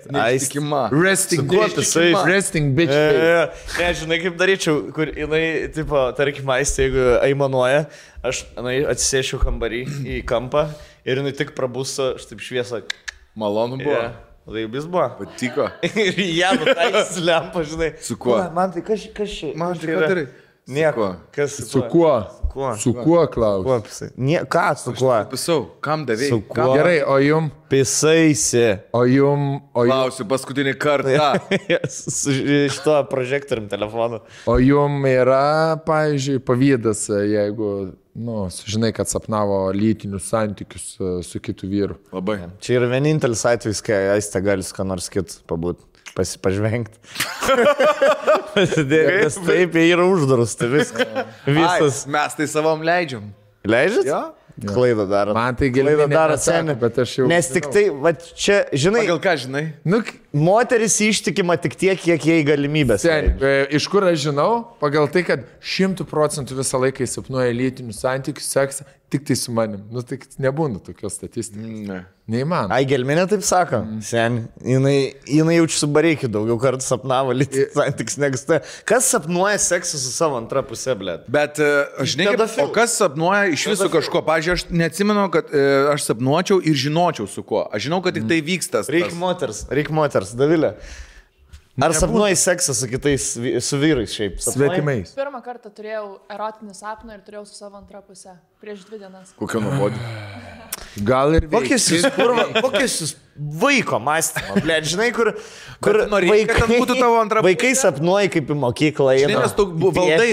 resting bitch. Ne, žinai, kaip daryčiau, kur jinai, tipo, tarkim, aistė, jeigu aimanuoja, aš atsisėšiu kambarį į kampą ir jinai tik prabusto, štaip šviesą. Malonu buvo. Laibis buvo. Patiko. Ir ją nutaisys lempą, žinai. Su kuo? Man tai kas čia? Man tai ką darai? Nieko. Su kuo? kuo? Su kuo klausiu? Ką su kuo? Pisau, kam davėjai? Su kuo? Gerai, o jum? Pisaisi. O jum? Klausiu paskutinį kartą. Su šito prožektorium telefonu. O jum yra, pavyzdžiui, pavydas, jeigu, sužinai, kad sapnavo lytinius santykius su kitu vyru. Labai. Čia yra vienintelis atvejis, kai Aistė gali su ką nors kitu pabūti. Pažvengti. Pasidėti, nes taip yra uždarus, tai viskas. Mes tai savom leidžiam. Leidžiat? Jo. Klaidą daro. Man tai giliai daro seniai, bet aš jau... Nes tik tai, va čia, žinai... Pagal ką žinai? Moteris ištikima tik tiek, kiek jai galimybės. Iš kur aš žinau? Pagal tai, kad 100% visą laiką sapnuoja lytinius santykius, seksą, tik tai su manim. Tai nebūna tokios statistikos. Ne. Neįmanoma. Ai, gelminė taip sako. Sen, jinai jaučiu su bareikiu daugiau kartų sapnavo lytinius santykius negu tai. Kas sapnuoja seksą su savo antra pusė, blėt? Bet, žinai, o kas sapnuoja iš viso kažko? Pavyzdžiui, aš neatsimenu, kad aš sapnuočiau ir žinočiau su kuo. Aš žinau, kad tik tai vyksta. Reik moters, Davilė. Ar sapnuoji seksą su kitais, su vyrais šiaip? Svetimais. Pirmą kartą turėjau erotinį sapną ir turėjau su savo antrą pusę. Prieš 2 dienas. Kokia nuobodė? Gal ir kokius jūs vaiko mąstymą, blėt, žinai, kur vaikai sapnuoja kaip į mokyklą. Žinai, nes tu valdai.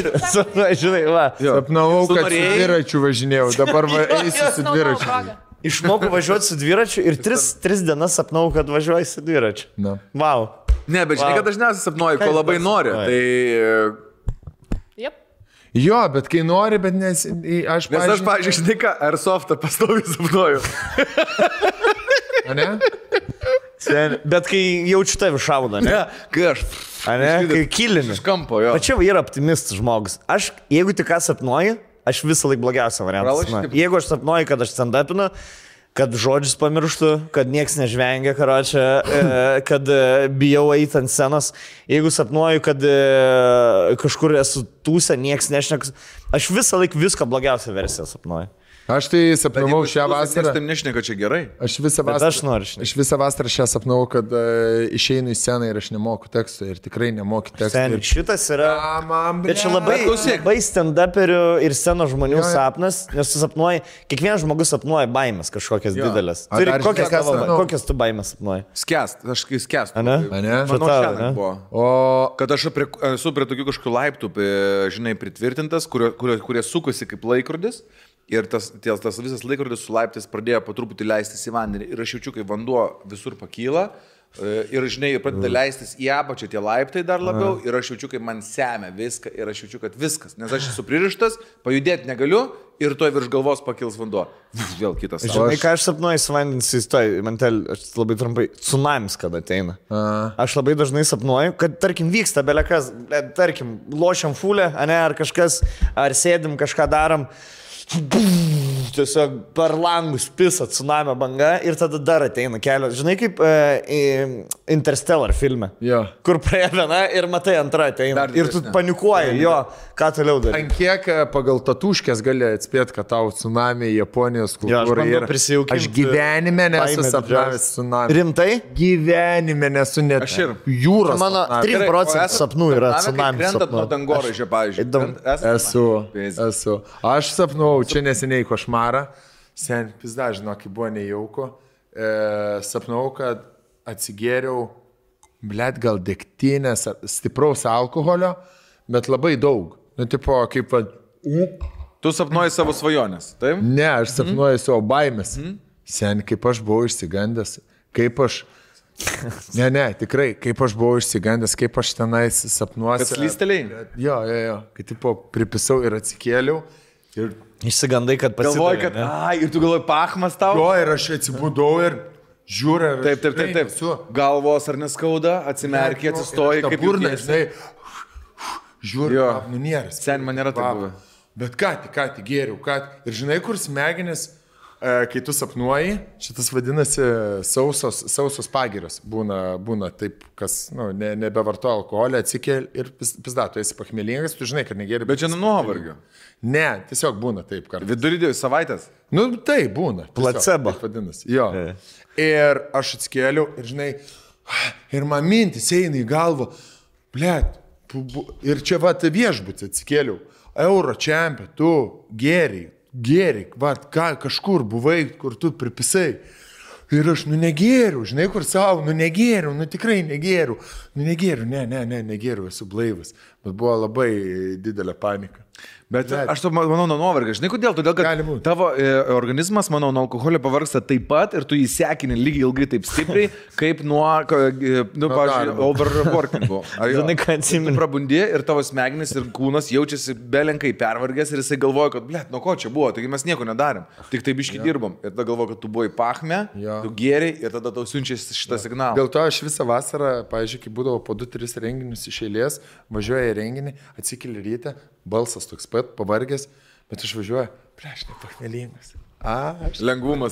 Žinai, va. Sapnavau, kad su dviračiu važinėjau, dabar eisiu su dviračiu. Išmokau važiuoti su dviračiu ir 3 dienas sapnau, kad važiuoju su dviračiu. Wow. Ne, bet žinai, kad dažniausiai sapnuoju, ko labai nori. Tai... Jep. Jo, bet kai nori, bet aš... Nes aš, pavyzdžiui, žinai ką, Airsoftą pastoviai sapnuoju. Ne? Bet kai jaučiu tave šaudą, ne? Kai aš... Kai kilini. Iš kampo, jo. O čia yra optimistas žmogus. Aš, jeigu tik ką sapnuoju, aš visą laiką blogiausią variantą. Jeigu aš sapnuoju, kad aš stand-upinu, kad žodžius pamirštu, kad nieks nežvengia, kad bijau eiti ant scenos. Jeigu sapnuoju, kad kažkur esu tūse, nieks nešneka, aš visą laiką viską blogiausią versiją sapnuoju. Aš tai sapnavau šią vasarą. Aš taip nešneka, čia gerai. Aš visą vasarą šią sapnavau, kad išeinu į sceną ir aš nemoku teksto ir tikrai nemoku teksto. Šitas yra... Bet čia labai stand-uperių ir scenos žmonių sapnas, nes tu sapnuoji, kiekvienas žmogus sapnuoja baimės kažkokias didelės. Kokias tu baimės sapnuoji? Skęst, aš kai skęstu. Manau, šiandien buvo. Kad aš esu prie tokių kažkokių laiptų, žinai, pritvirtintas, kurie sukosi kaip laikrodis. Ir tas visas laikrodis su laiptais pradėjo po truputį leistis į vandenį. Ir aš jaučiu, kai vanduo visur pakyla. Ir, žinai, pradeda leistis į apačią tie laiptai dar labiau. Ir aš jaučiu, kaip man semia viską. Ir aš jaučiu, kad viskas. Nes aš esu pririštas, pajudėti negaliu. Ir toj virš galvos pakils vanduo. Vėl kitas. Žinai, ką aš sapnuoju su vandens įstoj. Aš labai trumpai. Tsunamis, kada ateina. Aš labai dažnai sapnuoju, kad, tarkim, vyksta belekas. Tarkim, lošiam fulę, ar kažkas, ar sėdim, kažką darom. Tiesiog per langus pisa tsunamio banga ir tada dar ateina kelios. Žinai, kaip Interstellar filme, kur praėjo viena ir matai antra ateina. Ir tu panikuoji, ką toliau darai. Ant kiek pagal tatuškės gali atspėti, kad tau tsunami Japonijos kultūra yra. Aš gyvenime nesu sapnavęs tsunami. Rimtai? Gyvenime nesu net jūros. Mano 3% sapnų yra tsunami sapnų. Nuo dangoraižio, pavyzdžiui. Esu. Aš sapnau, čia neseniai košmarą. Sen, pizda, žinok, kai buvo nejauku. Sapnau, kad atsigėriau, blėt, gal degtinės, stipraus alkoholio, bet labai daug. Tipo, kaip... Tu sapnuoji savo svajonės, taip? Ne, aš sapnuoju savo baimės. Sen, kaip aš buvau išsigandęs, kaip aš... Ne, tikrai, kaip aš buvau išsigandęs, kaip aš tenais sapnuosi. Kad slystelėjai? Jo. Kai, tipo, pripisau ir atsikėliau. Ir... Išsigandai, kad pasidavai. Galvoji, kad, ir tu galvoji, pachmas tau? Jo, ir aš atsibudau ir žiūriu. Taip. Galvos ar neskauda, atsimerkiai, atsistoji, kaip burna, žinai. Žiūriu, nunieras. Sen man nėra taip buvę. Bet ką tik gėriau, ir žinai, kur smegenis, kai tu sapnuoji, šitas vadinasi sausos pagiros. Būna taip, kas nebevartoja alkoholį, atsikėl ir pizda, tu esi pachmėlingas, tu žinai, kad negėri. Bet čia nuovargio. Ne, tiesiog būna taip kartais. Vidurį savaitės? Tai būna. Placebo. Vadinasi. Jo. Ir aš atsikėliau ir žinai, ir man mintis eina į galvą, blėt, ir čia viešbutį atsikėliau. Euro čempė, tu gėri, kažkur buvai, kur tu pripisai. Ir aš, negėriu, žinai, kur savo, negėriu, tikrai negėriu. Negėriu, esu blaivas. Bet buvo labai didelė panika. Bet aš to manau nuo nuovargio. Žinai, kodėl? Todėl, kad tavo organizmas, manau, nuo alkoholio pavargsta taip pat ir tu įsekini lygiai ilgai taip stipriai, kaip nuo, pavyzdžiui, overworkingo. Žinai, ką atsimenu. Tu prabundi ir tavo smegenis ir kūnas jaučiasi belenkai pervargęs ir jisai galvoja, kad, nuo ko čia buvo, taigi mes nieko nedarėm. Tik taip biški dirbom. Ir tada galvoja, kad tu buvai pachme, tu gėriai ir tada tau siunčia šitą signalą. Dėl to aš visą vasarą, pavyzdžiui, kai būdavo po 2-3 renginius iš eilės, važiuoja į renginį, atsikeli ryte, balsas toks pat, pavargęs, bet aš važiuoju, prieš nepachmelingas. Lengvumas.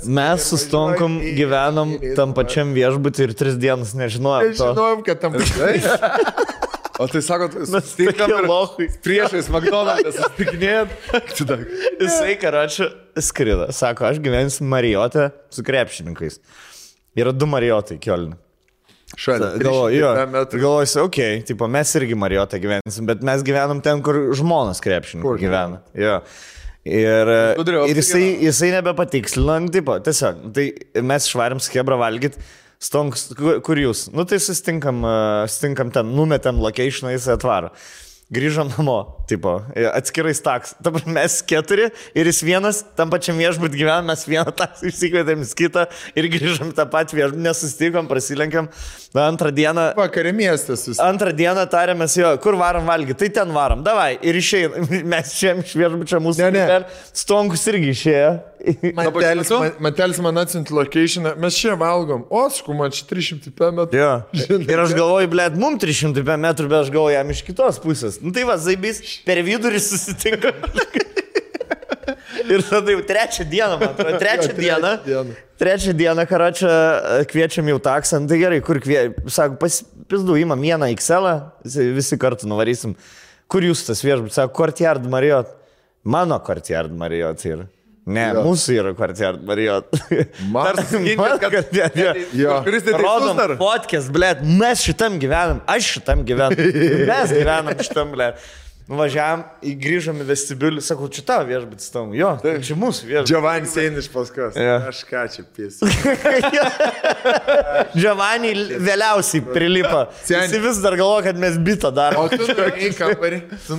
Mes su Stonkom gyvenom tam pačiam viešbutį ir 3 dienas nežinojom to. Nežinojom, kad tam pačiam. O tai sakot, priešais McDonald's susitikinėjot. Jisai, karočią, skrido. Sako, aš gyvensiu Marijote su krepšininkais. Yra 2 Marijotai Kiolne. Galvoju, okei, mes irgi Marijotą gyvensim, bet mes gyvenam ten, kur žmonos krepšininkai gyvena. Jo. Ir jisai nebepatikslino, tiesiog, tai mes švarim skebrą valgyt, Stonks, kur jūs? Tai sustinkam ten, numetėm locationą, jisai atvaro. Grįžom namo, atskirais taks. Dabar mes 4 ir jis vienas, tam pačiam viešbūt gyvenam, mes vieną taksą išsikvietėm į kitą ir grįžom tą patį viešbutį, nesustikom, prasilenkiam. Antrą dieną... Vakarė miestas. Antrą dieną tarėmės, kur varom valgyti, tai ten varom, davai. Ir išėjom, mes išėjom iš viešbučio mūsų. Stonkus irgi išėjo. Matelis man atsiuntė locationą, mes čia valgom, man čia 300 metrų. Jo. Ir aš galvoju, mums 300 metrų, bet aš galvoju jam iš kitos pusės. Tai va, zaibys, per vidurį susitinka. Ir tada jau 3 dieną, man atrodo, 3 dieną, karočią, kviečiam jau taksą, tai gerai, kur kviečiam, sako, pizdu, imam vieną XL, visi kartu nuvarysim. Kur jūs tas viešbutis, sako, Courtyard Marriott. Mano Courtyard Marriott yra. Ne, mūsų yra Courtyard Marriott. Rodom podcast, blėt, mes šitam gyvenam, aš šitam gyvenam, mes gyvenam šitam, blėt. Nuvažiavam, grįžom į vestibiulį, sakau, čia tavo viešbutis tam, jo, čia mūsų viešbutis. Giovanni eina iš paskos, aš ką čia pėsiu. Giovanni vėliausiai prilipa, jis vis dar galvo, kad mes bitą darom. O tu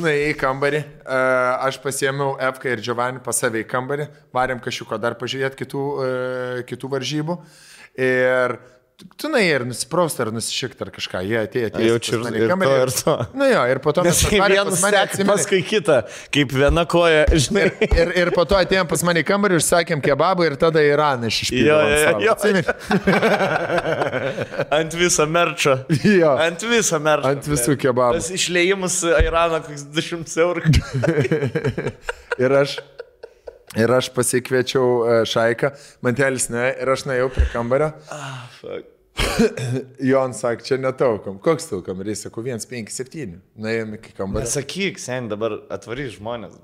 nuėjai į kambarį, aš pasiėmiau Efką ir Giovanni pas save į kambarį, varėm kažko dar pažiūrėti kitų varžybų ir... Tu ir nusiprausti ar nusišikti ar kažką, jie atėjo. Jaučiu ir to. Ir po to mes vienas paskui kitą, kaip viena koja, žinai. Ir po to atėjom pas mane į kambarį, užsakėm kebabą ir tada Iraną išpildėm. Jo. Ant viso merčo. Jo. Ant viso merčo. Ant visų kebabų. Tas išlėjimus Iraną, koks 200 eurų. Ir aš pasikviečiau Šaiką, Mantelis ne, ir aš nuėjau prie kambario. Jon sakė, čia netaukam. Koks taukam? Ir jis sako, 157. Nuėjom iki kambario. Nesakyk, sen, dabar atvarys žmonės.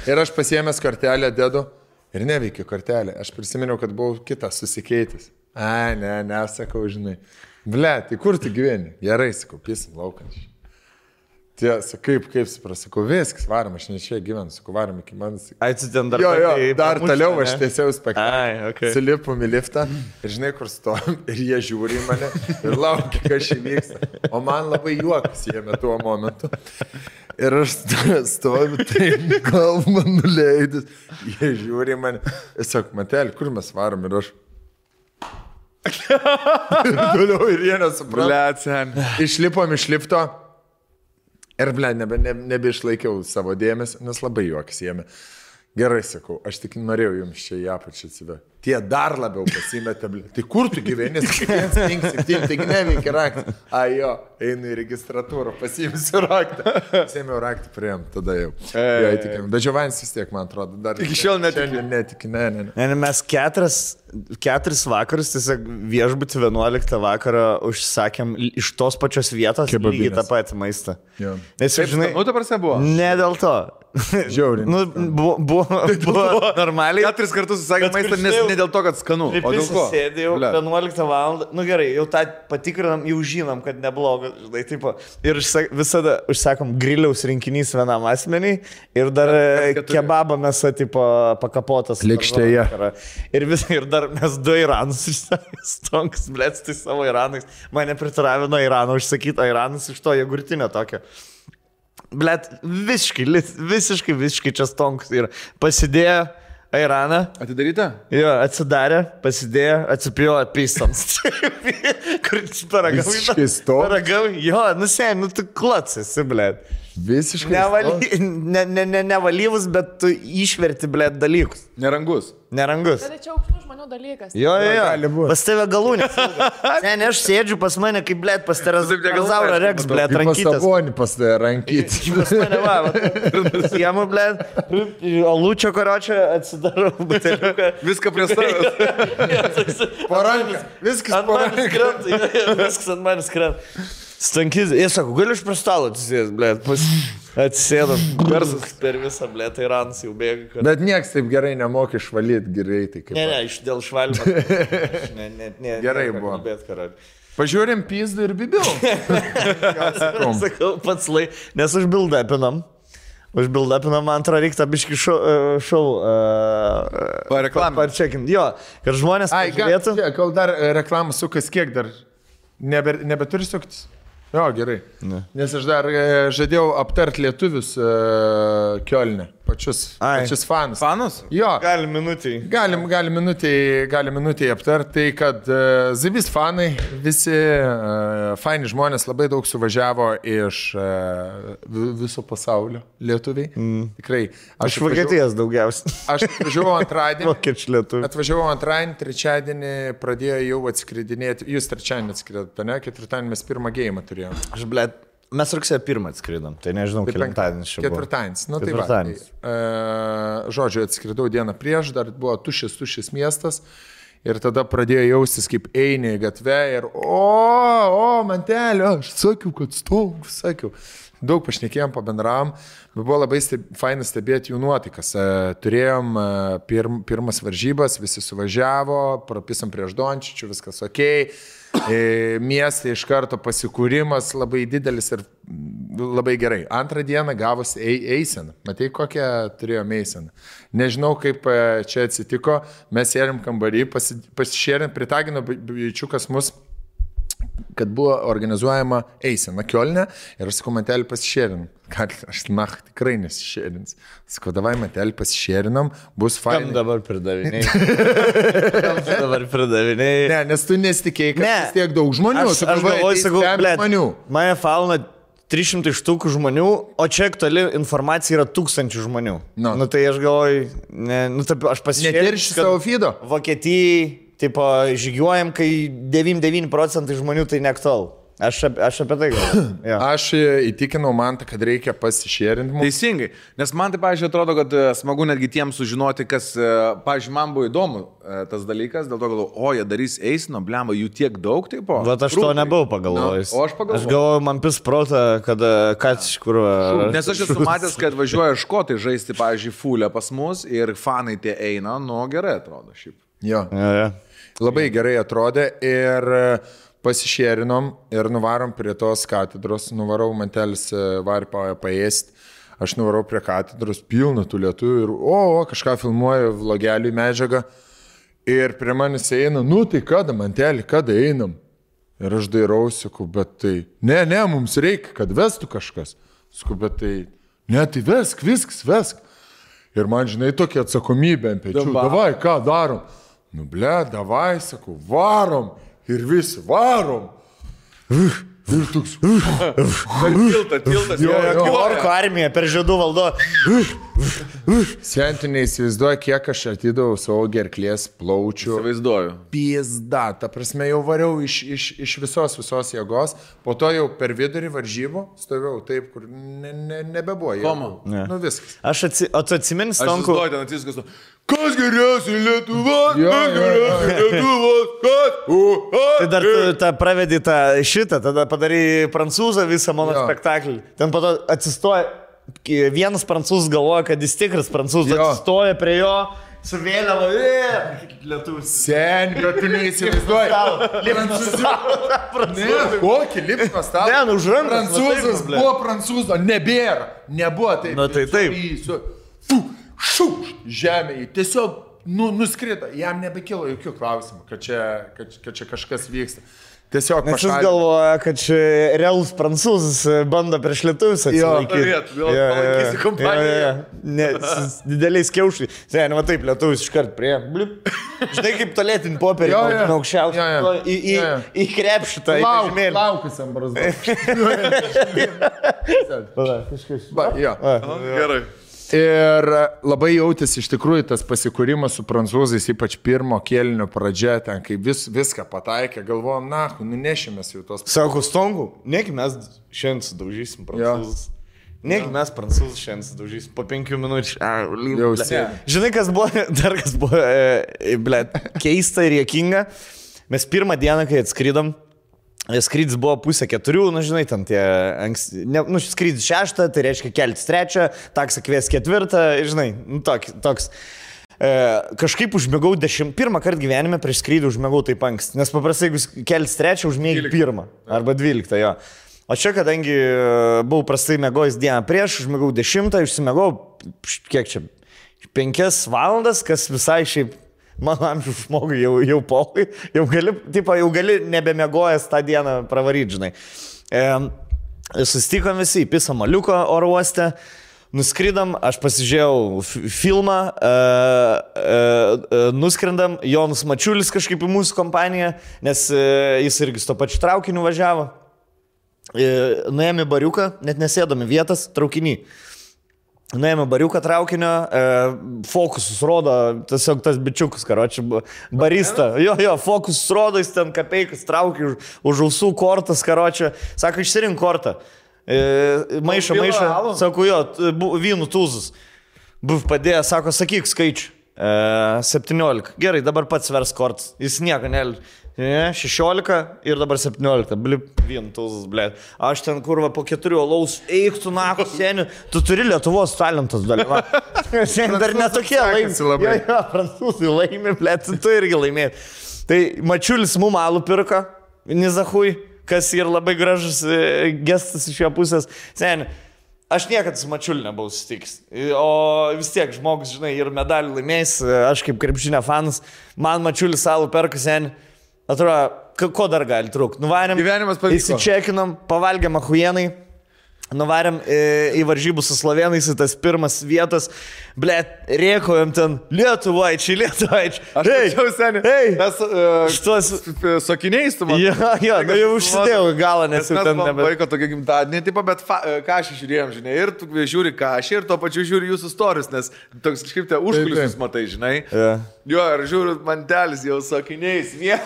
Ir aš pasiėmęs kortelę dedu ir neveikiu kortelę. Aš prisiminiau, kad buvau kitas susikeitis. Ne, sakau, žinai. Ble, tai kur tu gyveni? Gerai, sakau, pisim laukančiai. Tiesa, kaip supras, sakau, viskas, varom, aš ne čia gyvenu, sakau, varom iki manas. Ai, tu ten dar... Jo, dar toliau aš tiesiau spektaklį. Okay. Sulipom į liftą ir žinai, kur stovim, ir jie žiūri į mane ir laukia, kas čia vyksta. O man labai juokas jėmė tuo momentu. Ir aš stoviu, tai galvą nuleidus, jie žiūri į mane. Ir sako, Matelį, kur mes varom? Ir aš... ir toliau ir jie nesupranta. Išlipom iš lifto. Ir, ble, nebeišlaikiau savo dėmesio, nes labai juokas jėmė. Gerai, sakau, aš tik norėjau jums čia į apačią atsivę. Tie dar labiau pasimetė, ble. Tai kur tu gyveni? 157, taigi neveikia raktą. Jo, einu į registratūrą, pasiimsiu raktą. Pasiėmiau raktą, priėm, tada jau. Bet Giovannis vis tiek, man atrodo, dar... Iki šiol netiki. Ne. Mes 4 vakarus, tiesiog viešbutį 11 vakarą užsakėm iš tos pačios vietos lygiai tą patį maistą. Jo. Nes, žinai, ta prasme buvo? Ne dėl to. Žiauriai. Nu, buvo normaliai. 4 kartus susakė maistą, nes ne dėl to, kad skanu. O dėl ko? Sėdė jau 11 val. Nu gerai, jau tą patikrinam, jau žinom, kad neblogas. Žinai, tipo. Ir visada užsakom griliaus rinkinys vienam asmeniai ir dar kebabą mes tipo pakapotas. Lėkštėje. Ir dar mes 2 Iranus stonks, blėts, tai savo Iranais. Mane pritaravino Irano užsakyti Iranus iš to jogurtinio tokio. Blet, visiškai čia stonks ir pasidėjo Airaną. Atidaryta? Jo, atsidarė, pasidėjo, atsipėjo pistams. Kur paragavai? Jo, nu tu klotsasi, blet. Visiškai. Nevalyvus, bet tu išverti, blet, dalykus. Nerangus. Tai čia aukštų žmonių dalykas. Jo. Pas tave galūnės. Ne, aš sėdžiu pas mane, kaip, blet, pas Terazaurą Rex, blet, rankytas. Pas Sabonį pas tave rankytas. Pas mane, va. Siemu, blet, alūčio karočio atsidarau buteliuką. Viską prie savęs. Parankas. Viskas parankas. Viskas ant manęs krenta. Stankis, jie sako, gali iš prie stalo atsisėdus, blėt, atsisėdam, garsas per visą, blėt, Iranas jau bėga. Bet nieks taip gerai nemoka išvalyti greitai. Ne, dėl švalimą. Gerai buvo. Pažiūrėm pizdą ir bibiau. Sakau, pats nes užbildapinam. Užbildapinam, man atrodo, reikia biškį šau. Parčekim. Jo, kad žmonės pažiūrėtų. Kol dar reklamą sukas, kiek dar nebeturi suktis? Jo, gerai. Ne. Nes aš dar žadėjau aptart lietuvius Kiolne. Pačius fanus. Fanus? Jo. Galim minutį. Galim minutį aptart. Tai, kad Zibis fanai, visi faini žmonės labai daug suvažiavo iš viso pasaulio lietuviai. Tikrai. Aš Vokietijos daugiausiai. Aš atvažiavau antradienį. Vokiečių lietuvių. Atvažiavau antradienį, trečiadienį pradėjo jau atskridinėti. Jūs trečiadienį atskridėte, ne? Ketvirtadienį mes pirmą gėjimą turėjome. Aš, blėt. Mes rugsėjo 1 atskridom, tai nežinau, kelintadienis čia buvo. Ketvirtadienis, nu tai va. Žodžiu, atskridau dieną prieš, dar buvo tuščias miestas ir tada pradėjo jaustis, kaip eini į gatvę ir mantelio, aš sakiau, kad sakiau. Daug pašnekėjom, pabendravom, bet buvo labai fainas stebėti jų nuotaikas. Turėjom pirmas varžybas, visi suvažiavo, prapisam prieš Dončičių, viskas okei. Mieste iš karto pasikūrimas labai didelis ir labai gerai. Antrą dieną gavosi eisena. Matai, kokią turėjome eiseną. Nežinau, kaip čia atsitiko. Mes sėdėm kambarį, pasišėrėm, pritagino bičiukas mus, kad buvo organizuojama eisena Kiolne ir aš sakau, mantelį pasišėrinam. Aš tikrai nesišėrins. Sakau, davai mantelį pasišėrinam, bus fainai. Kam dabar pridaviniai? Ne, nes tu nesitikėjai, kad vis tiek daug žmonių. Aš galvoju, sakau, mane fauna 300 štukų žmonių, o čia toli informacija yra 1000 žmonių. Nu tai aš galvoju, aš pasišėrinau. Netirši savo feedo? Vokietijai. Tipo, žygiuojam, kai 99% žmonių tai neaktualu. Aš apie tai galvoju. Ja. Aš įtikinau Mantą, kad reikia pasišėrinti. Teisingai, nes man tai, pavyzdžiui, atrodo, kad smagu netgi tiems sužinoti, kas, pavyzdžiui, man buvo įdomu tas dalykas, dėl to galvoju, jie darys eisino, blemba, jų tiek daug, tipo. Bet aš to nebuvau pagalvojęs. O aš pagalvojau. Aš galvoju, man pis protą, kad iš kur... Nes aš esu matęs, kad važiuoja škotai žaisti, pavyzdžiui, fulę pas mus ir fanai tie eina, gerai atrodo šiaip. Jo. Ja. Labai gerai atrodė ir pasišėrinom ir nuvarom prie tos katedros, nuvarau mantelis varį paėsti, aš nuvarau prie katedros, pilna tų lietuvių ir kažką filmuoju, vlogelių medžiagą ir prie manęs eina, tai kada mantelį, kada einam? Ir aš dairausi, sakau, bet tai, ne, mums reikia, kad vestų kažkas. Sakau, bet tai, ne, tai vesk, viskas, vesk. Ir man, žinai, tokia atsakomybė ant pečių, davai, ką darom? Davai, sakau, varom ir visi varom. Ir toks. Tiltas. Orko armija per žiedų valdo. Senti neįsivaizduoju, kiek aš atidavau savo gerklės plaučių. Įsivaizduoju. Pizda, ta prasme, jau variau iš visos jėgos, po to jau per vidurį varžybų stovėjau taip, kur nebebuvo. Koma? Nu viskas. O tu atsimeni, Stonku? Aš ten atsiskas, kas geriausiai Lietuvos, Tai dar tu pravedai šitą, tada padarai prancūzą visą mano spektaklį. Ten po to atsistoja vienas prancūzas galvoja, kad jis tikras prancūzas, atsistoja prie jo, su vėliava, lietuvis. Sen, bet tu neįsivaizduoji. Kokį lipno stalą? Ne, už rankų. Prancūzas buvo prancūzo, nebėra. Nebuvo taip. Na tai taip. Žemėje, tiesiog nuskrito, jam nebekilo jokių klausimų, kad čia kažkas vyksta. Tiesiog nes jis galvoja, kad čia realus prancūzas bando prieš lietuvius atsilaikyti. Palaikysi kompaniją. Dideliais kiaušai. Seniai, va taip, lietuvis iškart prie. Blip. Žinai, kaip tolėtinį popierį, aukščiausią. Į krepšį tą žemėlį. Laukusiam brazdu. Gerai. Ir labai jautėsi iš tikrųjų tas pasikūrimas su prancūzais, ypač pirmo kėlinio pradžia, ten kai viską pataikė, galvojom, nunešimės jau tos. Sako, Stongu, negi mes šiandien sudaužysim prancūzus. Negi mes prancūzus šiandien sudaužysim po 5 minučių. Žinai, kas buvo, keista ir juokinga. Mes pirmą dieną, kai atskridom, skrydis buvo 3:30, žinai, ten tie skrydis 6, tai reiškia keltis 3, taksą kvies 4, žinai, toks. Kažkaip užmėgau pirmą kartą gyvenime prieš skrydį užmėgau taip anksti, nes paprastai, jeigu keltis 3, užmėgi 1 arba 12, jo. O čia, kadangi buvau prastai mėgojęs dieną prieš, užmėgau 10, užsimėgau, kiek čia, 5 valandas, kas visai šiaip mano amžiaus žmogui jau polai, jau gali nebemėgojęs tą dieną pravaryti, žinai. Susitikom visi į Pisa Maliuko oro uoste, nuskridam, aš pasižiūrėjau filmą, nuskrendam, Jonas Mačiulis kažkaip į mūsų kompaniją, nes jis irgi su to pačiu traukiniu važiavo. Nuėjome į bariuką, net nesėdami vietas, traukinį. Nuėjome bariuką traukinio, fokusus rodo, tiesiog tas bičiukas, karoči, barista. Jo, fokusus rodo, jis ten kapeikas traukia už ausų kortas, karoči. Sako, išsirink kortą. Maišą. Sako, jo, vynų tūzus. Buv padėjo, sako, sakyk skaičių. 17. Gerai, dabar pats vers kortas. Jis nieko nelė. 16 ir dabar 17. Blip, vien tūzus, blėt. Aš ten kurva po 4 alaus, eik tu naku, seniu, tu turi Lietuvos talentas dalyva. Seniai dar netokie laimė. Jo, prancūzai laimė, blėt, tu irgi laimėjai. Tai Mačiulis mum alų pirko, Nizahui, kas ir labai gražus gestas iš jo pusės. Seniai, aš niekada su Mačiuliu nebuvau susitikęs. O vis tiek žmogus, žinai, ir medalių laimėjęs, aš kaip krepšinio fanas, man Mačiulis alų perka, seniai. Atrodo, ko dar gali trūkti? Nuvarėm, įsičekinom, pavalgėm ahujenai, nuvarėm į varžybų su slovėnais, į tas pirmas vietas, blėt, rėkojom ten, lietuvaičiai. Aš tačiau, seniai, mes šitos sakiniais tu man. Jo, jau užsidėjau galą, nes jau ten nebe. Vaiko tokia gimtadienė, tipo, bet kažį žiūrėjom, žinai, ir tu žiūri kažį, ir tuo pačiu žiūri jūsų stories, nes toks kažkaip te užkulisius matai, žinai. Jo, ir žiūriu, mantelis jau sakiniais. Ja,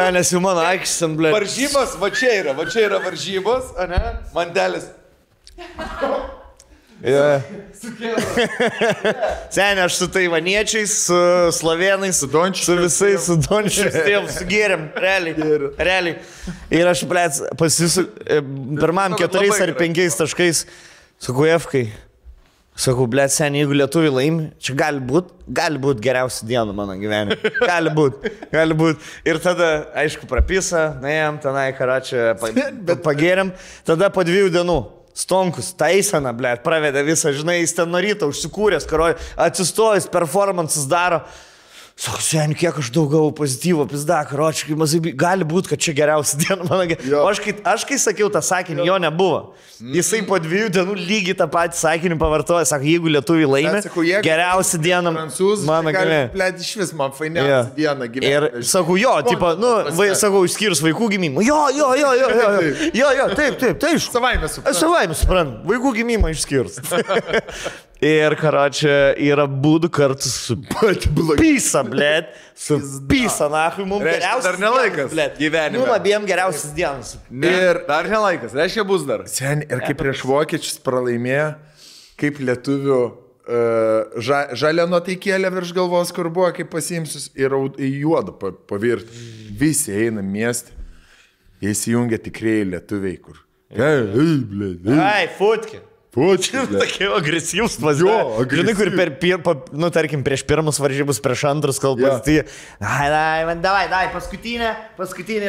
nes jau mano aikštis ant blėt. Varžybos, va čia yra varžybos, ane? Mantelis. Seniai, aš su taivaniečiais, su slovėnais, su visais, su dončiais, sugėrėm, realiai. Ir aš, blėt, pirmam 4 ar 5 taškais su Kujevkai. Sakau, blėt, seniai, jeigu lietuviai laimi, čia gali būt geriausia diena mano gyvenime. Gali būt. Ir tada, aišku, prapisa, naėjom tenai, karačią, pagėrėm. Tada po 2 dienų Stonkus, taisena, blėt, pravedė visą, žinai, jis ten nuo ryto užsikūręs, karoj, atsistojęs, performances daro. Sako, seniai, kiek aš daug gavau pozityvo, pizda, karočiai, gali būti, kad čia geriausia diena mano gyvenime. O aš kai sakiau tą sakinį, jo nebuvo. Jisai po 2 dienų lygiai tą patį sakinį pavartoja, sako, jeigu lietuviai laimė, geriausia diena mano gyvenime. Blėt, iš vis man fainiausia diena gyvenime. Ir sakau, jo, tipo, sakau, išskyrus vaikų gimimą. Jo, taip. Savaime suprantu, vaikų gimimą išskyrus. Ir, karočią, yra būdų kartu su Pisa, blėt, su Pisa, nahui, mums geriausias. Dar nelaikas, blėt, gyvenime. Mums abiem geriausias dienas. Ir dar nelaikas, reiškia bus dar. Seniai, ir kaip prieš vokiečius pralaimėjo, kaip lietuvių žalia nuotaikėlė virš galvos, kur buvo, kaip pasiimsius, ir į juodą pavirti. Visi eina miestą, jie įsijungia tikrieji lietuviai, kur. Ai, futki. Tokie agresyvus važiuoja. Žinai, kur tarkim, prieš pirmus varžybus, prieš antrus kalbas, tai... Davai, paskutinė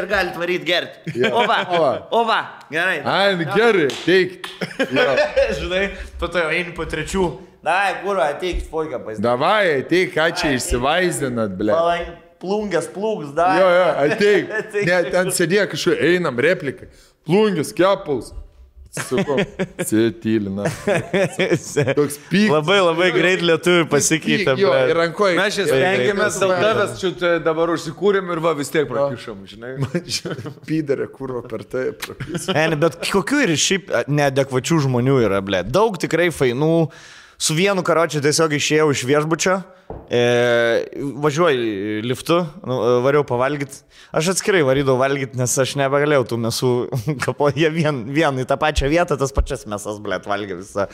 ir gali varyti gerti. Ova, gerai. Ai, gerai, teik. Žinai, po to jau eini po trečių. Davai, kurva, ateik, foiką pasidaryti. Davai, ateik, ką čia išsivaizdinat, ble. Plungės, davai. Jo, ateik. Ne, ten sėdėjo kažkaip, einam, replika. Plungės, kepuls. Sakau, sėtylina. Toks pyk. Labai greit lietuvių pasikeitė. Jo, ir rankoje. Mes čia stengiamės dėl tavęs, čia dabar užsikūrėm ir vis tiek prakišom, žinai. Pydarė, kurva per tai prakišom. Ne, bet kokių ir šiaip neadekvačių žmonių yra, ble. Daug tikrai fainų. Su vienu karočiu tiesiog išėjau iš viešbučio, važiuoju liftu, variau pavalgyti. Aš atskirai varydavau valgyti, nes aš nebegalėjau tų mesų kapo. Jie vien į tą pačią vietą, tas pačias mesas, blėt, valgė visą.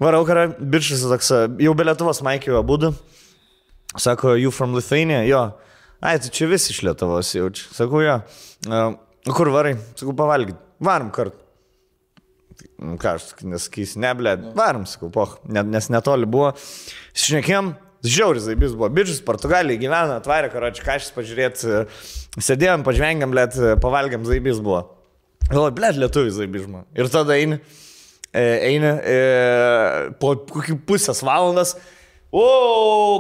Varau, bičias toks, jau be Lietuvos Maikio abudu. Sako, you from Lithuania? Jo. Ai, tai čia visi iš Lietuvos jaučiu. Sakau, jo. Kur varai? Sakau, pavalgyti. Varom kartu. Ką aš nesakysiu, ne, blėt, varom, sakau, nes netoli buvo. Šnekėjom, žiauris zaibis buvo, bičius Portugalijai gyvena, atvarė, karoči, kažkas pažiūrėti, sėdėjom, pažvengiam, blėt, pavalgiam, zaibis buvo. Galvoju, blėt, lietuvis zaibis žmona. Ir tada eini, po kokį pusės valandas,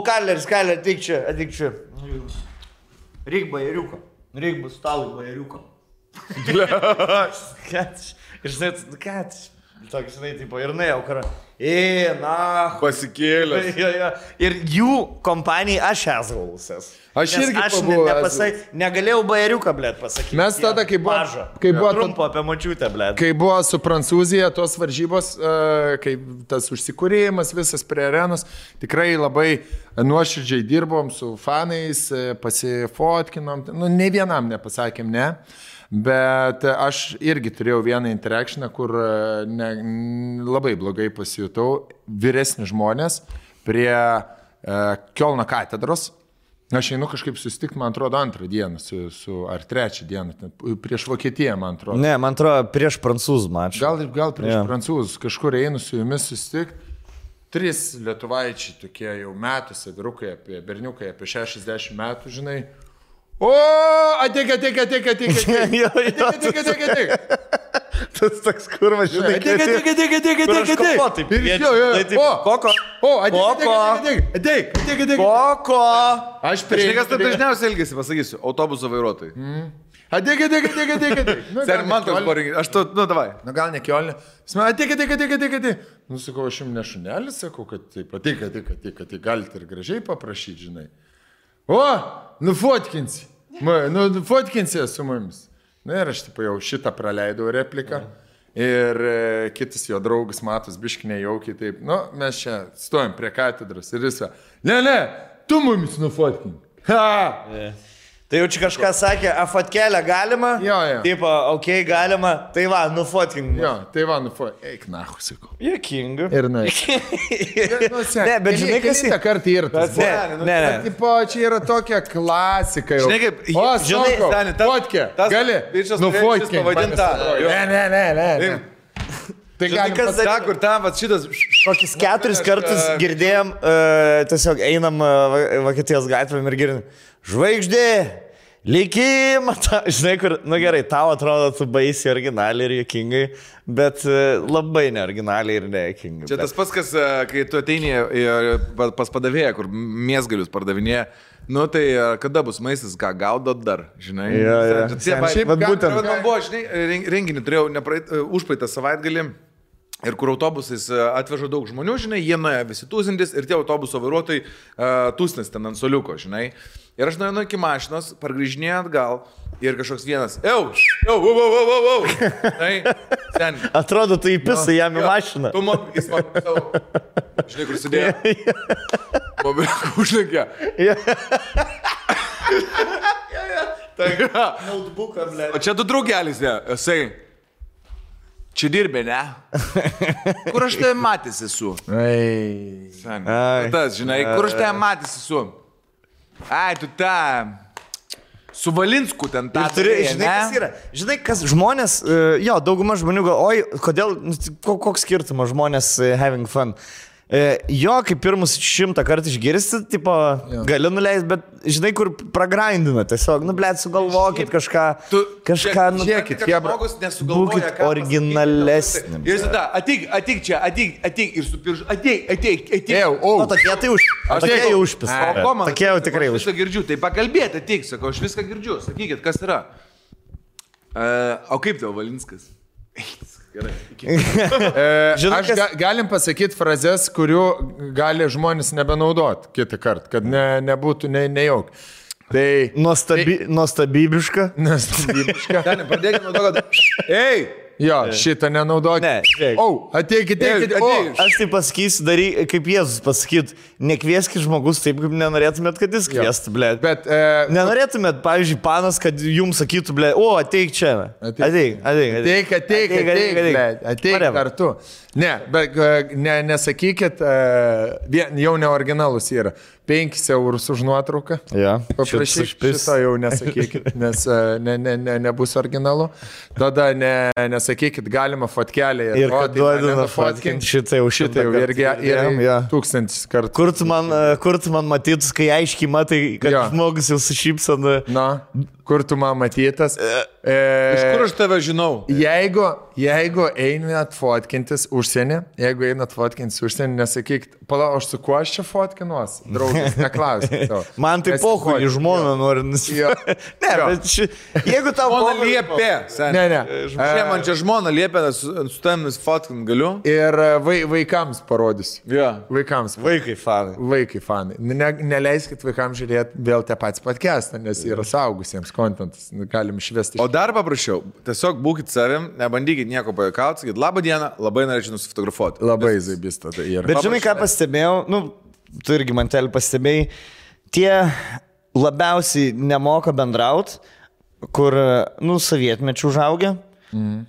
kaleris, ateik čia. Reik bajeriuko, reik bus stalui bajeriuko. Ir žinai, toks, žinai, tipo, ir jau karą. Pasikėlęs. Ir jų kompanijai aš esaulusės. Aš irgi pabuvau. Negalėjau bajeriuką, blėt, pasakyti. Mes tada, kai buvo trumpo apie močiutę, blėt. Kai buvo su Prancūzija tos varžybos, kai tas užsikūrėjimas visas prie arenos, tikrai labai nuoširdžiai dirbom su fanais, pasifotkinom, ne vienam nepasakėm, ne. Bet aš irgi turėjau vieną interakciją, kur labai blogai pasijutau. Vyresni žmonės prie Kiolno katedros. Aš einu kažkaip susitikti, man atrodo, antrą dieną, ar trečią dieną, prieš Vokietiją, man atrodo. Ne, man atrodo, prieš prancūzų mačą. Gal prieš prancūzus, kažkur einu su jumis susitikti. 3 lietuvaičiai tokie jau metuose, vyrukai, berniukai apie 60 metų, žinai. Ateik. Tas toks kurvas, žinai. Ateik. Koko. Aš Kažkas taip dažniausiai elgesi, pasakysiu, autobuso vairuotojai. Ateik. Sen, man toks poringi, aš tu, davai. Gal ne Kiolne. Ateik. Sakau, aš jums ne šunelis, sakau, kad taip, ateik, galite ir gražiai paprašyti, žinai. Nufotkinsi. Nufotkinsi su mumis. Na ir aš jau šitą praleidau repliką. Ir kitas jo draugas Matus biškinė jaukiai taip. Mes čia stojam prie katedros ir jis. Ne, tu mumis nufotkink. Tai jau čia kažką sakė, fotkelę galima? Jo. Taip, galima. Tai va, nufotkink. Jo, tai va, nufotkink. Eik, nahu, sakau. Jokinga. Ir na. Ne, bet žinai, kas į tą kartą yra tas. Ne. Tipo, čia yra tokia klasika jau. Žinai, kaip, žinai, fotkė. Gali? Nufotkink. Ne. Tai žinai, kas ta, kur tam, šitas... Kokius 4 kartus girdėjom, tiesiog einam Vokietijos gatvėm ir girdim. Žvaigždė, likimą, žinai, kur, gerai, tau atrodo, tu baisi originaliai ir jokingai, bet labai neoriginaliai ir nejokingai. Čia tas pats, kas, kai tu ateini pas padavėją, kur mėsgalius pardavinėja, tai kada bus maistas, ką gaudot dar, žinai? Šiaip būtent. Man buvo, žinai, renginį turėjau užpraeitą savaitgalį. Ir kur autobusais atveža daug žmonių, žinai, jie nuėjo visi tūsintis ir tie autobuso vairuotojai tūsnis ten ant soliuko, žinai. Ir aš nuėjau iki mašinos, pargrįžinėjau atgal ir kažkoks vienas, ten. Atrodo, tu įpisai jam į mašiną. Jis man savo, žinai, kur sėdėjo. Mobilką užlenkė. Notebooką, ble. O čia tu draugelis, jisai. Čia dirbė, ne? Kur aš tave matęs esu? Tas, žinai, kur aš tave matęs esu? Ai, tu tą. Su Valinsku ten tą. Žinai, kas žmonės, dauguma žmonių oi, kodėl, koks skirtumas žmonės having fun. Jo, kaip pirmus 100 kartų išgirsti, tipo, gali nuleisti, bet žinai, kur pragrindina, tiesiog, sugalvokit kažką, žiūrėkit, žmogus nesugalvoja, būkit originalesni. Ir tada, ateik čia, ateik ir supirž, ateik. O tokie tai užpis. O ko man? Tokie jau tikrai užpis. Viską girdžiu, tai pakalbėti, ateik, sakau, aš viską girdžiu, sakykit, kas yra. O kaip tavo Valinskas? Gerai. Aš galim pasakyti frazes, kurių gali žmonės nebenaudoti kitą kartą, kad nebūtų nejauk. Tai... Nuostabybiška. Pradėkime nuo to, kad... Ei! Jo, šitą nenaudoti. Ne, žiūrėk. Ateikit. Aš tai pasakysiu, kaip Jėzus pasakyt, nekvieskit žmogus taip, kaip nenorėtumėt, kad jis kviestų, blėt. Bet... Nenorėtumėt, pavyzdžiui, panas, kad jums sakytų, blėt, ateik čia. Ateik, blėt, kartu. Ne, bet nesakykit, jau neoriginalus yra. 5 eurus už nuotrauką. Paprašyk, šito jau nesakykit, nes nebus originalu. Tada nesakykit, galima fotkelį. Ir kad duodina fotkinti, šitą jau irgi 1000 kartų. Kur tu man matytus, kai aiškiai matai, kad žmogus jau sušypsana. Na, kur tu man matytas. Iš kur aš tave žinau? Jeigu einat fotkintis užsienį, nesakykit, pala, aš su kuo aš čia fotkinuos? Draugas, neklauskit. Man tai pohu, į žmoną nori nusipirkti. Ne, bet jeigu tau žmona liepė. Ne. Man čia žmona liepė, su tavim fotkint galiu. Ir vaikams parodysiu. Vaikai fanai. Neleiskit vaikams žiūrėti vėl tą patį podcastą, nes yra saugusiems kontentas. Galim išvesti. O dar paprašiau, tiesiog būkit savim, nebandykit nieko pajuokauti, sakykit, labą dieną, labai norėčiau nusifotografuoti. Labai zaibista tai yra. Bet žinai, ką pastebėjau, tu irgi mantelį pastebėjai, tie labiausiai nemoka bendraut, kur, sovietmečių užaugę,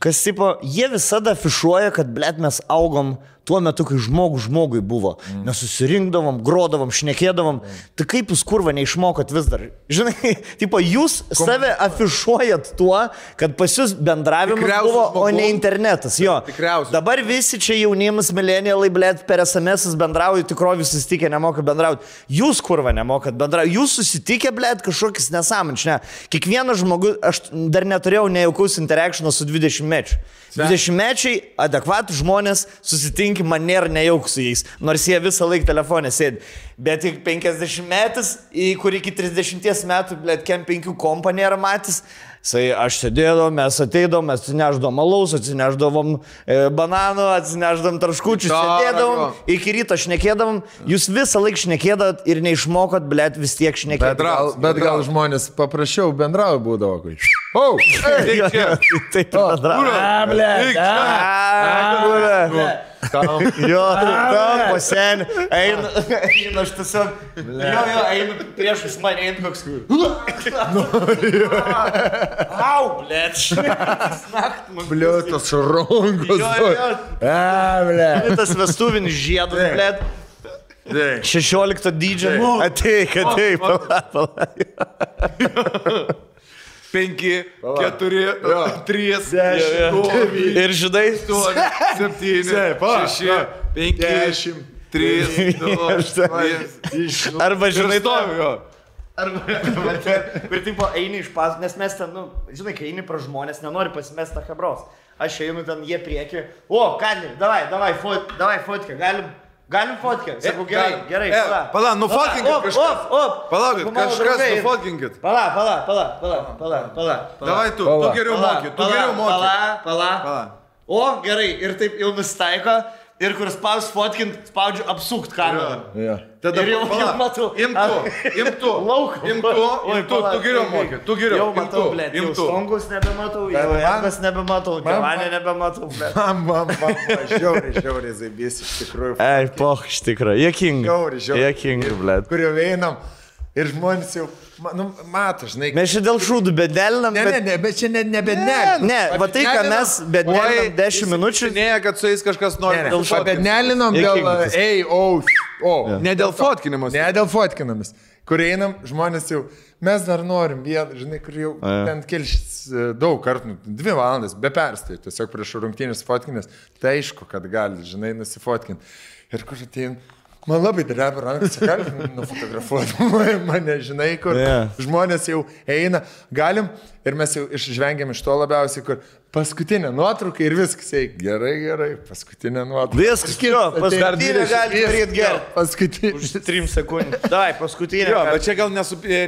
kas tipo, jie visada afišuoja, kad, blėt, mes augom tuo metu, kai žmogui buvo. Mes susirinkdavom, grodavom, šnekėdavom. Tai kaip jūs kurva neišmokot vis dar? Žinai, tipo, jūs save afišuojat tuo, kad pas jūs bendravimas buvo, o ne internetas. Jo. Dabar visi čia jaunimas, milenialai, blėt, per SMS bendrauja, tikrovi susitikę, nemoka bendrauti. Jūs kurva nemokat bendrauti. Jūs susitikę, blėt, kažkokis nesąmonės. Ne. Kiekvienas žmogus, aš dar neturėjau nejaukaus interakciono su 20-mečiu. 20-mečiai adekvatų žmonės susitinki, man nėra nejauk su jais, nors jie visą laiką telefonė sėdi. Bet tik 50-metis, kur iki 30 metų, blėt, kem 5 kompą nėra matys. Aš sėdėdom, mes ateidom, mes atsineždom alaus, atsineždavom bananų, atsineždavom traškučių, sėdėdavom, iki ryto šnekėdavom, jūs visą laiką šnekėdavot ir neišmokot, blėt, vis tiek šnekėdavot. Bet gal žmonės paprasčiau bendrauja būdavo, kai... Taip bendrauja. Tam pasenį, eina aš tiesiog, eina priešus mane, eina koks au, blėt, blėt, tas rongos, blėt, tas vestuvinis žiedas, blėt, 16 dydžio, ateik, pala. 5, 4, 3, 10 ir žinai 7, 6, 5, 10, 3, 2, arba žinai to. Ir tipo eini iš pas, nes mes ten, žinai, kai eini pra žmonės, nenori pasimest tą hebros. Aš einu ten, jie prieki, Kadli, davai fotkę, galim fotkę? Sakau, gerai, pala, nufotkinkit kažkas. Palaukit, kažkas nufotkinkit. Pala. Davai tu geriau moki, Pala. O, gerai, ir taip jau nusitaiko. Ir kur spaudžiu apsukt kamerą. Tada jau matau. Imtu, tu geriau moki, tu geriau. Jau matau, blėt, jau stongus nebematau, jau jangas nebematau, gevanę nebematau, blėt. Man, žiauriai zaibys iš tikrųjų. Ei, poch, iš tikrųjų, jekingi, blėt. Kur jau einam ir žmonės jau... mato, žinai. Mes čia dėl šūdų bedelinam, Ne, bet čia nebedelinam. Ne, va tai, ką mes bedelinam 10 minučių. Ne, kad su jais kažkas nori. Bedelinam dėl, O, ne dėl fotkinimus. Ne dėl fotkinimus. Kur einam, žmonės jau, mes dar norim vieną, žinai, kur jau ten kelšis daug kartų, 2 valandas, be perstoj, tiesiog prieš rungtynės fotkinės, tai aišku, kad gali, žinai, nusifotkinti. Ir kur atein, man labai dreba rankas, galim nufotografuoti mane, žinai, kur žmonės jau eina, galim ir mes jau išžvengiam iš to labiausiai, kur paskutinė nuotrauka ir viskas, gerai, paskutinė nuotrauka. Viskas, paskutinė gali daryti gerai. Paskutinė. Už 3 sekundės. Dai, paskutinė. Jo, bet čia gal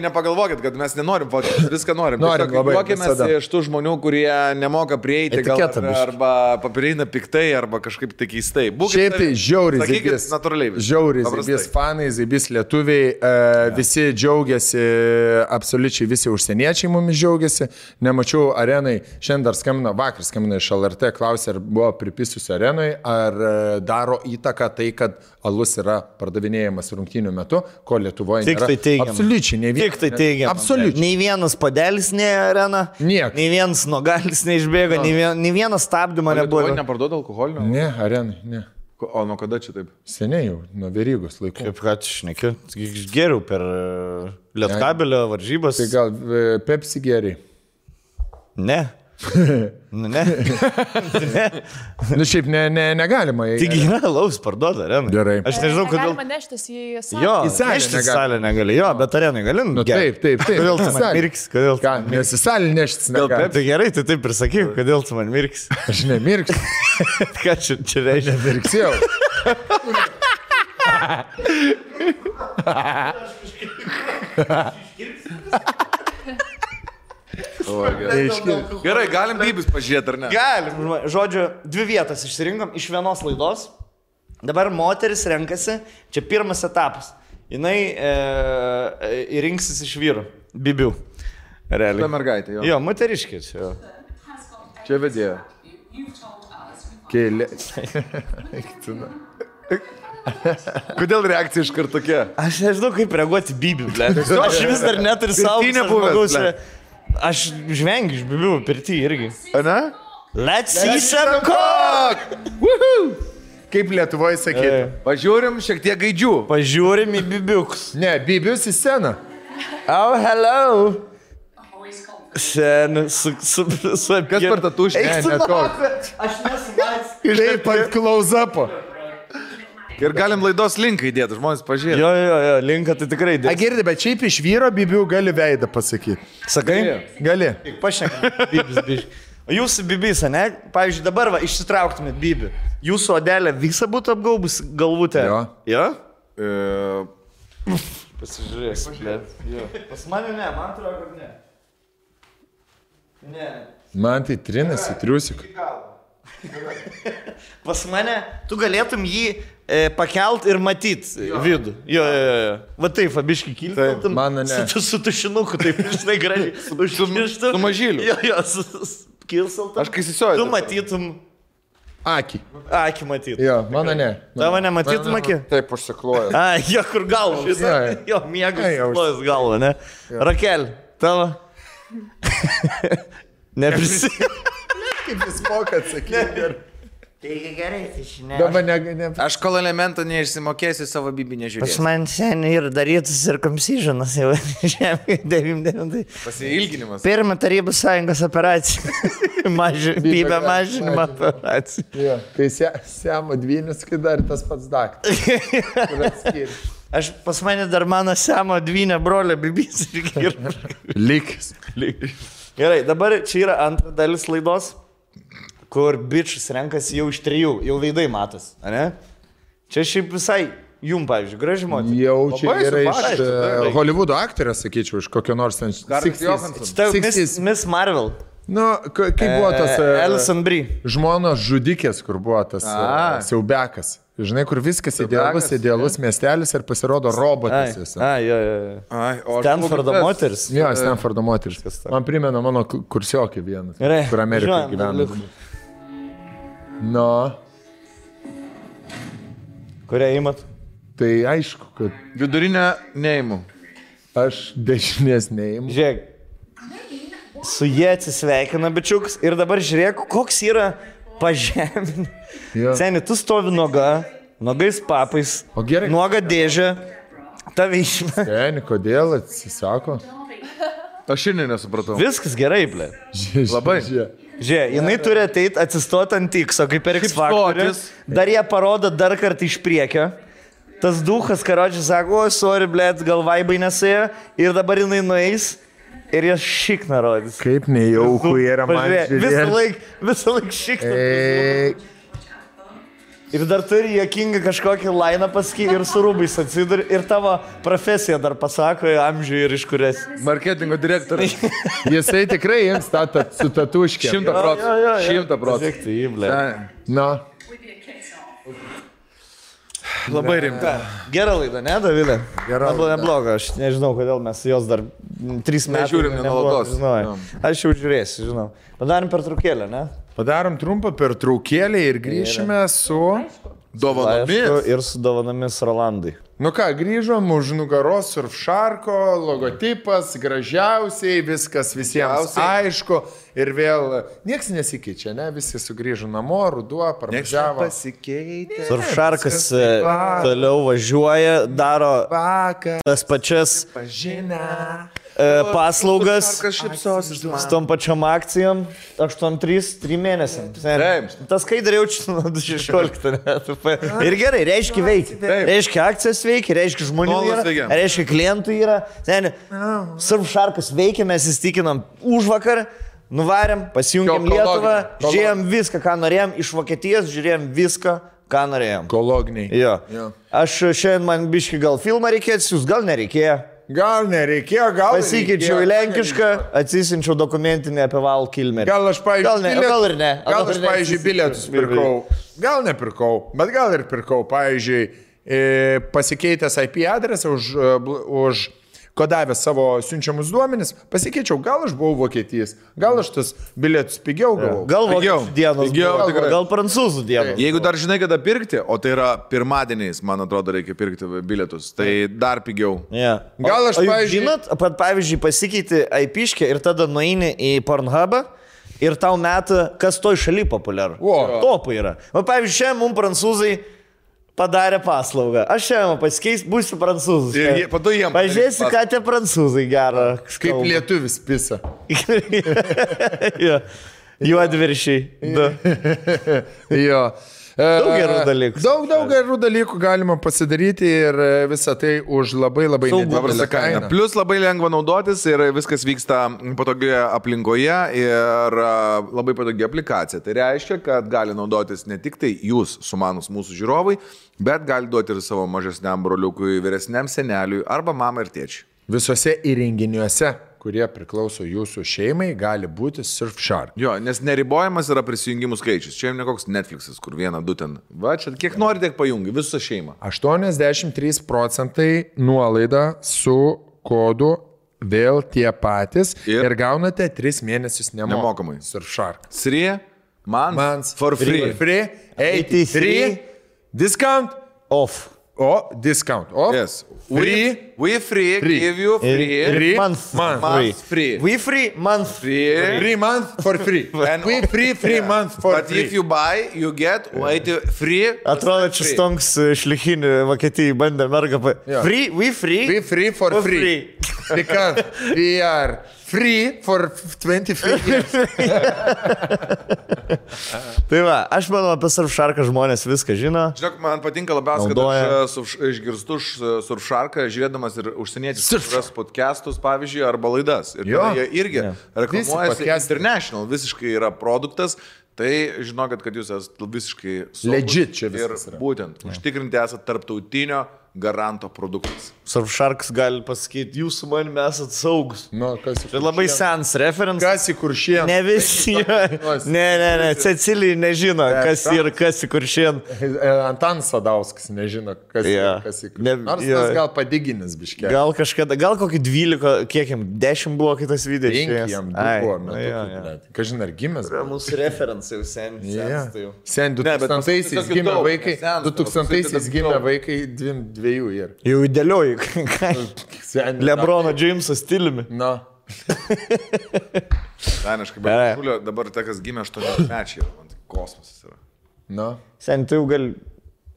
nepagalvokit, kad mes nenorim fotkės, viską norim. Norim labai. Juokėmės iš tų žmonių, kurie nemoka prieiti, gal, arba paprieina piktai, arba kažkaip tai keistai. Šiaip tai žiauriai. Sakykit, natūraliai. Žiauriai, zaibys fanai, zaibys lietuviai, visi džiaugiasi, absoliučiai visi užsieniečiai mumis džiaugiasi. Nemačiau arenai, šiandien dar vakar skambino iš LRT, klausė, ar buvo pripisusi arenui, ar daro įtaką tai, kad alus yra pardavinėjamas rungtynių metu, ko Lietuvoje nėra. Tik tai teigiam. Absoliučiai, ne vienas. Tik tai teigiam. Absoliučiai. Nei vienas padelis ne arena. Niek. Nei vienas nogalis neišbėga, nei vienas stabdymo nebuvo. Lietuvoje neparduoda alkoholinio? Ne, arenai, ne. O nuo kada čia taip? Seniai jau, nuo Verygos laikų. Kaip ką tu šneki? Geriau per Lietkabelio varžybas. Tai gal Pepsi geriai? Ne. Ne. Nu šiaip negalima. Tik yra alaus parduoda arenai. Gerai. Aš nežinau, kodėl. Galima neštis į salę. Jo, į salę neštis į salę negali. Jo, bet arenai gali. Nu, taip. Kodėl tu man mirks? Kodėl? Ką, nes į salę neštis negali. Tai gerai, tai taip ir sakyk, kodėl tu man mirks. Aš nemirksiu. Ką čia reiškia? Nemirksiu. Gerai, galim bybis pažiūrėti, ar ne? Galim. Žodžiu, 2 vietas išsirinkom iš vienos laidos. Dabar moteris renkasi, čia pirmas etapas. Jinai rinksis iš vyrų. Bibių. Realiai. Ta mergaitė, jo. Jo, moteriškis. Čia vedėjo. Kėlė. Kodėl reakcija iš karto tokia? Aš nežinau, kaip reaguoti bibių, ble. Aš vis dar neturiu savo žmogaus. Aš žvengiu iš bibių pirtį irgi. Ne? Let's see some cock! Kaip Lietuvoje sakytų. Pažiūrim šiek tiek gaidžių. Pažiūrim į bibiukus. Ne, bibius į sceną. Oh, hello. Sen, Kas per tą tušį? Ne toks. Aš nesumatęs. Taip, ant close-upo. Ir galim laidos linką įdėti, žmonės pažiūrėti. Jo, linką tai tikrai dėti. Girdi, bet šiaip iš vyro bibių gali veidą pasakyti. Sakai? Gali. Pašnekam, bibis, biš. O jūsų bibis, ne? Pavyzdžiui, dabar va, išsitrauktumėt bibį. Jūsų odelė visą būtų apgaubus galvutę. Jo? Pasižiūrėsiu. Pas mane ne, man atrodo, kad ne. Ne. Man tai trinasi, triusik. Pas mane, tu galėtum jį pakelt ir matyt vidų. Jo. Va taip, abiškai kiltum. Mano ne. Su tušinuku, taip, žinai, gražiai. Su mažyliu. Jo, kilsaltum. Aš kai įsisioju. Tu matytum. Akį. Akį matytum. Jo, mano ne. Tavo nematytum akį? Taip, užsikloju. Jo, kur galva. Jo, miegas užsiklojas galva, ne? Rakel, tavo? Neprisimenu. Kaip jis moka atsakyti. Taigi gerai, tai žinai. Dabar ne. Aš kol elementą neišsimokėsiu, savo bibį nežiūrėsiu. Pas man seniai ir darytus cirkumcisionas jau žemė 99. Pasiilginimas. Pirma Tarybų Sąjungos operacija. Bybė mažinimo operacija. Jo, kai Siamo dvynis, kai dar tas pats daktaras. Aš pas mane dar mano Siamo dvynė brolio bibys. Likis. Gerai, dabar čia yra antra dalis laidos, kur bičius renkasi jau iš 3, jau veidai matos, ne? Čia šiaip visai jum, pavyzdžiui, graži moteris. Jau čia yra iš Hollywoodo aktorės, sakyčiau, iš kokio nors 60s. Miss Marvel. Nu, kaip buvo tas... Alison Brie. Žmonos žudikės, kur buvo tas siaubekas. Žinai, kur viskas idealus miestelis ir pasirodo robotas. Jo. Stanfordo moteris. Jo, Stanfordo moteris. Man primena mano kursiokį vienas, kur Amerikoje gyvena. Nu. Kurią įmat? Tai aišku, kad... Vidurinę neįmu. Aš dešinės neįmu. Žiūrėk, su jie atsisveikina bičiuks ir dabar žiūrėk, koks yra pažemin. Seni, tu stovi noga, nuogais papais, O gerai. nuoga dėžė, tave išmė. Seni, kodėl atsisako? Aš šiandien nesupratau. Viskas gerai, ble. Labai. Žiūrėk, jinai turi ateiti atsistoti ant X, kaip per X faktorius. Dar jie parodo dar kartą iš priekio. Tas duhas, karočiui, sako, o, sorry, blėt, gal vaibai nesėjo. Ir dabar jinai nueis ir jas šikna rodys. Kaip nejauku yra man žiūrėti. Visą laik šikna. Ir dar turi juokingą kažkokį lainą pasakyti ir su rūbais atsiduri. Ir tavo profesiją dar pasako, amžių ir iš kurias. Marketingo direktorius. Jisai tikrai jiems su tatuškė. 100%. 100%. Na. Labai rimta. Gera laida, ne, Davilė? Gera laida. Nebloga, aš nežinau, kodėl mes jos dar 3 metų žiūrim nenuolatos. Aš jau žiūrėsiu, žinau. Padarom pertraukėlę, ne? Padarom trumpą pertraukėlę ir grįšime su dovanomis. Ir su dovanomis Rolandai. Nu ką, grįžom už nugaros Surfsharko, logotipas, gražiausiai, viskas visiems aišku. Ir vėl nieks nesikeičia, ne? Visi sugrįžo namo, ruduo, parvažiavo. Pasikeitė. Surfsharkas toliau važiuoja, daro tas pačias paslaugas su tom pačiom akcijom 8-3 mėnesiam. Tas skaidrė jaučiu nuo 16 metų. Ir gerai, reiškia veikia. Reiškia akcijas veikia, reiškia žmonių yra, reiškia klientų yra. Surfsharkas veikia, mes įstikinam už vakar. Nuvarėm, pasijungėm Lietuvą, žiūrėjom viską, ką norėjom, iš Vokietijos žiūrėjom viską, ką norėjom. Ekologiniai. Jo. Aš šiandien man biški gal filmą reikėtų, jūs gal nereikėjo. Gal nereikėjo, gal pasikeičiau į lenkišką, atsisinčiau dokumentinį apie Val Kilmerį. Gal aš, pavyzdžiui, gal ir ne. Gal aš, pavyzdžiui, bilietus pirkau. Gal nepirkau, bet gal ir pirkau. Pavyzdžiui, pasikeitęs IP adresą už kodavęs savo siunčiamus duomenis, pasikeičiau, gal aš buvau Vokietijas, gal aš tas bilietus pigiau gavau. Gal vokiečių dienos, gal prancūzų dienos. Jeigu dar žinai, kada pirkti, o tai yra pirmadieniais, man atrodo, reikia pirkti bilietus, tai dar pigiau. Yeah. Gal aš, pavyzdžiui... Žinot, pavyzdžiui, pasikeiti IP-škę ir tada nueini į Pornhubą ir tau metą, kas toj šaly populiaru. Topai yra. O pavyzdžiui, šiandien mums prancūzai padarė paslaugą. Aš šiandien pasikeis, būsiu prancūzus. Pažiūrėsiu, ką tie prancūzai gerą. Kaip lietuvis pisa. Juodviršiai. Jo. Daug gerų dalykų. Daug gerų dalykų galima pasidaryti ir visą tai už labai nedidelę kainą. Plus labai lengva naudotis ir viskas vyksta patogioje aplinkoje ir labai patogi aplikacija. Tai reiškia, kad gali naudotis ne tik tai jūs, sumanus mūsų žiūrovai, bet gali duoti ir savo mažesniam broliukui, vyresniam seneliui arba mamai ir tėčiui. Visose įrenginiuose, kurie priklauso jūsų šeimai, gali būti Surfshark. Jo, nes neribojamas yra prisijungimų skaičius. Čia ne koks Netflix'as, kur 1-2 ten. Va, čia kiek nori, tiek pajungi, visą šeimą. 83% nuolaida su kodu vėl tie patys ir gaunate 3 mėnesius nemokamai. Surfshark. 3 months for free. 83 discount off. Discount off. Yes. We free, give you free. Month free. We free, month free. 3 months for free. And we free months for but free. If you buy, you get free. Atrodo, čia stonks šlichinį Vokietijai bandė mergą. Free, we free for free. Because we are free for 25 years. Tai va, aš manau, apie Surfsharką žmonės viską žino. Žinok, man patinka labiausiai, kad aš išgirstu Surfsharką, žiūrėdamas ir užsieniečius podcastus, pavyzdžiui, arba laidas. Ir jie irgi reklamuojasi International, visiškai yra produktas. Tai žinokit, kad jūs esate visiškai legit čia viskas ir būtent užtikrinti esate tarptautinio garanto produktas. Surfsharks gali pasakyti, jūs su manimi esate saugus. Tai labai sens reference. Kas į Kuršėną? Ne visi. Ne. Cecilija nežino, kas į Kuršėną. Antanas Sadauskas nežino, kas į Kuršėną. Nors tas gal padiginis biškė. Gal kažkada, gal kokį 12, kiek jam, 10 buvo kitas video. 5 jam buvo. Kažin ar gimęs. Mūsų reference jau sen. Sen 2000-aisiais gimė vaikai. 2000-aisiais gimė vaikai 2 ir. Jau įdėlioji. Lebrono James'o stiliumi. Daniškai, bet dabar tai, kas gimė 8 mečiai, man tai kosmosas yra. Sen, tai jau gal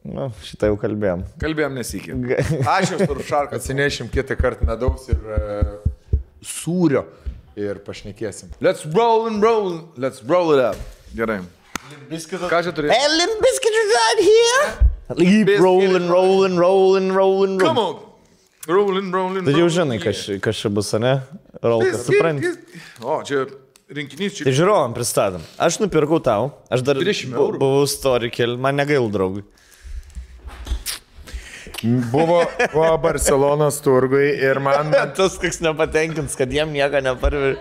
Nu, šitą jau kalbėjom. Kalbėjom nesikį. Aš jau turiu šarką. Atsinešim kitą kartą medaus ir sūrio ir pašnekėsim. Let's roll it up. Gerai. Ką čia turėsi? Hey, Limp Bizkit is out here! Keep rolling. Come on. Rolling. Tai jau žinai, kas čia bus, ne? Rolkas, supranti. O, čia rinkinys. Tai žiūrovam pristatom. Aš nupirkau tau, aš dar buvau story keli, man negail draugui. Buvo Barcelonos turgui ir man... Tas koks nepatenkins, kad jiem nieko neparveži.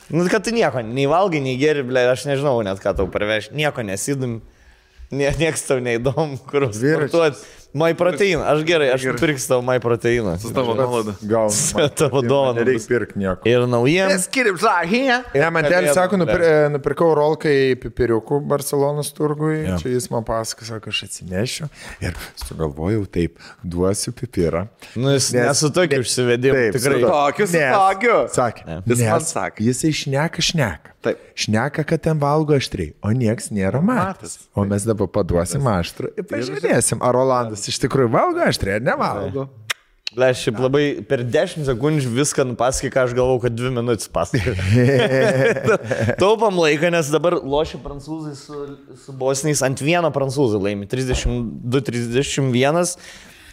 Nu, kad tu nieko, nei valgai, nei geri, ble, aš nežinau net, ką tau parveži. Nieko nesidum, nieks tau neįdomu, kur sportuoti. My proteiną, aš gerai, aš pirksiu tavo my proteiną. Su tavo nuolaidą. Gal. Su tavo dovaną. Nereikia pirkti nieko. Ir naujiems. Let's get it right here. Ne, man tėlis sako, nupirkau rolkai pipiriukų Barcelonos turgui. Ja. Čia jis man pasako, sako, aš atsinešiu. Ir sugalvojau taip, duosiu pipirą. Nu, jis nesu tokį užsivedimą. Tikrai. Tokiu. Sakė. Jis man sakė. Jisai šneka. Taip. Šneka, kad ten valgo aštriai, o nieks nėra matęs. O mes dabar paduosim aštrų ir pažiūrėsim, ar Rolandas iš tikrųjų valgo aštriai ar nevalgo. Ble, šiaip labai per 10 sekundžių viską nupasakai, ką aš galvau, kad 2 minutės pasakai. Taupam laiką, nes dabar lošia prancūzai su bosniais, ant vieno prancūzai laimi, 32-31,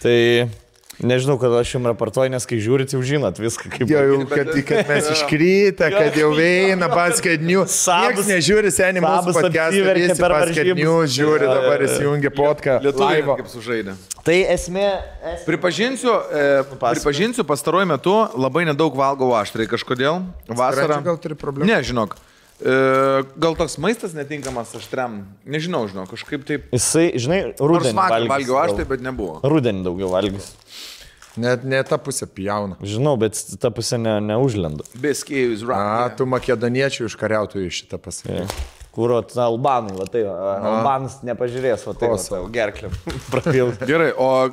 tai... Nežinau, kad aš jums raportuoju, nes kai žiūrit, jau žinot viską kaip... Jau, kad mes iškryta, kad jau eina Basket News. Niekas nežiūri, seniai mūsų podcast'ą, visi Basket News žiūri, dabar įsijungia podcast'ą. Lietuviai kaip sužaidė. Tai esmė... Pripažinsiu, pastaruoju metu labai nedaug valgau aštrai kažkodėl. Vasarą... Gal turi problemų? Ne, žinok. Gal toks maistas netinkamas aštriam, nežinau, kažkaip taip. Jisai, žinai, rudenį valgiau aštrai, bet nebuvo. Rudenį daugiau valgys. Net ne ta pusė pjauna. Žinau, bet ta pusė neužlenda. Beskėjus rak. Tu makedoniečių užkariautojų šitą pasakė. Kuro, albanai, va tai, albanas nepažiūrės, va tai, gerklėm prapilti. Gerai, o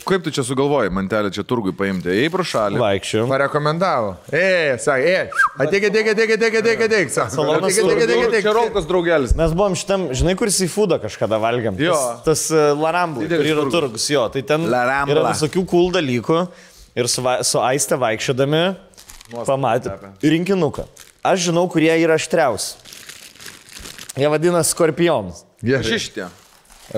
kaip tu čia sugalvojai, mantelę čia turgui paimti? Ėjai pro šalį. Vaikščiau. Parekomendavo. Sakė, ateik. Čia Rolkas draugelis. Mes buvom šitam, žinai, kur į foodą kažkada valgiam. Tas Larambla, kur yra turgus, jo. Tai ten yra visokių cool dalykų. Ir su Aiste vaikščiodami pamatė rinkinuką. Aš žinau, kurie yra aštriausi. Jie vadina skorpionus. Šištė.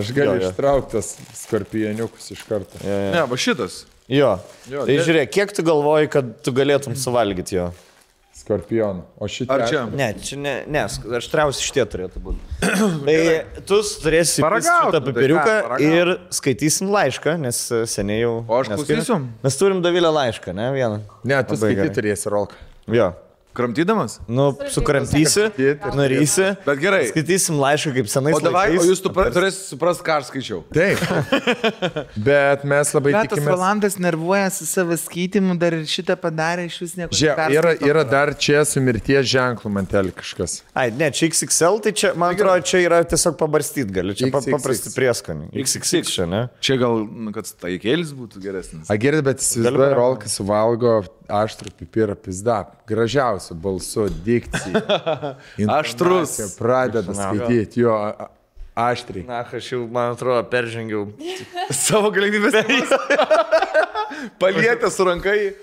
Aš galiu ištrauktas skorpioniukus iš karto. Ne, va šitas. Jo. Tai žiūrėk, kiek tu galvoji, kad tu galėtum suvalgyti jo? Skorpionų. O šitie... Ar čia? Ne, čia ne, aštriausi šitie turėtų būti. Tai tu turėsi šitą papiriuką ir skaitysim laišką, nes seniai jau... O aš klausysiu? Mes turim Dovilę laišką, ne, vieną. Ne, tu skaityti turėsi, Rolka. Jo. Kramtydamas? Nu, sukramtysi, nurysi. Bet gerai. Skaitysim laišką kaip senais laikais. O jūs turėsite suprasti, ką aš skaičiau. Taip. Bet mes labai tikimės. Tas Rolandas nervuoja su savo skaitymu, dar ir šitą padarė, iš vis nieko. Yra dar čia su mirties ženklu mantelį kažkas. Ai, ne, čia XXL, tai čia, man atrodo, čia yra tiesiog pabarstyti gali. Čia paprasti prieskoniai. XXX čia, ne? Čia gal, kad taikėlis būtų geresnis. Gerai, bet įsivaizduoju, Rolkas suvalgo aštrų pipirą pizda. Gražiausiu balsu, dikcija. Aštrus. Pradeda skaityti jo aštriai. Na, aš jau, man atrodo, peržengiau savo galimybės. Palietę su rankai.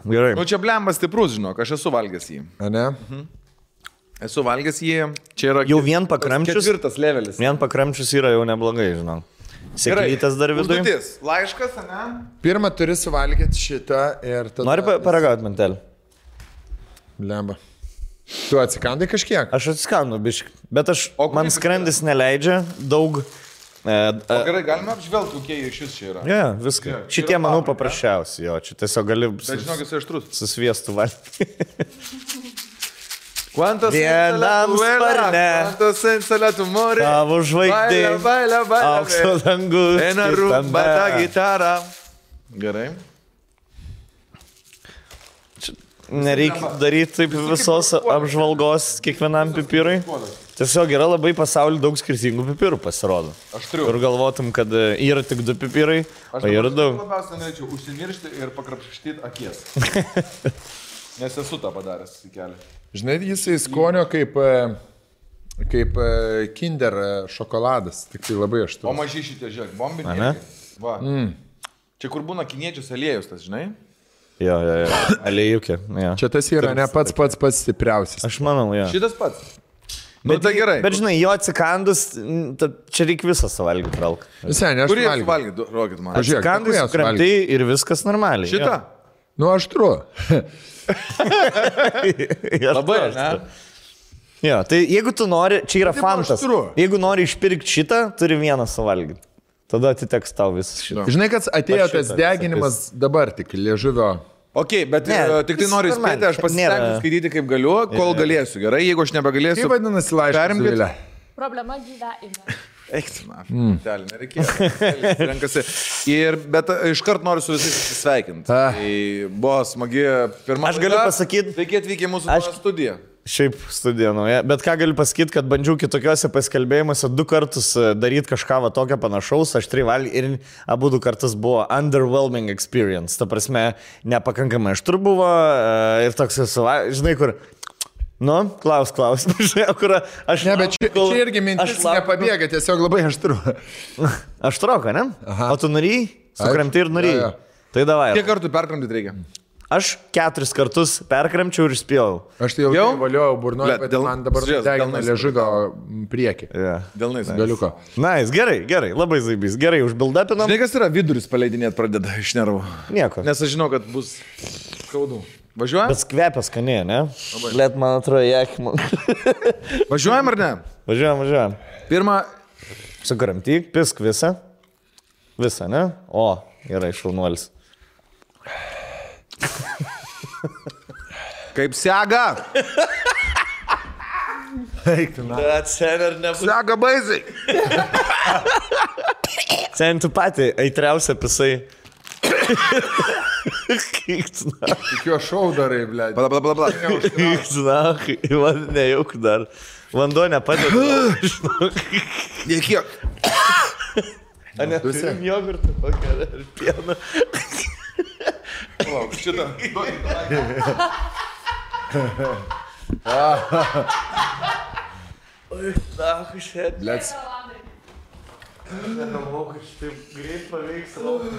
Gerai. Nu, čia blembas stiprus, žinok, aš esu valgęs jį. A ne? Esu valgęs jį. Čia yra jau vien pakramčius. 4. levelis. Vien pakramčius yra jau neblogai, žinok. Sėklytas dar viduje. Užduotis. Laiškas, ne? Pirmą turi suvalgyti šitą ir tada... Nori paragauti mantelį? Lemba. Tu atsikandai kažkiek? Aš atsikandu, biškai. Bet man skrandis neleidžia daug... O gerai, galime apžvelgti, kokie šis čia yra. Ne, viską. Šitie, manau, paprasčiausi, jo. Čia tiesiog gali... Bet žinok, jis aštrus. Susviestų valgyti. Vienam sparne, tavo žvaigždė, aukso dangus, eina rumba ta gitara. Gerai. Nereikia daryti taip visos apžvalgos kiekvienam pipirui. Tiesiog yra labai pasaulyje daug skirtingų pipirų pasirodo. Ir galvotum, kad yra tik 2 pipirai, o yra daug. Aš labiausiai norėčiau užsimiršti ir pakrapštyti akies. Nes esu tą padaręs į kelią. Žinai, jisai skonio kaip Kaip Kinder šokoladas, tik tai labai aštrus. O maži šitie, žiūrėk, bombiniai. Va. Čia kur būna kiniečius aliejus, tas, žinai? Jo, aliejukė. Čia tas yra ne pats stipriausias. Aš manau, jo. Šitas pats. Nu, tai gerai. Bet žinai, jo atsikandus, čia reikia visą suvalgyti, Ralka. Visai, ne aš Kurį suvalgyti, rokit man. Atsikandus, kremtai ir viskas normaliai. Šitą? Nu, aštru. Labai, ne? Jo, tai jeigu tu nori, čia yra fantas. Jeigu nori išpirkti šitą, turi vieną suvalgyti. Tada atiteks tau visas šitą. Žinai, kad atėjo tas deginimas dabar tik liežuvio. Ok, bet tik tai noriu spėti, aš pasistengsiu skaityti kaip galiu, kol galėsiu. Gerai, jeigu aš nebegalėsiu. Kaip vadinasi laiškas? Problema gyvenime. Eiktina, telį, nereikėjo. Renkasi. Bet iškart noriu su visais atsisveikinti. Tai buvo smagi pirma. Aš galiu pasakyti. Sveiki atvykę į mūsų studiją. Šiaip studija nauja, bet ką galiu pasakyti, kad bandžiau kitokiuose pasikalbėjimuose 2 kartus daryti kažką va tokio panašaus, aš 3 valgy ir abu 2 kartus buvo underwhelming experience, ta prasme, nepakankamai aštru buvo ir toks, žinai, kur, nu, klaus, žinai, kur aš... Ne, bet čia irgi mintis nepabėga, tiesiog labai aštru. Aštroka, ne? Aha. O tu norėjai? Sukramti ir norėjai. Tai davai. Kiek kartų perkramtyti reikia? Aš 4 kartus perkramčiau ir spėjau. Aš tai jau valiojau burnoje, bet man dabar degina liežuvio priekį. Delnais. Galiuko. Nice, gerai, labai zaibys. Gerai, užbildapinom. Žinai, kas yra viduris paleidinėti pradeda iš nervų? Nieko. Nes aš žinau, kad bus skaudu. Važiuojam? Bet kvepia skaniai, ne? Let man atrodo, jekman. Važiuojam ar ne? Važiuojam. Pirmą. Sukramtyk, pisk visą. Visą, ne? O, gerai, šaunuolis. Kaip sega? Eiktina. Bet sen ir nebus. Sega baisiai. Sen tu pati aitriausia pisai. Kiktina. Tik jo šau darai, blėdė. Pala. Kiktina, man nejauk dar. Vanduo nepadeda. Nekiek. A ne, turim jogurtą kokią ir pieną. Lauk, šitą. Oi, dahu šet. Blėts. Negalvau, kad šitaip greit paveiks lauką.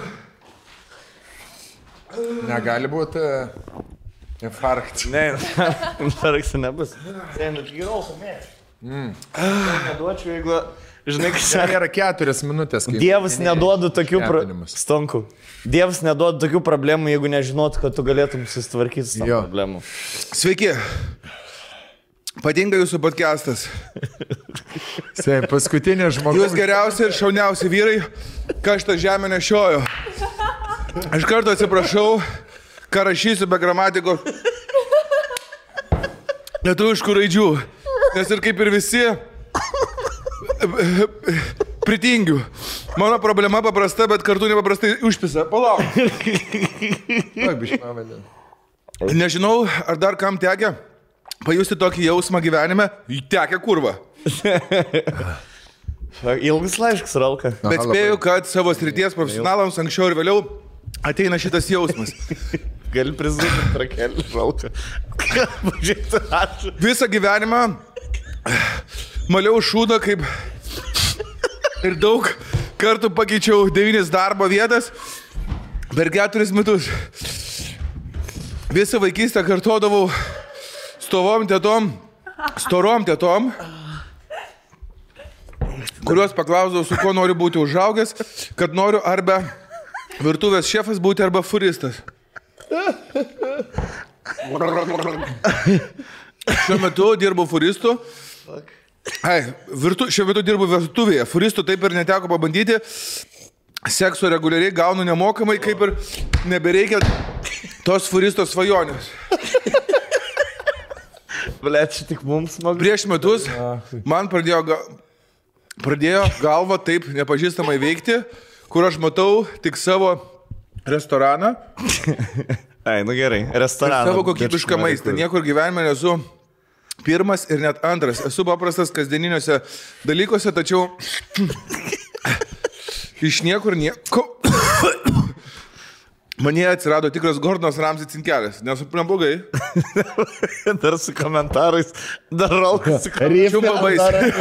Negali būti infarkt. Ne, infarktų nebus. Sen, geriau pamėš. Neduočiau, jeigu... Žinai, kas yra 4 minutės. Dievas neduoda tokių Stonkų. Dievas neduoda tokių problemų, jeigu nežinotų, kad tu galėtum susitvarkyti su tom problemų. Sveiki. Patinka jūsų podcastas. Paskutinė žmogus. Jūs geriausi ir šauniausi vyrai, ką šitą žemę nešiojo. Aš kartu atsiprašau, ką rašysiu be gramatikos lietuviškų raidžių. Nes ir kaip ir visi... pritingiu. Mano problema paprasta, bet kartu nepaprastai užpisa. Palauk. Nežinau, ar dar kam tekia pajusti tokį jausmą gyvenime. Tekia kurva. Ilgas laiškas, Ralka. Bet spėju, kad savo srities profesionalams anksčiau ir vėliau ateina šitas jausmas. Gali prizūti trakelį, Ralka. Visą gyvenimą maliau šūdą kaip ir daug kartų pakeičiau 9 darbo vietas per 4 metus. Visą vaikystę kartodavau storom tėtom, kuriuos paklausdavau, su kuo noriu būti užaugęs, kad noriu arba virtuvės šefas būti, arba furistas. Šiuo metu dirbu furistu. Šiuo metu dirbu virtuvėje. Furistų taip ir neteko pabandyti. Sekso reguliariai gaunu nemokamai, kaip ir nebereikia tos furisto svajonės. Blet, čia tik mums smagu. Prieš metus man pradėjo galva taip nepažįstamai veikti, kur aš matau tik savo restoraną. Ai, nu gerai, restoraną. Savo kokybišką maistą. Niekur gyvenime nesu pirmas ir net antras. Esu paprastas kasdieniniuose dalykuose, tačiau iš niekur nieko. Manie atsirado tikras Gordonas Ramsay cinkelis. Nesuprantu blogai. Dar su komentarais. Dar Rolkas. Čiumpa baisiai.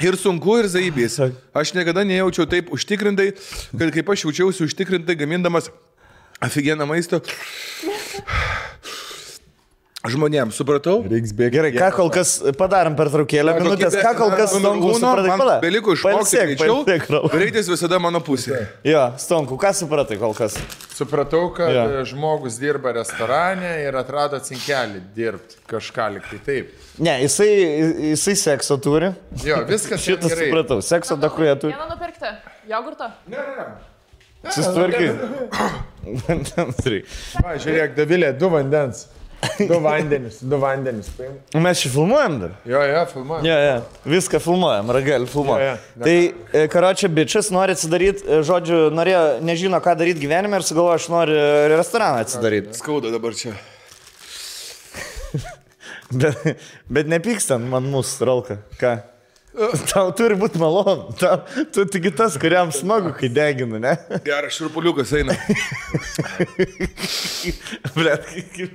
Ir sunku, ir zaibys. Aš niekada nejaučiau taip užtikrintai, kad kaip aš jaučiausi užtikrintai gamindamas aфиgeną maistą žmonėms, supratau? Gerai, ką kol kas padarom per traukėlę minutės, ką kol kas Stonku supratai? Man beliko išmokti greičiau, greitis visada mano pusė. Jo, Stonku, ką supratai kol kas? Supratau, kad žmogus dirba restorane ir atrado cinkelį dirbti kažką liktai taip. Ne, jisai sekso turi. Jo, viskas šitas gerai. Supratau, sekso dakuja turi. Vieną nupirkti, jogurtą? Ne. Susitvarkai. Va, žiūrėk, Davilė, 2 vandens. 2 vandenis. Mes čia filmuojam dar? Jo, filmuojam. Jo, viską filmuojam, ragelį filmuojam. Tai, karočią, bičias nori atsidaryti, žodžiu, nežino, ką daryti gyvenime ir sugalvoja, aš noriu restoraną atsidaryti. Skauda dabar čia. Bet nepykstant man mūsų, Rolka. Ką? Tau turi būti malonu. Tu tik tas, kuriam smagu, kai deginu, ne? Geras šurpuliukas eina.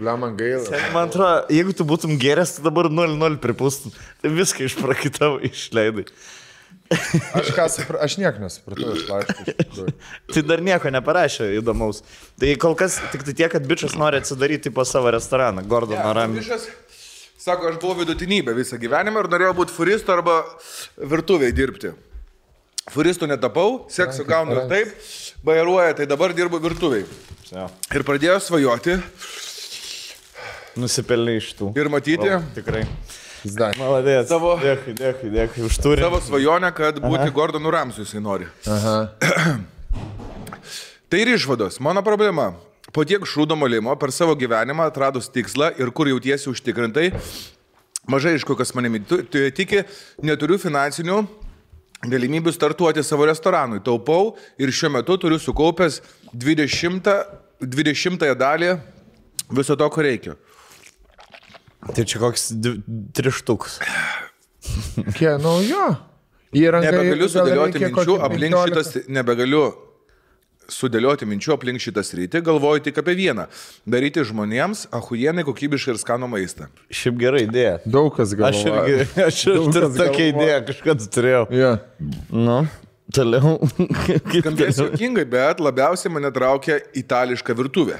Man gaila. Man atrodo, jeigu tu būtum geręs, tu dabar 0-0 pripūstum. Tai viską išprakitavo, išleidai. Aš nieko nesupratau iš laiškų. Tai dar nieko neparašė įdomaus. Tai kol kas tik tai tiek, kad bičias nori atsidaryti po savo restoraną. Gordono Ramsay. Sako, aš buvau vidutinybė visą gyvenimą ir norėjau būti furistu arba virtuviai dirbti. Furistu netapau, seksą gaunu ir taip, bairuoja, tai dabar dirbu virtuviai. Ir pradėjau svajoti. Nusipelnė iš tų. Ir matyti. Tikrai. Maladės. Dėkui, už turį. Savo svajonę, kad būti Gordonu Ramsay jisai nori. Tai ir išvados. Mano problema. Po tiek šūdo molimo per savo gyvenimą atradus tikslą ir kur jautiesi užtikrintai, mažai iš kokios manimi tiki, neturiu finansinių galimybių startuoti savo restoranui. Taupau ir šiuo metu turiu sukaupęs 20 dalį viso to, ko reikia. Tai čia koks 3 štukus. Nebegaliu sudėlioti minčių aplink šitas, sudėlioti minčių aplink šitą sritį, galvoju tik apie vieną. Daryti žmonėms achujienai kokybišką ir skanų maistą. Šiaip gera idėja. Daug kas galvoja. Aš turiu tokią idėją, kažkada turėjau. Nu, toliau. Skambės juokingai, bet labiausiai mane traukia itališka virtuvė.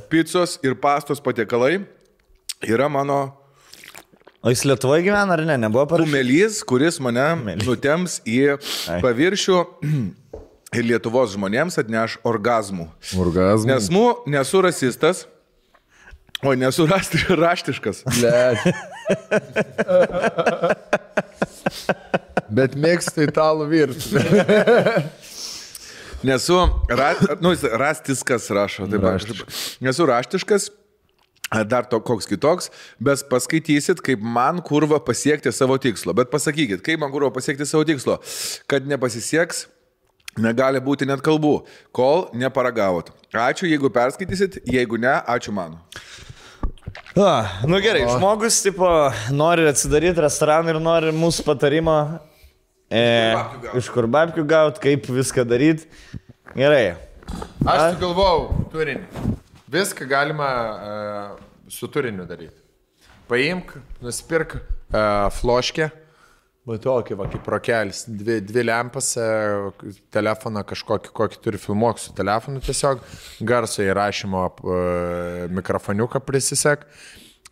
Picos ir pastos patiekalai yra mano... O jis Lietuvoje gyvena ar ne? Nebuvo parašyta? Kumelys, kuris mane nutems į paviršių... Ir Lietuvos žmonėms atneš orgazmų. Nesu rasistas, nesu raštiškas. Bet mėgstu italų virtuvę. Nesu rastiskas, rašo. Nesu raštiškas, dar koks kitoks, bet paskaitysit, kaip man kurva pasiekti savo tikslo. Bet pasakykit, kaip man kurva pasiekti savo tikslo, kad nepasisieks. Negali būti net kalbų, kol neparagavot. Ačiū, jeigu perskaitysit, jeigu ne, ačiū mano. Nu gerai, žmogus tipo, nori atsidaryti restoraną ir nori mūsų patarimo iš kur babkių gauti, kaip viską daryti. Gerai. Aš galvojau turinį. Viską galima su turiniu daryti. Paimk, nusipirk floškę. Tokį, kaip rokelis, 2 lempas, telefoną kažkokį turi filmuok su telefonu tiesiog, garso įrašymo mikrofoniuką prisisek,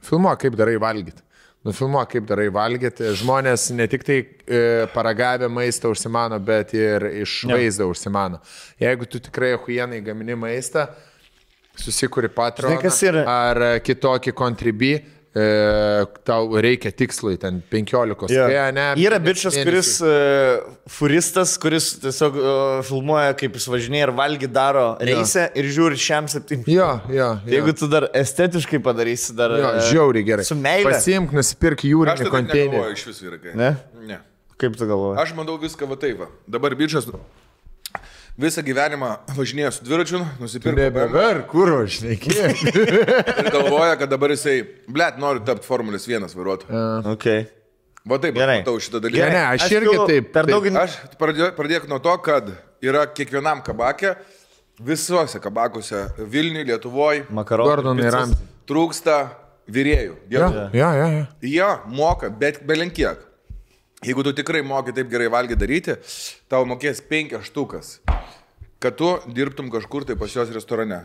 filmuok kaip darai valgyti. Nufilmuok kaip darai valgyti. Žmonės ne tik tai paragavę maistą užsimano, bet ir iš vaizdą užsimano. Jeigu tu tikrai achujienai gamini maistą, susikuri Patreoną ar kitokį Contribui, tau reikia tikslai, ten 15. Yra bičias, kuris furistas, kuris tiesiog filmuoja, kaip jis važinėja ir valgy daro reisę ir žiūri šiam 7. Jeigu tu dar estetiškai padarysi, dar žiauriai gerai. Su meile. Pasiimk, nusipirk jūrinį konteinerį. Aš tai negalvoju iš vis vyrai. Ne? Kaip tu galvoji? Aš manau viską va taip. Dabar bičias visą gyvenimą važinėjo su dviračiu, nusipirko. Nebever, kur važinėkė. Ir galvoja, kad dabar jisai, nori tapti Formulės 1 vairuotoju. Okay. Va taip, matau šitą dalyką. Ne, aš irgi taip. Aš pradėk nuo to, kad yra kiekvienam kabake Visuose kabakuose, Vilniui, Lietuvoje, Gordonai Ramsay. Trūksta vyrėjų. Ja. Jie moka, bet belenkiek. Jeigu tu tikrai moki taip gerai valgyti daryti, tau mokės 5 štukas, kad tu dirbtum kažkur tai pas jos restorane.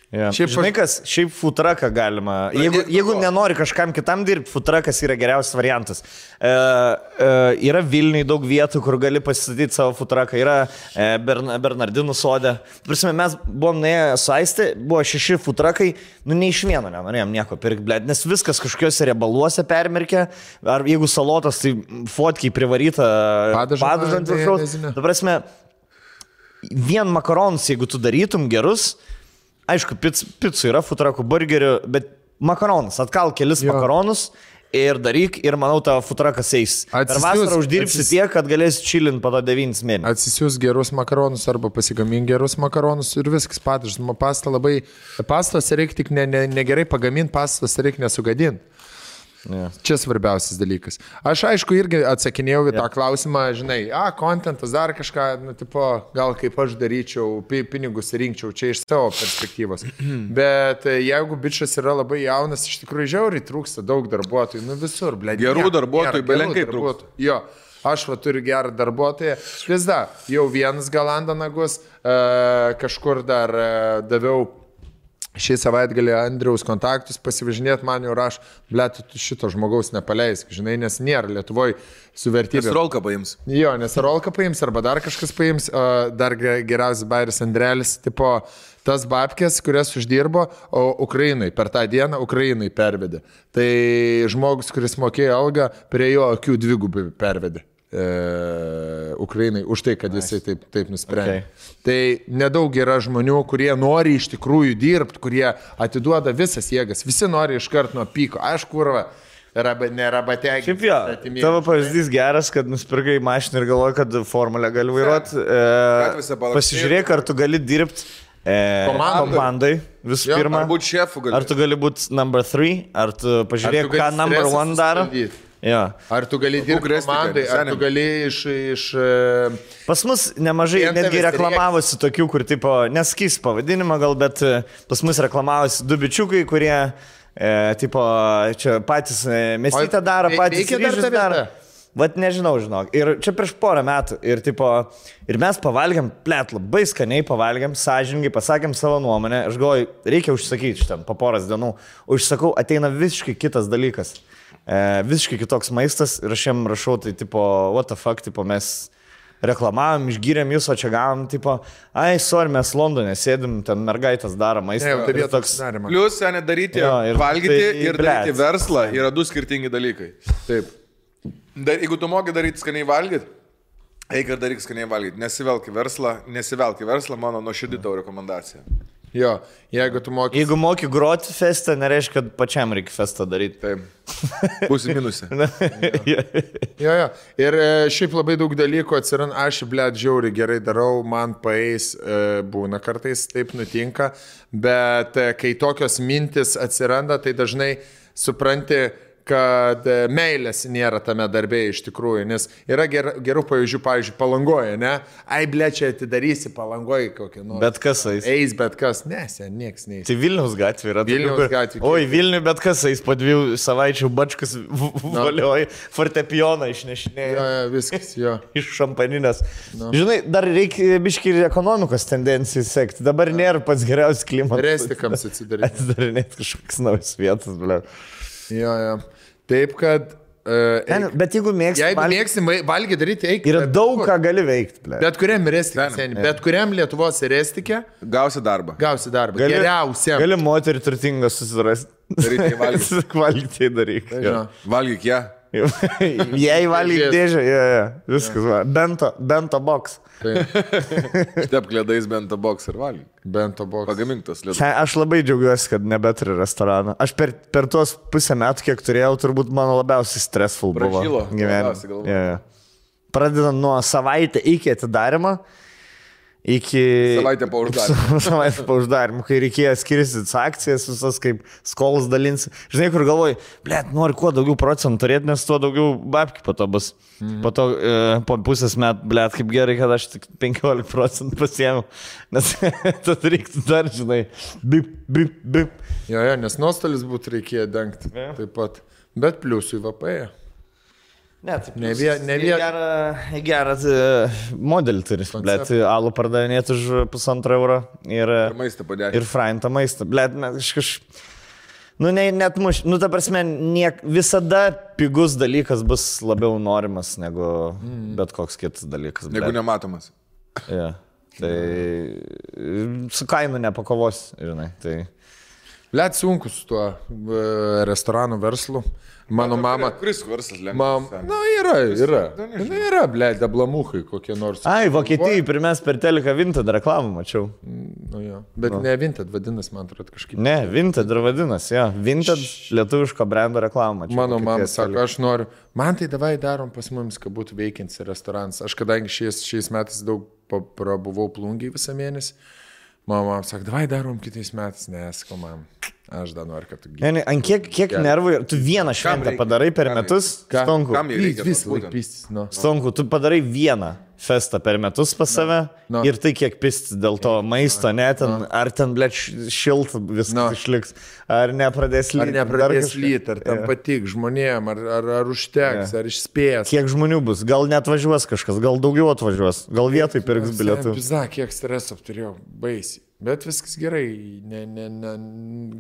Yeah. Šiaip futraką galima. Jeigu nenori kažkam kitam dirbti, futrakas yra geriausias variantas. Yra Vilniui daug vietų, kur gali pasistatyti savo futraką. Yra Bernardinų sode. Prasme, mes buvom nuėję su Aiste, buvo 6 futrakai, nei iš vieno nenorėjom nieko pirkti, blėt, nes viskas kažkokiuose riebaluose permirkė. Ar jeigu salotos, tai fotkiai privaryta padažą ant viršaus. Ta prasme, vien makaronus, jeigu tu darytum gerus, aišku, picų yra, futrakų, burgerių, bet makaronus, atkal kelis makaronus ir daryk ir manau tavo futrakas eis. Per vasarą uždirbsi tiek, kad galėsi chilint po to 9 mėnesių. Atsisiūs gerus makaronus arba pasigamink gerus makaronus ir viskas padažas. Pastos reikia tik negerai pagaminti, pastos reikia nesugadinti. Yeah. Čia svarbiausias dalykas. Aš aišku irgi atsakinėjau į tą klausimą, žinai, kontentas dar kažką, gal kaip aš daryčiau, pinigus rinkčiau, čia iš savo perspektyvos. Bet jeigu bičas yra labai jaunas, iš tikrųjų žiauriai trūksta daug darbuotojų, visur, blėdė. Gerų darbuotojų, belenkai trūksta. Jo, aš turiu gerą darbuotoją. Visda, jau vienas galanda nagus, kažkur dar daviau šį savaitgalį Andriaus kontaktus pasivažinėt, man jau raš, blėt, tu šito žmogaus nepaleisk, žinai, nes nėra Lietuvoje su vertybė. Nes rolką paims. Jo, nes rolką paims, arba dar kažkas paims, dar geriausias bairis Andrelis, tipo, tas babkės, kurias uždirbo, o Ukrainai, per tą dieną Ukrainai pervedė. Tai žmogus, kuris mokėjo algą, prie jo akių 2 pervedė. Ukrainai už tai, kad jisai taip nusprendė. Okay. Tai nedaug yra žmonių, kurie nori iš tikrųjų dirbti, kurie atiduoda visas jėgas. Visi nori iškart nuo pyko. Aš kurva, nerabategiai. Šiaip jo, tavo pavyzdys geras, kad nusipirkai mašiną ir galvoji, kad formulę gali vairuoti. Pasižiūrėk, ar tu gali dirbti komandai visų pirma. Ar būti šefu gali. Ar tu gali būti number 3, ar tu pažiūrėk, ką number 1 daro. Ja. Ar tu gali dirbti komandai, ar tu gali iš... Pas mus nemažai netgi reklamavosi tokių, kur tipo, neskys pavadinimą gal, bet pas mus reklamavosi 2 bičiukai, kurie tipo, čia patys mesytę daro, patys ryžius daro. Vat nežinau, žinok. Ir čia prieš porą metų. Ir, tipo, ir mes pavalgiam, plėt, labai skaniai pavalgiam, sąžiningai, pasakėm savo nuomonę. Aš galvoju, reikia užsakyti šitam po poras dienų. Užsakau, ateina visiškai kitas dalykas. Visiškai kitoks maistas ir aš jam rašau, tai tipo, what the fuck, tipo, mes reklamavom, išgyrėm jūs, o čia gavom, tipo, sorry, mes Londone sėdim, ten mergaitės daro maistą. Tai toks... Plius, seniai, daryti, valgyti ir daryti verslą yra 2 skirtingi dalykai. Taip. Jeigu tu moki daryti skaniai valgyti, eik ir daryk skaniai valgyti. Nesivelk į verslą, mano nuoširdį tavo rekomendacija. Jo, jeigu moki groti festą, nereiškia, kad pačiam reikia festą daryti. Taip. Būsi minusė. Jo. Ir šiaip labai daug dalykų atsiranda, aš, blėt, žiauriai gerai darau, man paeis, būna kartais, taip nutinka, bet kai tokios mintis atsiranda, tai dažnai supranti, kad meilės nėra tame darbė iš tikrųjų, nes yra gerų pavyzdžių, pavyzdžiui, Palangoje, ne? Blečia, atidarysi Palangoje kokį nors. Bet kas eis? Eis bet kas, nieks neis. Tai Vilniaus gatvė yra. Vilniaus gatvė. Oi, Vilniui bet kas eis, po 2 savaičių bačkas valioja, fortepijoną išnešinėja. Jo, viskas, jo. Iš šampaninės. Žinai, dar reikia biškį ir ekonomikos tendencijų sekti. Dabar nėra pats geriausias klimatas. Restikams atsidaryti. Atsidarinėti kažkokias naujas vietas, ble. Jo. Taip, kad... bet jeigu mėgsti valgyti daryti, eik. Yra daug ką gali veikti. Bet kuriam restikė, bet kuriam Lietuvos restikė. Gausi darbą. Geriausia. Gali moterį turtingą susirasti. Daryti valgyti. Valgyti daryk. Valgyk ją. Jei valgyk dėžę, viskas. Bento box. Štep klėdais bento box ir valgyk. Bento box. Pagamintas lietuvis. Aš labai džiaugiuosi, kad nebeturiu restorano. Aš per tuos pusę metų, kiek turėjau, turbūt mano labiausiai stressful buvo gyvenime. Pradedant nuo savaitę iki atidarimo iki... Savaitę po uždarimų. Savaitę po uždarimų, kai reikėjo skirstytis akcijas, visas kaip skolas dalinsi. Žinai, kur galvoji, nori kuo daugiau procentų turėti, nes tuo daugiau babkių po to bus. Po to po pusės metų, kaip gerai, kad aš tik 15% pasiėmiau, nes tad reiktų dar, žinai, bip. Jo, nes nuostolis būtų reikėjo dengti taip pat, bet pliusui VPE. Ne gerą modelį turi, alų pardavinėti už €1,5 ir maistą padėti. Ir fraintą maistą. Net muš, ta prasme, visada pigus dalykas bus labiau norimas negu bet koks kitas dalykas. Negu nematomas. Ja, tai su kainu nepakovos, žinai. Tai... Sunku su tuo restoranų verslu. Mano mama... Kuris verslas lengvas? Yra, dablamukai kokie nors. Vokietijai pirmes per teleką Vinted reklamą mačiau. Bet ne Vinted vadinas, man atrodo, kažkaip. Ne, Vinted ir vadinas, Vinted lietuviško brendo reklamą mačiau. Mano mama sako, aš noriu, man tai davai darom pas mums, kad būtų veikiantis restoranas. Aš kadangi šiais metais daug prabuvau Plungėj visą mėnesį, mama sako, davai darom kitais metais, nesako man. Aš dar noriu, kad tu gyveni. Ant kiek nervų, tu vieną šventę padarai per metus, Stonku. Stonku, tu padarai vieną festą per metus pas save ir tai kiek pistis dėl to maisto, ar ten, šilta viskas išliks, ar nepradės lyti. Ar nepradės lyti, ar tam patik žmonėm, ar užteks, ar išspės. Kiek žmonių bus, gal net važiuos kažkas, gal daugiau atvažiuos, gal vietoj pirks bilietų. Kiek streso turėjau, baisiai. Bet viskas gerai,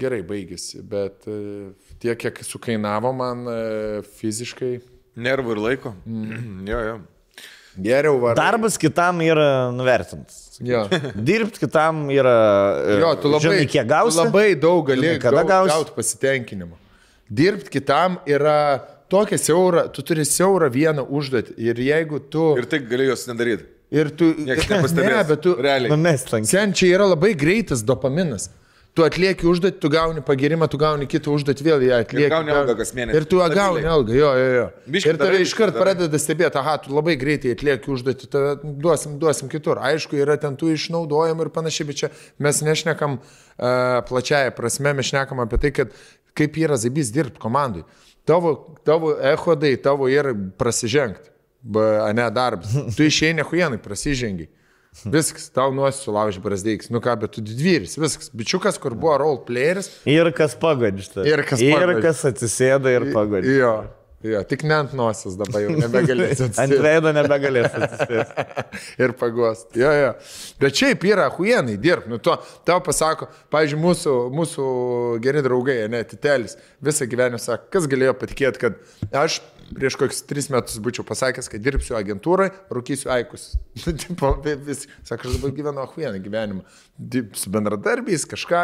gerai baigėsi, bet tiek, kiek sukainavo man fiziškai. Nervų ir laiko. Jo. Geriau varai. Darbas kitam yra nuvertintas. Dirbti kitam yra... Tu labai, žinai, kiek gausi. Labai daug gali gauti pasitenkinimą. Dirbti kitam yra tokia siaura, tu turi siaurą vieną užduotį ir jeigu tu... Ir tai gali jos nedaryti. Ir tu... bet tu... Realiai. Sen čia yra labai greitas dopaminas. Tu atlieki užduotį, tu gauni pagirimą, tu gauni kitą užduotį, vėl ją atlieki. Ir gauni algą kas mėnesį. Ir tu gauni algą, jo. Ir tave iškart pradeda stebėti, tu labai greitai atlieki užduotį, duosim kitur. Aišku, yra ten tų išnaudojimų ir panašiai, bet čia mes nešnekam plačiaja prasme, mes šnekam apie tai, kad kaip yra zaibys dirbti komandai. Tavo echodai, tavo yra prasižengti. Ne darbas. Tu išeini huienai, prasižengiai. Viskas, tau nuosi sulauži brazdeiks. Bet tu didvyris, viskas. Bičiukas, kur buvo role playeris. Ir kas pagodžta. Ir kas atsisėda ir pagodžta. Jo, tik ne ant nosios dabar jau nebegalėsi atsisėsti. Ant veido nebegalėsi atsisėsti. Ir pagosti. Jo. Bet šiaip yra huienai dirbti. Tau pasako, pavyzdžiui, mūsų geri draugai, Titelis, visą gyvenimą sako, kas galėjo patikėti, kad aš prieš kokius 3 metus būčiau pasakęs, kad dirbsiu agentūrai, rūkysiu aikus. Sako, aš dabar gyvenu huieną gyvenimą. Su bendradarbiais, kažką,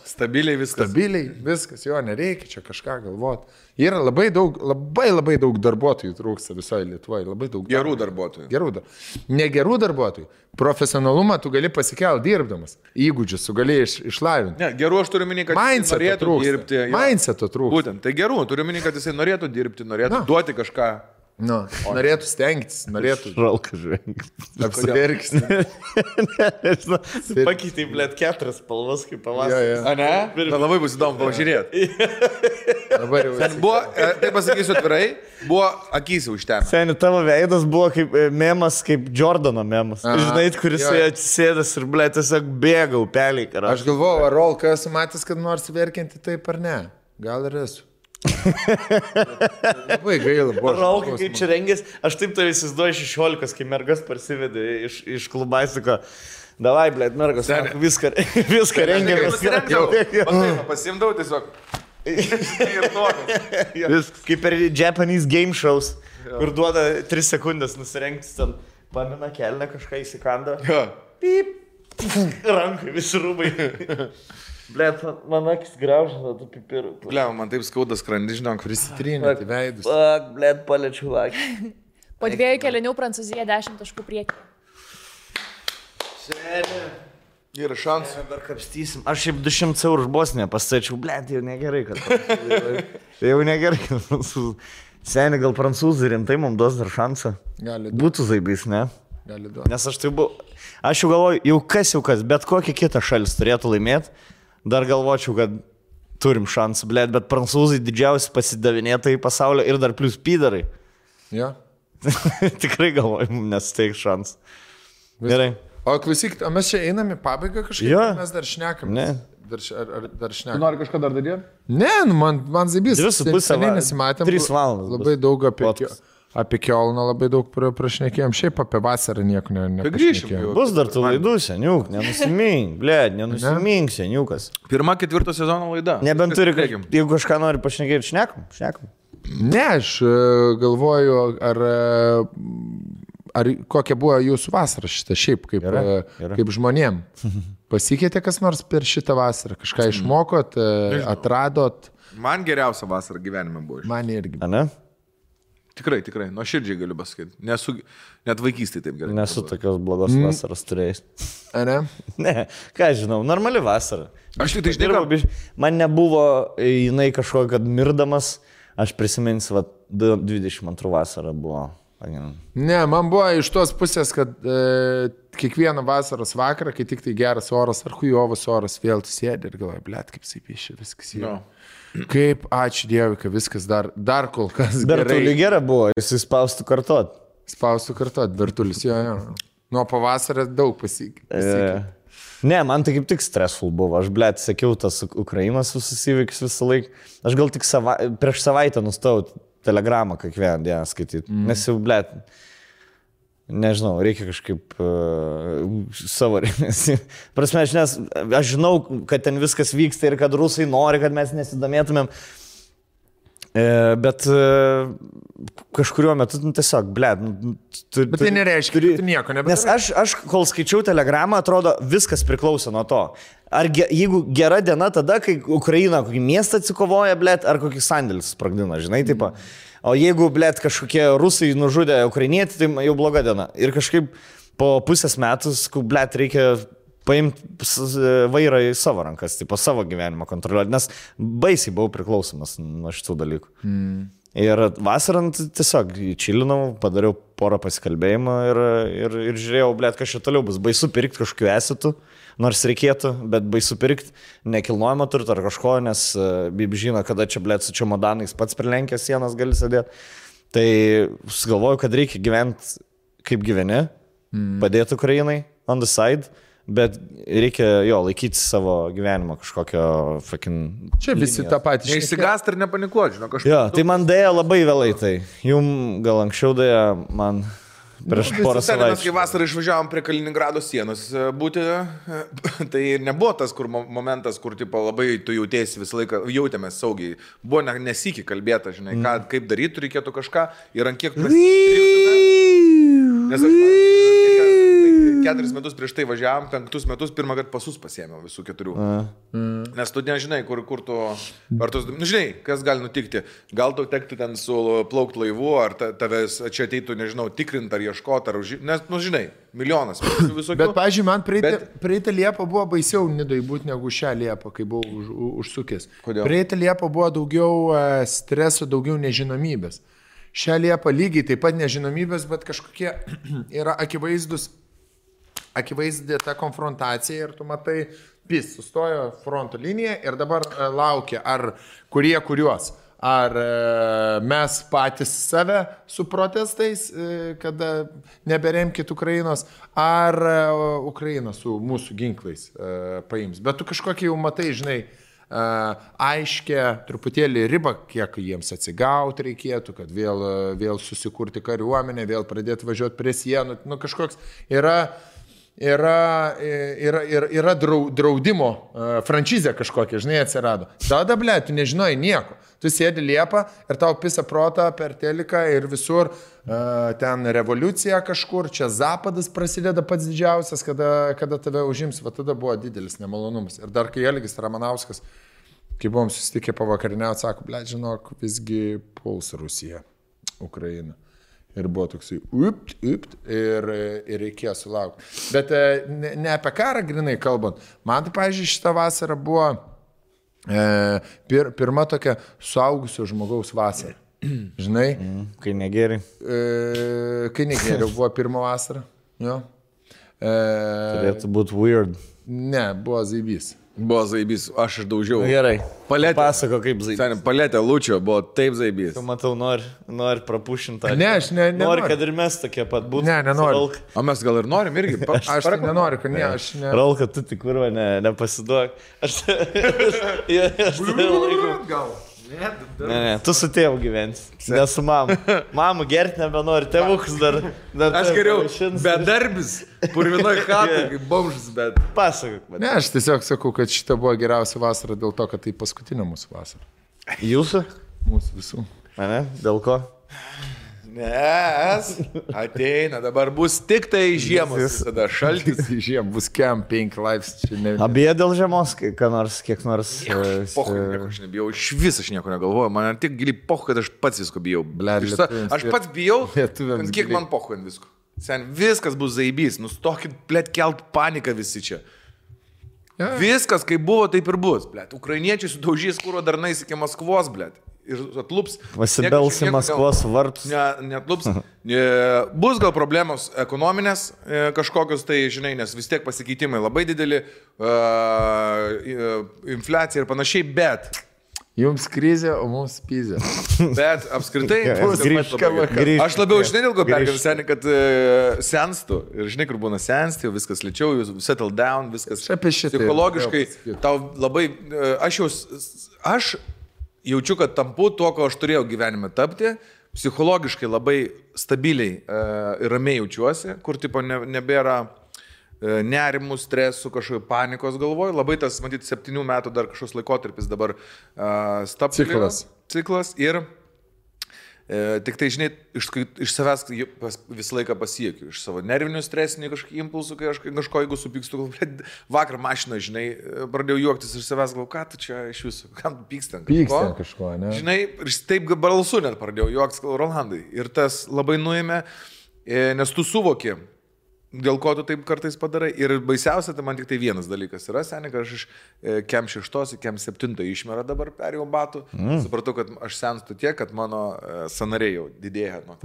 stabiliai viskas, jo, nereikia čia kažką galvoti. Yra labai daug darbuotojų trūksta visoje Lietuvoje, labai daug. Gerų darbuotojų. Negerų darbuotojų. Profesionalumą tu gali pasikelti dirbdamas. Įgūdžius tu gali išlavinti. Ne, gerų aš turiu minį, kad jis norėtų dirbti. Mindseto trūksta. Būtent, tai gerų, turiu minį, kad jisai norėtų dirbti, norėtų duoti kažką. Norėtų stengtis, norėtų. Žalka žvengti. Apsiverksti. Pakeitai, 4 spalvas kaip pavasarį. A ne? Labai bus įdomu pažiūrėti. Buvo, tai pasakysiu atvirai, buvo akys užtemę. Seni, tavo veidas buvo kaip memas, kaip Jordano memas. Žinai, kuris atsisėdas ir, tiesiog bėga upeliai. Aš galvoju, ar Rolka esu matęs, kad nors verkinti taip ar ne. Gal ir esu. Labai gaila buvo. Rolka, kaip čia rengės, aš taip tave įsivaizduoju 16, kai mergas parsivedė iš klubaisiko. Davai, mergas, viską rengiamės. Pasimdavau tiesiog. Kaip per Japanese game shows, kur duoda 3 sekundės nusirengtis ten, pamina kelnę, kažką įsikanda. Pip, rankai, visi rūbai. Man akis graužia, tu pipirų. Man taip skauda skrandį, žinok, prisitrinėti veidus. Paliečiu akį. Po 2 kelinių Prancūzija 10 taškų priekį. Seni. Yra šansų. Dar kapstysim. Aš šiaip 200 eurų už Bosniją pastačiau, jau negerai, kad jau negerai, kad Seni, gal prancūzai rimtai mums duos dar šansą. Gali. Būtų zaibys, ne? gali duoti. Nes aš jau galvoju, jau kas, bet kokia kita šalis turėtų laimėti, dar galvočiau, kad turim šansų, bet prancūzai didžiausi pasidavinėtojai pasaulio ir dar plus pydarai. Ja. Tikrai galvoju, nes teik šansų. Gerai. O klausyk, mes čia einam į pabaigą kažkaip, mes dar šnekam. Ne. Dar šnekam. Tu nori kažką dar daryti? Ne, man zaibys. 2,5 nesimatėm. 3 valandas. Labai daug apie Kiolną, labai daug prašnekėjom. Šiaip apie vasarą nieko neprašnekėjom. Bus dar tų laidų, seniuk, nenusimink, nenusimink, seniukas. 1/4 sezono laida. Nebent turi, jeigu kažką nori pašnekėti, šnekam. Ne, aš galvoju, ar kokia buvo jūsų vasara šitą, šiaip kaip žmonėm. Pasikeitė kas nors per šitą vasarą? Kažką išmokot, atradot? Man geriausia vasara gyvenime buvo. Man irgi. A ne? Tikrai, nuoširdžiai galiu pasakyti. Net vaikystėje taip gerai. Nesu tokios blogos vasaros turėjęs. A ne? Ne, ką žinau, normali vasara. Aš tik tai žinau. Man nebuvo jinai kažkokia, kad mirdamas, aš prisiminsiu, 22 vasara buvo. Ne, man buvo iš tos pusės, kad kiekvieną vasaros vakarą, kai tik tai geras oras ar hujovas oras, vėl tu sėdi ir galvoji, blet, kaip saipyšė, viskas yra. No. Kaip, ačiū Dievui, kad viskas dar kol kas gerai. Bertulį gera buvo, jis spaustų kartot. Spaustų kartot, Bertulis, jo. Nuo pavasario daug pasikeitė. Ne, man tai kaip tik stressful buvo. Aš, blet, sekiau tas Ukrainos visus įvykius visą laiką. Aš gal tik prieš savaitę nustojau telegramą kiekvieną dieną skaityti. Nes jau, blet, nežinau, reikia kažkaip savo rėmėsi. Prasme, aš žinau, kad ten viskas vyksta ir kad rusai nori, kad mes nesidomėtumėm. Bet kažkuriuo metu tiesiog, blet. Bet tai nereiškia, kad tu nieko nebedarai. Nes aš, kol skaičiau telegramą, atrodo, viskas priklauso nuo to. Jeigu gera diena tada, kai Ukraina kokį miestą atsikovoja, blet, ar kokį sandėlį sprogdina, žinai, taip. O jeigu, blet, kažkokie rusai nužudė ukrainietį, tai jau bloga diena. Ir kažkaip po pusės metus, blet, reikia paimti vairą į savo rankas, tipo, savo gyvenimą kontroliuoti, nes baisiai buvau priklausomas nuo šitų dalykų. Ir vasarant tiesiog čilinau, padariau porą pasikalbėjimų ir žiūrėjau, blet, kas čia toliau bus. Baisu pirkti kažkokiu esitų, nors reikėtų, bet baisu pirkti nekilnojamo turto ar kažko, nes Bib žino, kada čia, blet, su čemodanais pats prilenkęs sienas gali sėdėti. Tai sugalvoju, kad reikia gyventi kaip gyveni, padėti Ukrainai on the side. Bet reikia laikyti savo gyvenimo kažkokio fucking... Čia visi tą patį. Neišsigąst ir nepanikuoti, žinau, kažką. Jo, tai man dėja labai vėlai tai. Jum gal anksčiau dėja man prieš porą savaičių. Mes kai vasarą išvažiavom prie Kaliningrado sienos būti, tai nebuvo tas momentas, kur tipo, labai tu jautėsi visą laiką, jautėmės saugiai. Buvo nesikį kalbėta, žinai, kaip daryti, reikėtų kažką ir ant kiek nes aš 4 metus prieš tai važiavam, 5 metus pirmą kartą pasus pasiėmiau visų 4. Nes tu nežinai, kur tu... žinai, kas gali nutikti. Gal tau tektų ten su plaukt laivu, ar tavęs čia ateitų, nežinau, tikrint ar ieškoti, ar nes, žinai, milijonas visokių. Bet, pavyzdžiui, man praeitą Liepą buvo baisiau Nidoj būti negu šią Liepą, kai buvau užsukęs. Kodėl? Praeitą Liepą buvo daugiau streso, daugiau nežinomybės. Šią Liepą lygiai taip pat nežinomybės, bet kažkokie yra akivaizdė ta konfrontacija ir tu matai, sustojo fronto linija ir dabar laukia, ar kuriuos. Ar mes patys save su protestais, kada neberemkit Ukrainos, ar Ukraina su mūsų ginklais paims. Bet tu kažkokį jau matai, žinai, aiškia truputėlį ribą, kiek jiems atsigauti reikėtų, kad vėl susikurti kariuomenę, vėl pradėti važiuoti prie sienų. Nu, kažkoks yra draudimo franšizė kažkokia, žinai, atsirado. Tada, ble, tu nežinai nieko. Tu sėdi Liepą ir tau pisa protą per teliką ir visur ten revoliucija kažkur, čia Zapadas prasideda pats didžiausias, kada tave užims, va tada buvo didelis nemalonumas. Ir dar kai Elgis Ramanauskas, kai buvom susitikę pavakariniauti, sako, ble, žinok, visgi puls Rusija, Ukraina. Ir buvo toksai, ir reikėjo sulaukti. Bet ne apie karą grinai kalbant. Man tai, pavyzdžiui, šitą vasarą buvo pirma tokia suaugusio žmogaus vasara. Žinai? Kai negeri. Kai negeriau buvo pirma vasara. Jo. Turėtų būti weird. Ne, buvo zaibys. Buvo zaibys, aš išdaužiau. Gerai. Paletė. Pasako kaip zaibys. Seniai, paletė Lučio buvo taip zaibys. Tu matau, nori prapušinti. Ne, aš nenoriu. Nori, kad ir mes tokie pat būtų. Ne, nenoriu. O mes gal ir norim irgi. Aš tai nenoriu, kad ne, aš ne. Ralka, tu tik kurva, nepasiduok. Aš Gal. Ne, tu su tėvu gyvensi, ne su mama. Mamų gerti nebenori, tėvukas dar. Aš geriau bedarbis, purvinoj chatai, kaip bomžas, bet... Pasakok, man. Ne, aš tiesiog sakau, kad šita buvo geriausia vasara dėl to, kad tai paskutinė mūsų vasara. Jūsų? Mūsų visų. Mane? Dėl ko? Nes ateina, dabar bus tik tai žiemos, tada šaltis. Žiemą bus kem 5 laipsnių. Abie dėl žiemos, kiek nors. Pochai, nieko aš nebijau, iš vis aš nieko negalvoju, man tik giliai pochai, kad aš pats visko bijau. Aš pats bijau, kiek man pochai ant visko. Sen, viskas bus zaibys, nustokit, blėt, kelt paniką visi čia. Ja. Viskas, kaip buvo, taip ir bus, blėt. Ukrainiečiai sudaužys kuro darnais iki Maskvos, blėt. Ir atlups. Pasibelsi Maskvos vartus. Netlups. Bus gal problemos ekonominės kažkokios, tai žinai, nes vis tiek pasikeitimai labai dideli, infliacija ir panašiai, bet... Jums krizė, o mums pizė. Bet apskritai... Aš labiau, žinai, dėl ko pergavau seniai, kad senstų. Ir žinai, kur būna sensti, viskas lėčiau, jūs settle down, viskas psichologiškai. Tau labai... Aš jaučiu, kad tampu tuo, ko aš turėjau gyvenime tapti, psichologiškai labai stabiliai ir ramiai jaučiuosi, kur tipo nebėra nerimų, stresų, kažkokio panikos galvoj. Labai tas, matyti, 7 metų dar kažkoks laikotarpis dabar stabtelėjo. Ciklas ir tik tai, žinai, iš savęs visą laiką pasiekiu, iš savo nervinių stresinių kažkokių impulsų, kai aš kažko, jeigu supykstu, vakar mašiną, žinai, pradėjau juoktis iš savęs, galvoju, ką tu čia iš jūsų, kam tu pyksti ant kažko, ne? Žinai, ir taip balsu net pradėjau juoktis, Rolandai, ir tas labai nuėmė, nes tu suvoki, dėl ko tu taip kartais padarai. Ir baisiausia, tai man tik tai vienas dalykas yra, seniai, kad aš iš kem 6 į kem 7 išmerą dabar perėjau batų. Supratau, kad aš senstu tiek, kad mano sanariai jau didėja nuo to.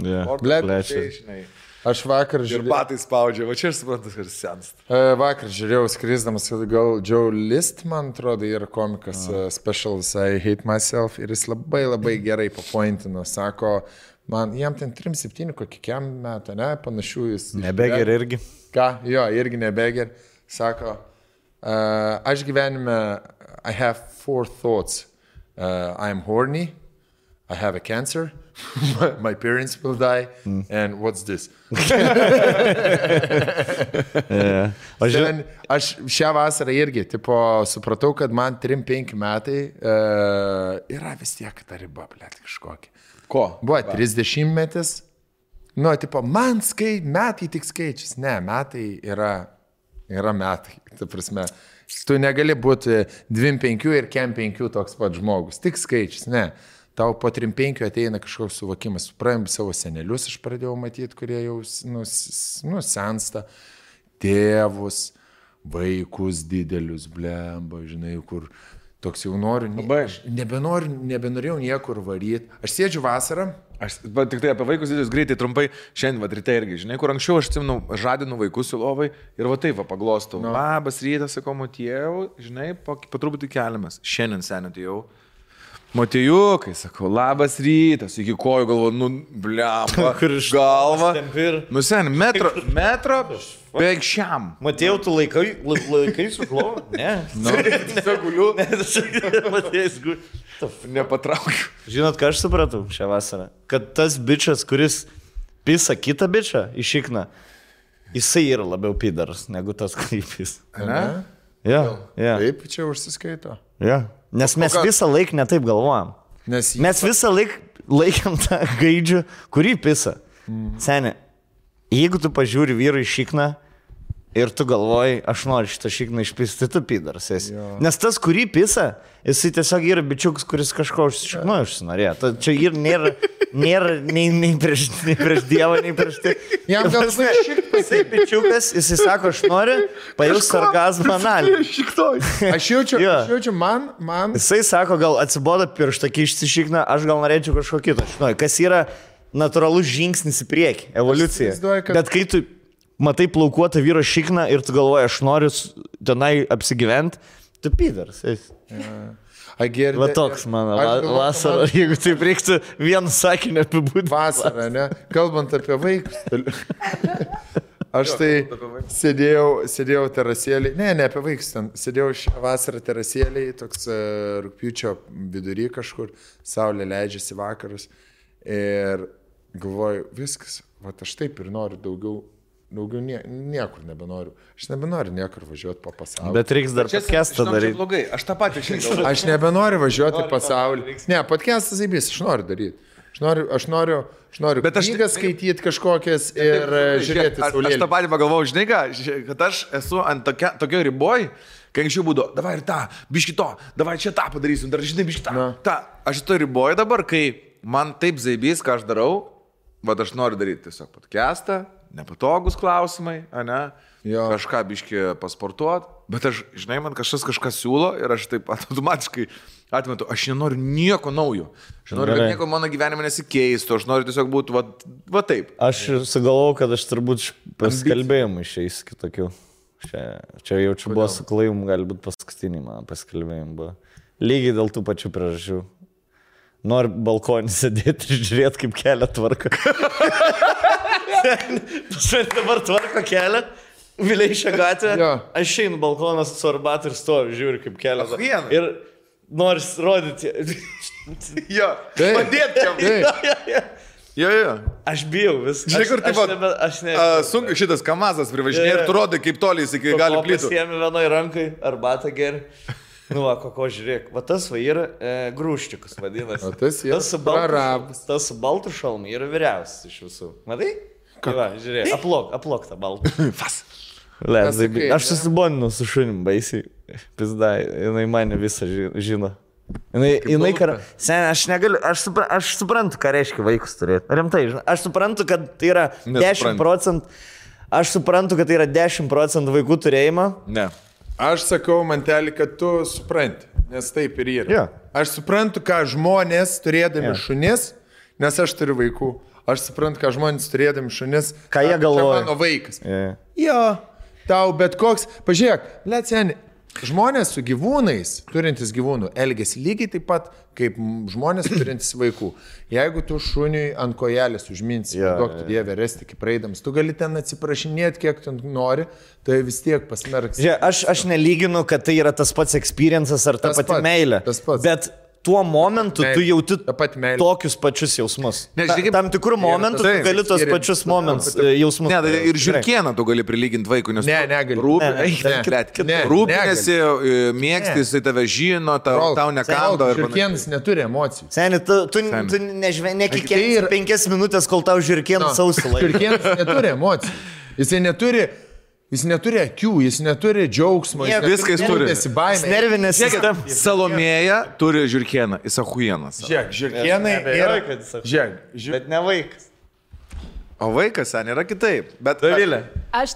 Aš vakar žiūrėjau. Ir batai spaudžia, va čia aš suprantu, kad senstu. Vakar žiūrėjau skrisdamas, gal Joe List, man atrodo, yra komikas Specials I Hate Myself ir jis labai labai gerai papointino, sako, man, jam ten 3-7 kokiam metą, ne, panašių jis. Nebeger irgi. Ką? Jo, irgi nebeger. Sako, aš gyvenime, I have 4 thoughts. I am horny, I have a cancer, my parents will die, and what's this? Aš šią vasarą irgi, tipo, supratau, kad man 3-5 metai yra vis tiek ta riba, blėt, kažkokia. Ko? Buvo 30 metis. Nu, tipo, man metai tik skaičius. Ne, metai yra metai. Ta prasme, tu negali būti 2-5 ir kem 5 toks pat žmogus. Tik skaičius, ne. Tau po 3-5 ateina kažkoks suvokimas. Praėjom savo senelius, aš pradėjau matyti, kurie jau sensta. Tėvus, vaikus didelius, blemba, žinai, kur... Toks jau noriu, nebenorėjau niekur varyti. Aš sėdžiu vasarą. Tik tai apie vaikus didelius greitai, trumpai, šiandien ryte irgi, žinai, kur anksčiau aš atsimenu, žadinu vaikus į lovai ir va taip paglostau. Labas rytas, sakau, Motiejau, žinai, po truputį keliamės. Šiandien seniai atėjau. Motiejukai, sakau, labas rytas, iki kojų galvo, blemba, galva. Nu sen, metro, beveik šiam. Matėjau, tu laikai su klovu? Ne. Tiesiog guliu. Matėjai, guliu. Nepatraukiu. Žinot, ką aš supratau šią vasarą? Kad tas bičas, kuris pisa kitą bičą iš šikną, jisai yra labiau pidaras negu tas, kurį pisa. Ne? Ja. Taip, čia užsiskaito. Ja. Nes mes visą laiką netaip galvojam. Mes visą laikam tą gaidžių, kurį pisa. Seniai, jeigu tu pažiūri vyrui šikną ir tu galvoji, aš noriu šitą šikną išpisti, tu pidaras esi. Nes tas, kurį pisa, jisai tiesiog yra bičiukas, kuris kažko užsinorėjo. Čia ir nėra nei prieš Dievą, nei prieš tai. Jam gal jisai bičiukas, jisai sako, aš noriu pajaus sarkazmą analį. Aš jaučiu, man. Jisai sako, gal atsiboda pirštą kišti šikną, aš gal norėčiau kažko kito. Kas yra natūralus žingsnis į priekį, evoliucija. Bet kai tu matai plaukuotą vyro šikną ir tu galvoji, aš noriu tenai apsigyventi, tu pydaras. Va toks mano vasara, jeigu taip reiktų vienu sakiniu apibūdinti. Vasara, ne? Kalbant apie vaikus. Aš tai sėdėjau terasėlį, ne apie vaikus ten, sėdėjau šią vasarą terasėlį, toks rugpjūčio vidury kažkur, saulė leidžiasi vakarus ir galvoju, viskas, va aš taip ir noriu daugiau niekur nebenoriu. Aš nebenoriu niekur važiuoti po pasaulį. Bet reiks dar podcastą daryti. Aš tą patį šiandien. Aš nebenoriu važiuoti į pasaulį. Ne, podcastas įbės, aš noriu daryti. Aš noriu knygas skaityti kažkokias ir žiūrėti saulėlį. Aš tą patį pagalvojau, žinai ką, kad aš esu ant tokio riboj, kai anksčiau būdavo, davai ir tą, biški to, davai čia tą padarysim, dar žinai, biški tą. Aš to riboj dabar, kai man taip zaibys, ką aš darau, vad aš noriu daryti tiesiog podcastą, nepatogus klausimai, ne? Kažką biški pasportuot, bet aš, žinai, man kažkas siūlo ir aš taip automatiškai atmetu, aš nenoriu nieko naujo. Aš noriu, kad nieko mano gyvenime nesikeistų, aš noriu tiesiog būti va taip. Aš sugalvojau, kad aš turbūt pasikalbėjimų išeis kitokių. Čia jaučiu buvo su Klaium, gali būti paskutiniai mano pasikalbėjimai buvo. Lygiai dėl tų pačių priežasčių. Noriu balkonį sėdėti ir žiūrėti, kaip kelią tvarko. Dabar tvarko kelią. Vileišio gatvė, aš einu balkonas su arbatu ir stoviu, žiūriu kaip kelią. Ir noris rodyti. Jo, padėt jam. Jo. Aš bijau viską. Žinai, kur taip sunku šitas kamazas privažinė ir tu rodai, kaip toliai jis iki gali plytų. Pasiemi vienoj rankai, arbatą geri. Nu, ko žiūrėk, va tas va yra grūščiukas vadinasi. Tas su baltu šalmu yra vyriausias iš visų. Matai? Va, žiūrėk, aplok tą baltą. Fas. Aš susiboninu su šunim baisiai. Pizdai, jinai mane visą žino. Aš negaliu, aš suprantu, ką reiškia vaikus turėti. Rimtai, aš suprantu, kad tai yra 10%. Aš suprantu, kad tai yra 10% vaikų turėjimo. Ne. Aš sakau, mantelį, kad tu supranti, nes taip ir yra. Aš suprantu, ką žmonės turėdami šunis, nes aš turiu vaikų. Aš suprantu, ką žmonės turėdami šunis, ką jie galvoja. Čia mano vaikas. Jo, tau bet koks, pažiūrėk, seni, žmonės su gyvūnais, turintys gyvūnų, elgiasi lygiai taip pat, kaip žmonės turintys vaikų. Jeigu tu šuniui ant kojelės užminsi, duok tu Dievę resti, kaip praeidams, tu gali ten atsiprašinėti, kiek tu nori, tai vis tiek pasmerks. Aš nelyginu, kad tai yra tas pats experiences ar ta pati meilė. Bet tuo momentu tu jauti tokius pačius jausmus. Tam tikrų momentų tu gali tos pačius jausmus. Ne, ir žiurkieną tu gali prilyginti vaikui, nes rūpinėsi, mėgsti, jisai tave žino, tau nekando. Žiurkienas neturi emocijų. Seni, tu nekikėjai 5 minutės, kol tau žiurkienas sausilai. Žiurkienas neturi emocijų. Jis neturi akių, jis neturi džiaugsmo, viską jis turi. Nervinė sistema. Salomėja turi žiurkieną, jis ahujienas. Žiūrėk, žiurkienai yra... Bet ne vaikas. O vaikas, sen, yra kitaip. Bet Dovilė. Aš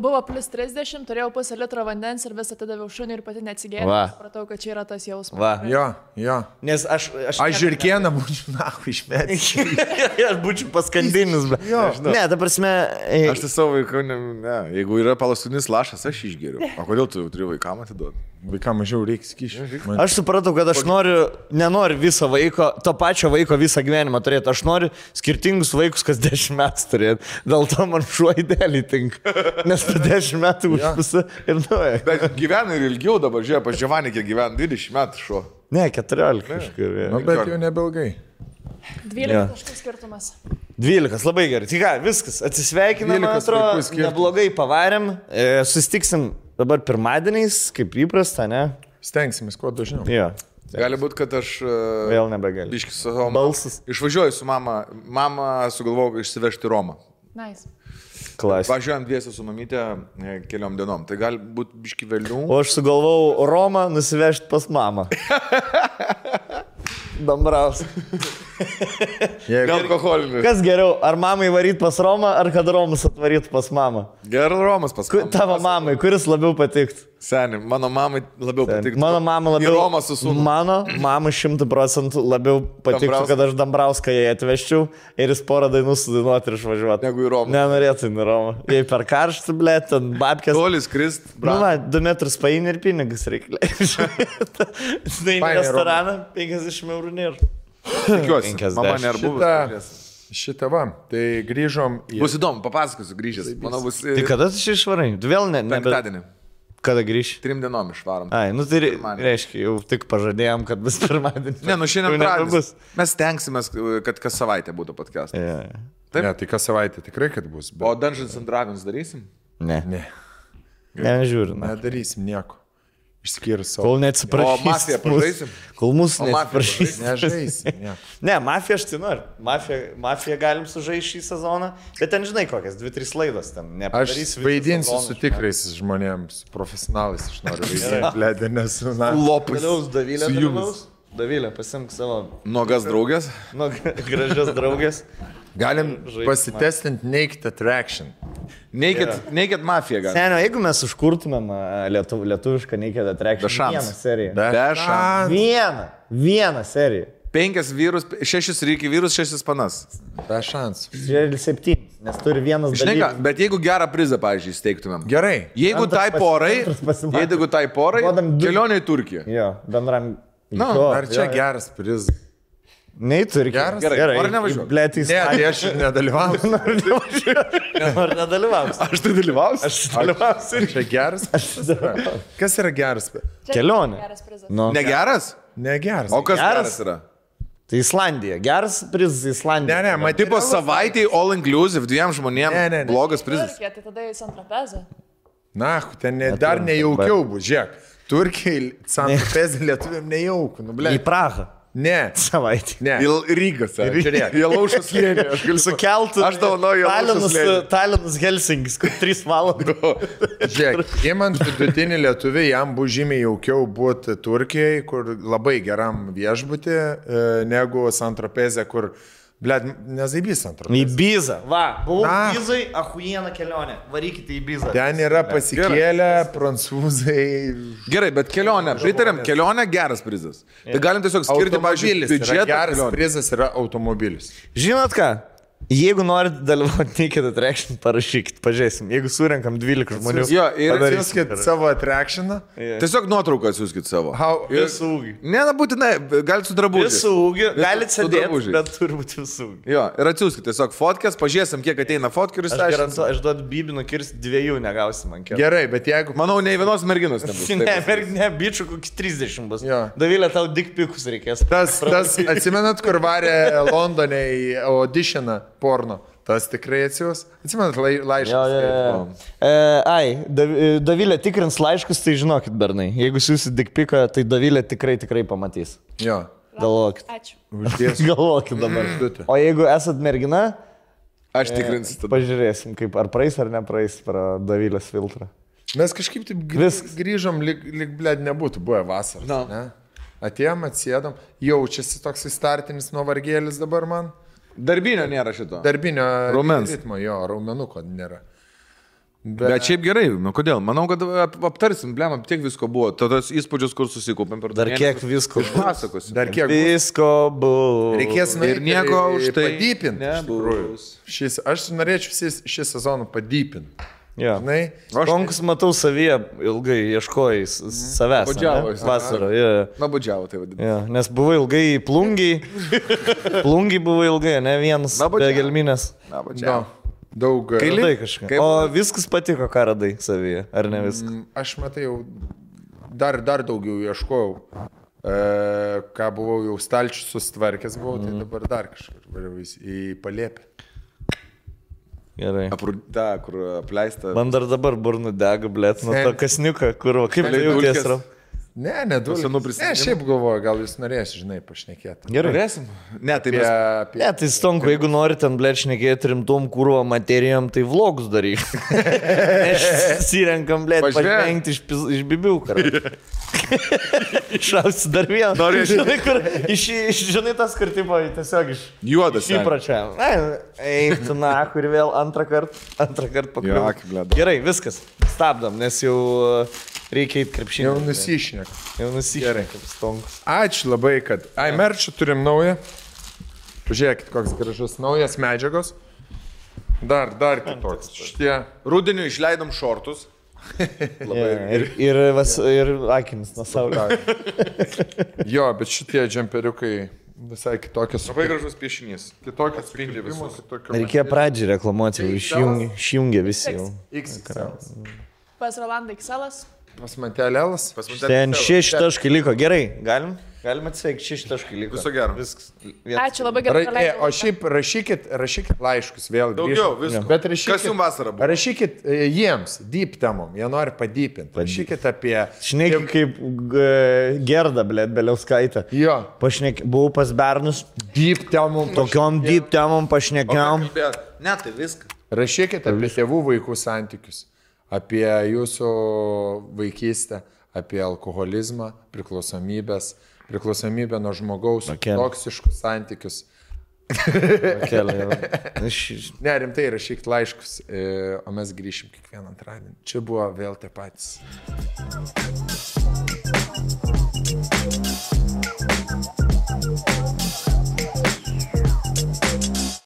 buvo plus 30, turėjau pusę litro vandens ir visą atidaviau šunį ir pati neatsigėriau. Supratau, kad čia yra tas jausmas. Jo. Nes aš žiurkieną būčiau, išmėti. Aš būčiau paskandinis. Ne, ta prasme... Aš tai savo vaikų, jeigu yra palaskutinis lašas, aš išgeriu. O kodėl tu turi vaikam atiduoti? Vaikam mažiau reikia skyšių. Aš supratau, kad aš nenoriu viso vaiko, to pačio vaiko visą gyvenimą turėti. Aš noriu skirtingus vaikus kas 10 metų turėti. Dėl to man šuo idealiai tinka. Nes po 10 metų užpisa ir nuoja. Bet gyvena ir ilgiau dabar, žiūrėjau, pas Giovanni, kiek gyvena 20 metų šuo. Ne, 14 kažkur. Bet jau nebelgai. 12 kažkas skirtumas. 12, labai gerai. Tai ką, viskas, atsisveikinam, man atrodo, neblogai pavarėm. Sustiksim dabar pirmadieniais, kaip įprasta, ne? Stengsimės, kuo dažniau. Gali būti, kad aš vėl nebegaliu. Biškis su savo balsas. Išvažiuoju su mama. Mama sugalvojau išsivežti Romą. Nice. Klasika. Važiuojam dviese su mamytė keliom dienom. Tai gali būti biški vėliau. O aš sugalvojau Romą nusivežti pas mamą. Dambraus. Alkoholinių. Kas geriau, ar mamai varyt pas Romą, ar kad Romas atvaryt pas mamą? Gerai, Romas pas mamą. Tavo mamai, kuris labiau patikt? Seniai, mano mamai labiau patiktų. Mano mama labiau. Romas su sūnumi. Mano mama 100% labiau patiktų, kad aš Dambrauską jai atvežčiau ir jis porą dainų sudainuoti ir išvažiuoti. Negu į Romą. Nenorėtų į Romą. Jei per karštą, blėt, ten babkės. Tolis krist. Nu, va, 2 metrus paini ir pinigus reikia leisti. Tai į restoraną 50 eurų nėra. Tikiuosi, mama nėra buvus. Šitą va, tai grįžom į... Bus įdomu, papasakosiu grįžęs. Manau, bus... Tai kada tu čia išvarai? Tu vėl ne... Penktadienį. Kada grįši? 3 dienom išvarom. Ai, nu tai reiškia, jau tik pažadėjom, kad bus pirmadienį. Ne, nu šiandien pradės. Mes tenksimės, kad kas savaitę būtų podcastas. Yeah. Taip? Ne, tai kas savaitę tikrai, kad bus. Bet... O Dungeons and Dragons darysim? Ne. Ne, Nežiūriu. nedarysim nieko. Išskyrus savo. Kol neatsiprašysim. O mafiją pažaisim? Kol mūsų neatsiprašysim. Nežaisim. Ne, mafiją aš tai noriu. Mafiją galim sužaisti šį sezoną, bet ten žinai kokias, 2-3 laidos ten. Aš vaidinsiu su tikrais žmonėms, profesionalais, aš noriu vaidinti, blėdė, nes... Lopas. Davilė dalyvaus. Davilė, pasimk savo... Nuogas draugės? Gražias draugės. Galim pasitestinti Naked Attraction. Naked Mafia galim. Senio, jeigu mes užkurtumėm lietuvišką Naked Attraction, vieną seriją. Be šansų. Vieną seriją. 5 vyrus, 6 reikia vyrus, 6 panas. Be šansų. 7, nes turi vienas Žinai ką, dalykas. bet jeigu gerą prizą, pavyzdžiui, steigtumėm. Gerai. Jeigu tai porai, kelionė į Turkiją. Jo, bendram... Ar čia geras prizas? Nei turi geras. Gerai. Ar nevažiuoju? Blėt, Ne, tai aš nedalyvausiu. Ar nedalyvausiu? Aš tai dalyvausiu? Aš dalyvausiu. Čia geras. Kas yra geras? Kelionė. Nu. Negeras? Negeras. O kas geras yra? Tai Islandija. Geras prizas Islandija. Ne, Tipo materialus- savaitėj all inclusive 2 žmonėm. Ne. Blogas prizas. Turkija, tai tada į Santrapezą. Na, ten dar nejaukiau bus, žiūrėk. Turkiai, Santrapezė lietuviam nejaukų, nu, blėt. Į Prahą. Ne. Savaitė. Ne. Į Rygą, Žiūrėk. Į Laušos slėnį. Aš galiu Sukeltų. Aš dovanoju Laušos slėnį. Talinas Helsingis, kur 3 valandos. Žiūrėk, įmant vidutinį lietuvį, jam bus žymiai jaukiau būti Turkijai, kur labai geram viešbutį, negu Santrapezė, kur, blėt, nezaibys Į Santrapezė. Bizą. Va, buvau Na. Bizai, ahuiena kelionė. Varykite į Bizą. Ten yra pasikėlę prancūzai. Gerai, bet kelionė, pritarėm, kelionė geras prizas. Tai galim tiesiog skirti, pavyzdžiui, Automobilis yra biudžetą. geras kelionei. prizas yra automobilis. Žinot ką? Jeigu norit dalyvauti Naked Attraction, parašykit, pažiūrėsim. Jeigu surenkam 12 žmonių. Jo, ir padarysim. Atsiųskit savo atrakšiną. Tiesiog nuotrauką atsiųskit savo. Visų ūgį. Ne, na būtinai, galite su drabužiais. Visų ūgį. Galite su sėdėti, drabužiais. bet turi būti visų ūgį. Jo, ir atsiųskit tiesiog fotkės, pažiūrėsim, kiek ateina fotkų ir Aš išsiaiškinsim. garantuoju, aš duodu bibinų kirsti 2 negausim man kelią. Gerai, bet jeigu... Manau, nei vienos merginos nebus. Ne, bičių kokį 30 bus. Jo. Davilė, tau dikpikus reikės. Tas, atsimenat, kur varė Londone į auditioną porno? Tas tikrai atsiūs. Atsimenat, laiškas. Davilė tikrins laiškus, tai žinokit, bernai. Jeigu siūsit dikpiką, tai Davilė tikrai pamatys. Jo. Galvokit. Ačiū. Uždės. Galvokit dabar. O jeigu esat mergina, Aš tikrinsiu tada. pažiūrėsim, kaip ar praeis ar nepraeis pro Davilės filtrą. Mes kažkaip taip grįžom, lyg blėd nebūtų buvę vasaros. No. Ne? Atėjom, atsėdom. Jaučiasi toks startinis nuovargėlis dabar man. Darbinio nėra šito. Darbinio Raumens. ritmo, jo, raumenuko nėra. Bet šiaip gerai, nu kodėl? Manau, kad aptarsim, blema, tiek visko buvo. Tos įspūdžius, kur susikūpėm per Dar kiek visko bus. pasakosim. Dar kiek bus. Visko bus. Reikės Ir nieko už tai padypinti. nebus. Aš norėčiau šį sezoną padypinti. Jo. Žinai, Konkus matau savyje, ilgai ieškojai savęs. Nuobodžiavo. Vasarą, jo. Nabudžiavo tai vadinasi. Jo, nes buvai ilgai plungiai. Plungiai buvo ilgai, ne vienas. Nuobodžiavo. Be gelminės. Nabudžiavo. daug. Radai kažką. Kaip- O viskas patiko, ką radai savyje, ar ne viskas? Aš matai jau dar daugiau ieškojau. Ką buvau jau stalčių sustvarkęs, buvau, tai dabar dar kažkur variau į Palėpę. Gerai. Ta, kur apleista. Man dar dabar burnu dega, blėt, nuo Sen. to kasniuką, kur, va, kaip tai Dulkės. jauties, Ram? Ne, du. Ne, šiaip galvoju, gal jūs norėsite, žinai, pašnekėti. Gerai. Norėsim? Ne, tai mes... Ne, tai stonku, jeigu nori ten, blėt, šnekėti rimtom kūro materijom, tai vlogus daryk. Sirenkam, blėt, pažvengti iš bibių, karai. Išausi dar vieną. Žinai, kur, žinai, tas kartimo tiesiog iš... Juodas. Įpračia. Eik, tu na, kur vėl antrą kartą pakliuvo. Gerai, viskas. Stabdom, nes jau reikia įt krepšinį. Jau nusišnek. Gerai, kaip stonkus. Ačiū labai, kad... merčių turim naują. Pažiūrėkit, koks gražus naujas medžiagos. Dar kitoks. Šitie... Rudeniu išleidom šortus. Ir akinis nuo saulio. Jo, bet šitie džemperiukai visai kitokios. Labai gražus piešinys. Kitokios spindi visus. Reikėjo pradžią reklamuoti, išjungė visi jau. Pas Rolandą XL. Pas Mantelėlas. Ten 6 taškai liko. Gerai, galim atsveikti, 6 taškai liko. Viso gero. Viskas. Ačiū, labai gerai. O šiaip rašykit laiškus vėl. Daugiau, visko. Bet rašykit, kas jums vasarą buvo? Rašykit jiems, deep temom, jie nori padypinti. Rašykit apie... Šneki kaip Gerda, blėt, Beliauskaitė. Jo. Buvau pas Bernus. Deep temom. Tokiom deep temom pašnekiam. Ne, tai viską. Rašykit apie tėvų vaikų santykius. Apie jūsų vaikystę, apie alkoholizmą, priklausomybę nuo žmogaus, toksiškus santykius. Ne, rimtai rašykit laiškus, o mes grįšim kiekvieną antradienį. Čia buvo vėl tie patys.